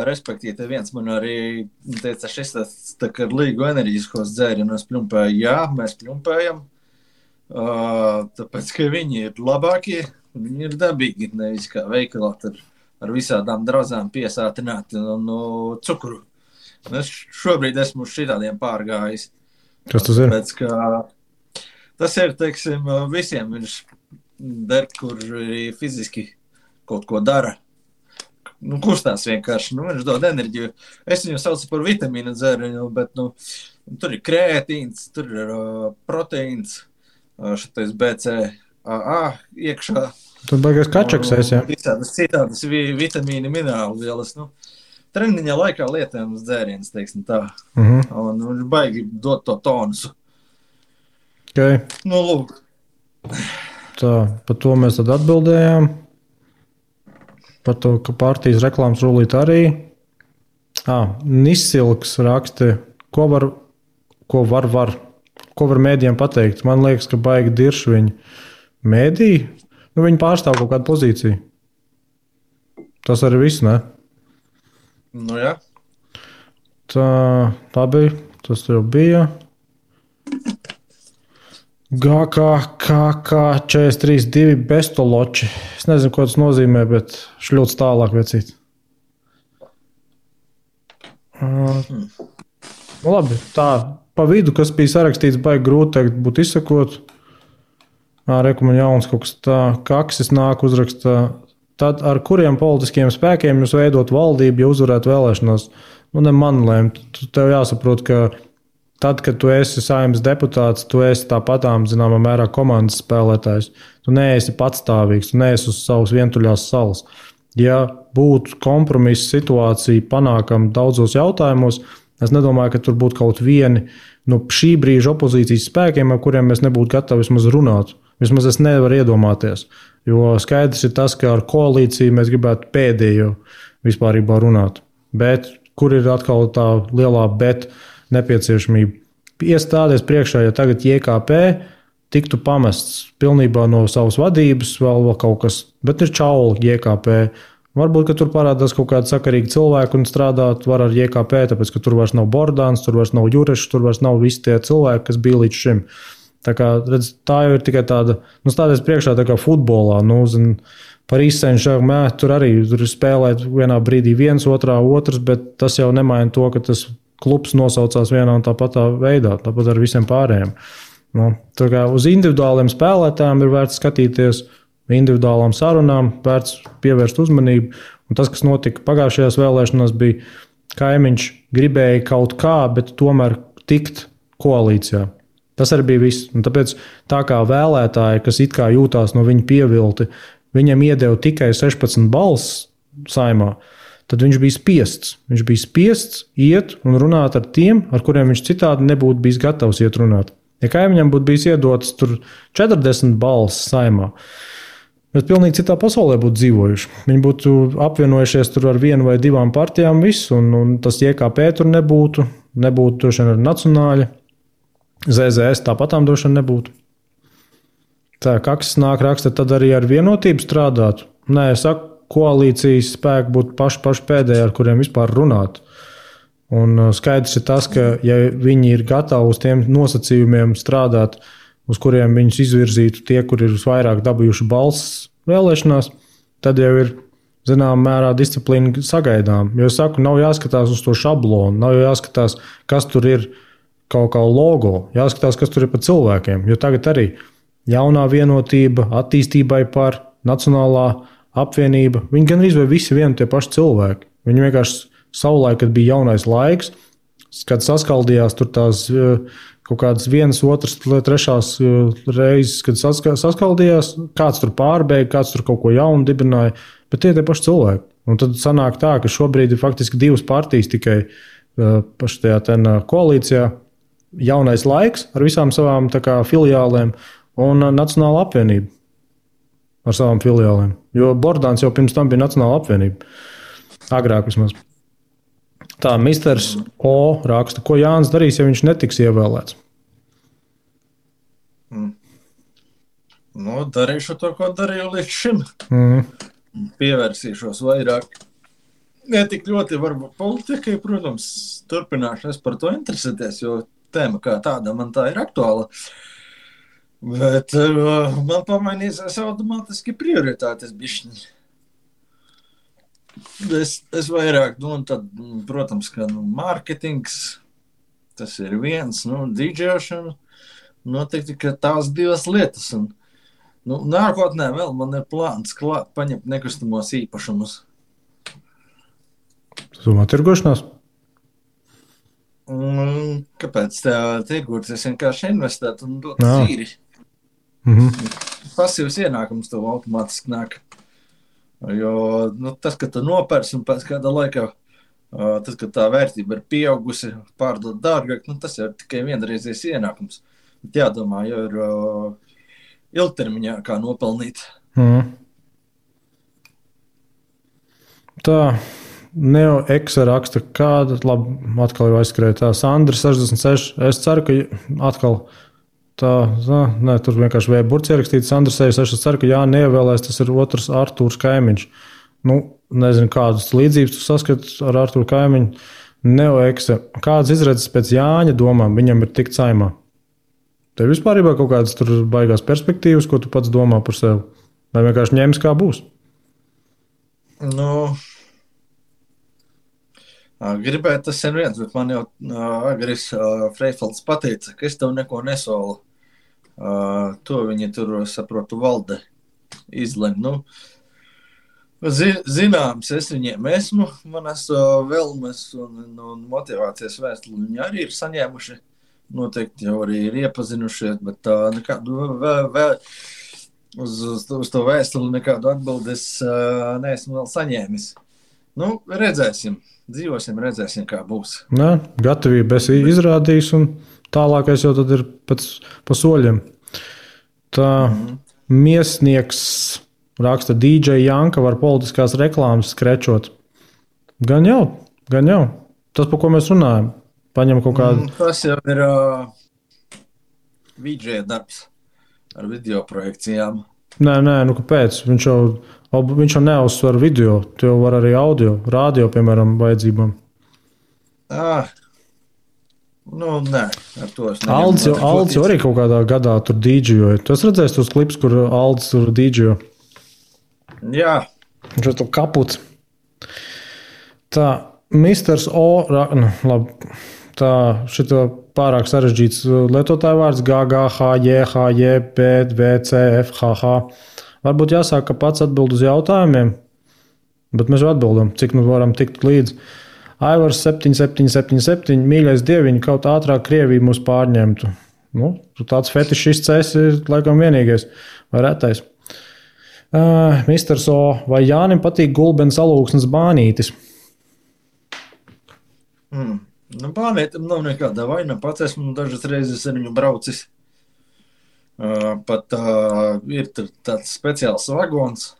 Respektīvi, viens man arī teica, šis tā kā līgu enerģiskos dzērienus pļumpēja. Jā, mēs pļumpējam, tāpēc, ka viņi ir labākie, viņi ir dabīgi, nevis kā veikalā ar visādām drauzām piesātināti un cukuru. Es šobrīd esmu uz šitādiem pārgājis. Kas tas ir? Tāpēc, ka tas ir, teiksim, visiem viņš der, kur fiziski kaut ko dara. Kustās vienkārši, viņš dod enerģiju. Es viņu saucu par vitamīnu dzērienu, bet, tur ir krētīns, tur ir proteīns, šitais BCAA iekšā. Tur baigās kačaksēs, jā. Visādas citādas vitamīni, minerāli vielas, treniņa laikā lietājums dzēriens, teiksim tā. Un viņš baigi dot to tonusu. Okay. Lūk. Tā, par to mēs tad atbildējām. Par to, ka partijas reklāmas rullīt arī. Nisilks raksta, ko var mēdījiem pateikt. Man liekas, ka baigi dirši viņi mēdīji. Viņi pārstāv kaut kādu pozīciju. Tas arī viss, ne? Jā. Tā bija. Tas jau bija. GK43-2 bestoloči. Es nezinu, ko tas nozīmē, bet šļūts tālāk vecīt. Labi, tā pa vidu, kas bija sarakstīts, baigi grūti teikt, būt izsakot. Reku man jauns kaut kas tā, kaksis nāk uzrakstā. Tad ar kuriem politiskiem spēkiem jūs veidot valdību, ja uzvarētu vēlēšanās? Ne man lēmt. Tev jāsaprot, ka tad, kad tu esi Saeimas deputāts, tu esi tāpatām, zināmā mērā, komandas spēlētājs. Tu neesi patstāvīgs, tu neesi uz savas vientuļās salas. Ja būtu kompromisa situācija panākama daudzos jautājumos, es nedomāju, ka tur būtu kaut vieni šī brīža opozīcijas spēkiem, ar kuriem mēs nebūtu gatavi vismaz runāt. Vismaz es nevaru iedomāties. Jo skaidrs ir tas, ka ar koalīciju mēs gribētu pēdējo vispārībā runāt. Bet kur ir atkal tā lielā bet nepieciešamība? Iestāties priekšā, ja tagad JKP tiktu pamests pilnībā no savas vadības, vēl kaut kas, bet ir čauli JKP. Varbūt, ka tur parādās kaut kādi sakarīgi cilvēki un strādāt var ar JKP, tāpēc, ka tur vairs nav Bordāns, tur vairs nav Jurešs, tur vairs nav visi tie cilvēki, kas bija līdz šim. Tā kā, redz, tā jau ir tikai tāda, stāties priekšā tā kā futbolā, par izcenšu, tur arī tur spēlēt vienā brīdī viens, otrā otrs, bet tas jau nemaina to, ka tas klubs nosaucās vienā un tāpatā veidā, tāpat ar visiem pārējiem. Tā kā uz individuāliem spēlētājiem ir vērts skatīties, individuālām sarunām, vērts pievērst uzmanību, un tas, kas notika pagājušajās vēlēšanās, bija Kaimiņš gribēja kaut kā, bet tomēr tikt koalīcijā. Tas arī bija viss. Un tāpēc tā kā vēlētāji, kas it kā jūtās no viņa pievilti, viņam iedeva tikai 16 balss Saeimā, tad viņš bija spiests. Viņš bija spiests iet un runāt ar tiem, ar kuriem viņš citādi nebūtu bijis gatavs iet runāt. Ja Kaimiņam būtu bijis iedotas tur 40 balss Saeimā, mēs pilnīgi citā pasaulē būtu dzīvojuši. Viņi būtu apvienojušies tur ar vienu vai divām partijām visu, un tas JKP tur nebūtu droši vien ar nacionāļu. ZZS tāpatām droši vien nebūtu. Tā, kaksis nāk raksta, tad arī ar vienotību strādāt. Nē, es saku, koalīcijas spēki būtu paši pēdējie, ar kuriem vispār runāt. Un skaidrs ir tas, ka ja viņi ir gatavi uz tiem nosacījumiem strādāt, uz kuriem viņus izvirzītu tie, kur ir visvairāk dabūjuši balss vēlēšanās, tad jau ir zināmā mērā disciplīna sagaidām. Jo es saku, nav jāskatās uz to šablonu, nav jāskatās, kas tur ir kaut kā logo, jāskatās, kas tur ir pa cilvēkiem. Jo tagad arī jaunā vienotība, attīstībai par nacionālā apvienība, viņi gan arī visi vieni tie paši cilvēki. Viņi vienkārši savulaik, kad bija jaunais laiks, kad saskaldījās tur tās kaut kādas vienas, otras, trešās reizes, kad saskaldījās, kāds tur pārbeidza, kāds tur kaut ko jaunu dibināja, bet tie paši cilvēki. Un tad sanāk tā, ka šobrīd ir faktiski divas partijas tikai paši tajā koalīcijā. Jaunais laiks ar visām savām filiālēm un Nacionāla apvienība ar savām filiālēm. Jo Bordāns jau pirms tam bija Nacionāla apvienība. Agrāk vismaz. Tā, misters O raksta, ko Jānis darīs, ja viņš netiks ievēlēts? Darīšu to, ko darīju līdz šim. Pievērsīšos vairāk. Ne tik ļoti varbūt politikai, protams, turpināšu es par to interesēties, jo tēma kā tāda man tā ir aktuāla. Bet man pamainīsies automātiski prioritātes bišķiņi. Es vairāk, tad, protams, ka mārketings, tas ir viens, dīdžēšana, noteikti, ka tās divas lietas. Un, nākotnē vēl man ir plāns klāt paņemt nekustamos īpašumus. Tu domā tirgošanās? Kāpēc tirgot? Es vienkārši investētu un dotu zīri. Pasīvs ienākums tev automātiski nāk. Jo tas, ka tu nopērsi un pēc kāda laika, tas, ka tā vērtība ir pieaugusi, pārdot dārgāk, tas jau ir tikai vienreizies ienākums. Bet jādomā, jau ir ilgtermiņā kā nopelnīt. Tā. Neo Eksa raksta, kāda, labi, atkal jau aizskrēja tā, Sandra 66, es ceru, ka atkal tur vienkārši vēja burts ierakstīts, Sandra 66, es ceru, ka Jāni neievēlēs, tas ir otrs Artūrs Kaimiņš. Nezinu, kādas līdzības tu saskati ar Artūru Kaimiņu. Neo Eksa, kādas izredzes pēc Jāņa domām viņam ir tikt Saeimā? Tev vispārībā kaut kādas tur baigās perspektīvas, ko tu pats domā par sevi? Vai vienkārši ņems kā būs? Gribēju tas sen viens, bet man jau Agris Freifelds pateica, ka es tev neko nesolu. To viņi tur, saprotu, valde izlem. Nu, zināms, es viņiem esmu, manas vēlmes un motivācijas vēstuli viņi arī ir saņēmuši. Noteikti jau arī ir iepazinušies, bet nekādu uz to vēstuli nekādu atbildes neesmu vēl saņēmis. Nu, redzēsim. Dzīvosim, redzēsim, kā būs. Nē, gatavība esi izrādījis, un tālākais jau tad ir pa soļiem. Tā Miesnieks raksta, DJ Janka var politiskās reklāmas skrečot. Gan jau. Tas, par ko mēs runājam. Paņem kaut kādu... Tas jau ir VJ darbs ar video projekcijām. Nē, nu kāpēc? Viņš jau neuzsver video, tu jau var arī audio, radio, piemēram, vajadzībām. Nu, nē, ar to es neņemu. Aldis jau arī kaut kādā gadā tur dīdžoja. Tu esi redzējis tos klips, kur Aldis tur dīdžoja? Jā. Viņš ir to kaputs. Tā, Misters O, labi, tā, šito pārāk sarežģīts lietotāju vārds GGHJHJPVCFHH. Varbūt jāsāk, ka pats atbild uz jautājumiem, bet mēs jau atbildam, cik nu varam tikt līdz. Aivars 7777, mīļais dieviņi, kaut ātrāk Krievija mūs pārņemtu. Nu, tu tāds fetišists esi laikam vienīgais vai retais. Misters O, vai Jānim patīk Gulbens alūksnes bānītis? Nu, bānītam nav nekāda vaina, pats esmu dažas reizes ar viņu braucis. Pat ir tāds speciāls vagons,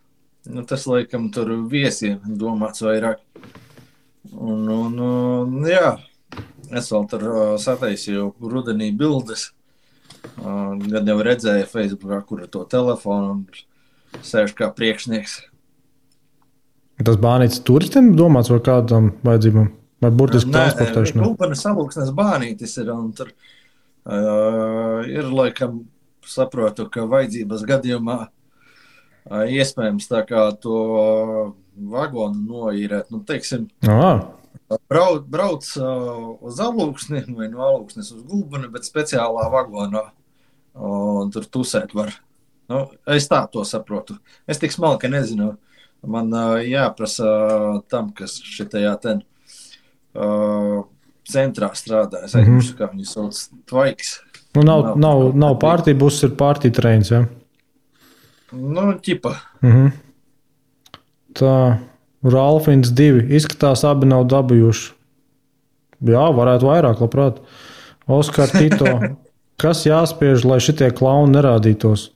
nu, tas laikam tur viesiem domāts vairāk. Un jā, es vēl tur sataisīju rudenī bildes, gan jau redzēju Facebookā, kur ir to telefonu un sēž kā priekšnieks. Tas bānītis turistiem domāts vai kādam vajadzībām? Vai burtiski transportēšanā? Nē, Gulbenes alūksnes bānītis ir, un tur ir laikam, saprotu, ka vajadzības gadījumā iespējams tā kā to vagonu noīrēt. Nu, teiksim, brauc uz alūksni vai no alūksnes uz Gulbeni, bet speciālā vagonā. Un tur tusēt var. Nu, es tā to saprotu. Es tik smalki nezinu. Man jāprasa tam, kas šitajā centrā strādā. Es aizmirsu, kā viņi sauc, Tvaiks. Nu, nav partija, būs ir partija treins, ja? Nu, ķipa. Tā, Ralfins 2. Izskatās, abi nav dabījuši. Jā, varētu vairāk, labprāt. Oskar Tito. Kas jāspiež, lai šitie klauni nerādītos?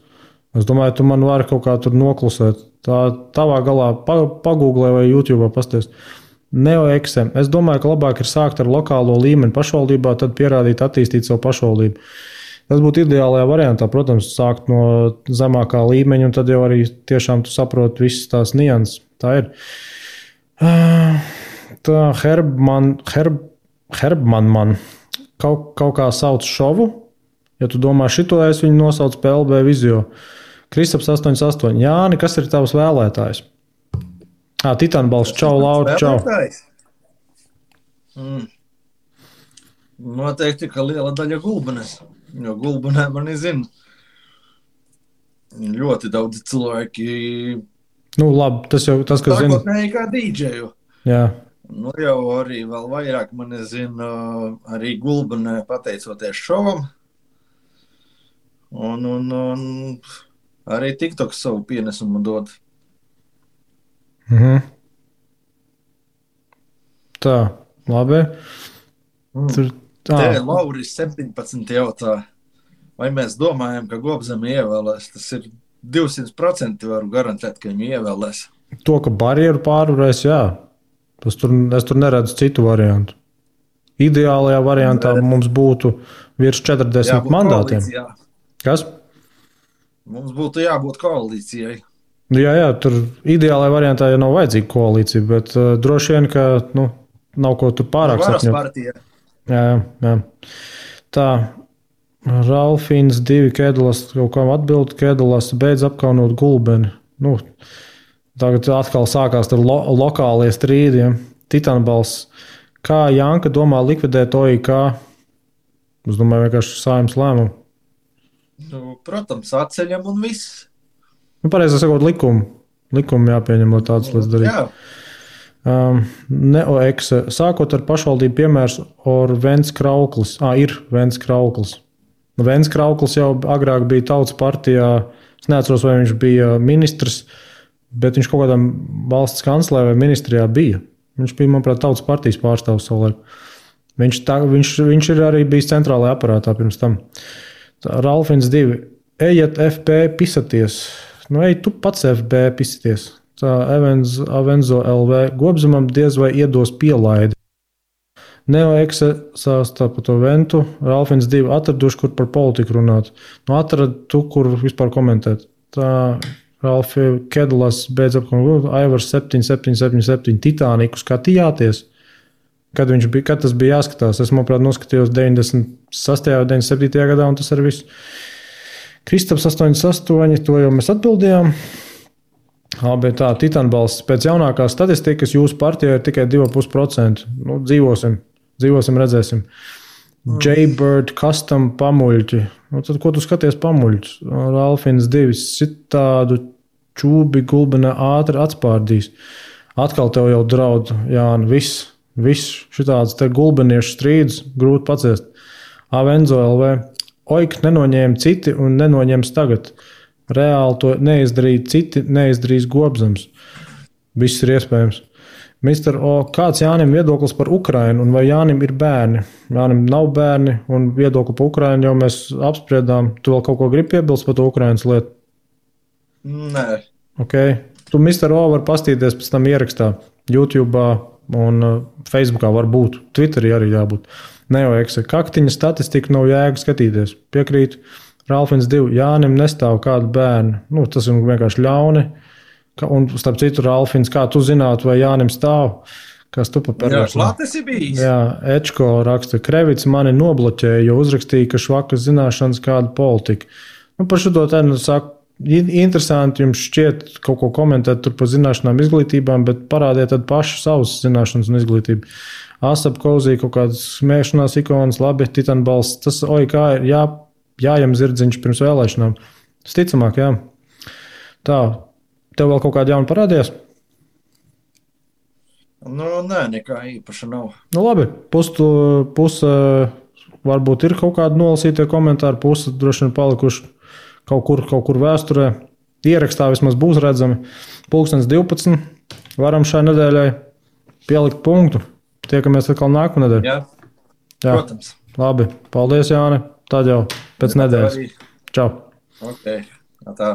Es domāju, tu man vari kaut kā tur noklusēt. Tā tavā galā pagūglē vai YouTube pasties. NeoXM. Es domāju, ka labāk ir sākt ar lokālo līmeni pašvaldībā, tad pierādīt, attīstīt savu pašvaldību. Tas būtu ideālajā variantā, protams, sākt no zemākā līmeņa, un tad jau arī tiešām tu saproti visas tās nianses. Tā ir. Tā Herbman kaut kā sauc šovu. Ja tu domā šito, es viņu nosaucu PLB Vizio. Kristaps 88. Jāni, kas ir tavs vēlētājs? Titanbalsts, čau, Laura, čau. Noteikti, ka liela daļa Gulbenes. Jo Gulbenē mani zina. Ļoti daudz cilvēki. Nu, labi, tas jau tas, kas zina. Sākotnēji kā dīdžeju. Jā. Nu, jau arī vēl vairāk mani zina arī Gulbenē pateicoties šovam. Un arī TikToks savu pienesumu dod. Tā, labi. Te Lauris 17 jautā, vai mēs domājam, ka Gobzemi ievēlēs. Tas ir 200% varu garantēt, ka viņu ievēlēs. To, ka barjeru pārvarēs, jā. Es tur neredzu citu variantu. Ideālajā variantā mums būtu virs 40 mandātiem. Koalīcijā. Kas? Mums būtu jābūt koalīcijai. Jā, tur ideālajā variantā jau nav vajadzīga koalīcija, bet droši vien, ka nav ko tur pārāk sapņot. Varas partija. Jā. Tā, Ralfins 2 Kedulas kaut kam atbild, Kedulas beidz apkaunot Gulbeni. Nu, tagad atkal sākās tur lokālie strīdi. Ja? Titanbalsts, Kā Janka domā likvidēt OIK? Es domāju, vienkārši Saeimas lēmumu. Nu, protams, atceļam un viss. Pareizi sakot, likumu jāpieņem, lai tādas lietas darītu. Jā. Neoekse. Sākot ar pašvaldību piemērs or Vents Krauklis. Ir Vents Krauklis. Vents Krauklis jau agrāk bija Tautas partijā. Es neatceros, vai viņš bija ministrs, bet viņš kaut kādā valsts kanclē vai ministrijā bija. Viņš bija, manuprāt, Tautas partijas pārstāvs savulaik. Viņš ir arī bijis centrālajā aparātā pirms tam. Ralfins 2. Ejiet FB pisaties. Nu, ej, tu pats FB pisaties. Tā Avenzo LV Gobzemam diez vai iedos pielaidi. Neoekse sāstā par to Ventu. Ralfins 2 atraduši, kur par politiku runāt. Nu, atrad tu, kur vispār komentēt. Tā Ralfi Kedalas beidz apkārt. Aivars 7777 Titāniku skatījāties. Kad tas bija jāskatās? Es, manuprāt, noskatījos 96. un 97. gadā, un tas arī viss. Kristaps 88, to jau mēs atbildējām. Bet tā, Titānbalsts pēc jaunākās statistikas jūsu partijā ir tikai 2,5%. Nu, dzīvosim, redzēsim. Jaybird custom pamuļķi. Nu, tad, ko tu skaties pamuļķus? Ralfins 2 citādu čūbi gulbenā ātri atspārdīs. Atkal tev jau draud, Jāni, viss šitāds te gulbeniešu strīdus grūti paciest. Avenzo LV. Oik nenoņēma citi un nenoņems tagad. Reāli to neizdarīja citi, neizdarīs Gobzems. Viss ir iespējams. Mister O, kāds Jānim viedoklis par Ukrainu un vai Jānim ir bērni? Jānim nav bērni un viedokli par Ukrainu jau mēs apspriedām. Tu vēl kaut ko gribi piebilst par to Ukrainas lietu? Nē. Ok. Tu Mister O var pastīties pēc tam ierakstā YouTube un Facebookā var būt. Twitterī arī jābūt. Neoekse. Kaktiņa statistika nav jēga skatīties. Piekrītu. Ralfins 2. Jānim nestāv kādu bērnu. Nu, tas ir vienkārši ļauni. Un starp citu, Ralfins, kā tu zinātu, vai Jānim stāv? Kas tu pa perversu? Jā, klāt esi bijis. Jā, Ečko raksta. Krevits mani nobloķēja, jo uzrakstīja, ka švakas zināšanas kāda politika. Nu, par šo to tad saku, interesanti jums šķiet kaut ko komentēt tur par zināšanām, izglītībām, bet parādiet tad paši savas zināšanas un izglītību. Asap Kozī kaut kādas smēšanās ikonas, labi, Titānbalsts. Tas OIK ir jājam zirdziņš pirms vēlēšanām. Tas ticamāk, jā. Tā, tev vēl kaut kāda jauna parādījās? Nu, nē, nekā īpaša nav. Nu, labi, puse varbūt ir kaut kādi nolasītie komentāri, puse droši vien palikuši kaut kur vēsturē. Ierakstā vismaz būs redzami. 12. Varam šai nedēļai pielikt punktu. Tiekamies atkal nākamā nedēļa. Jā, protams. Labi, paldies, Jāni. Tad jau pēc nedēļas. Čau. Ok, tā.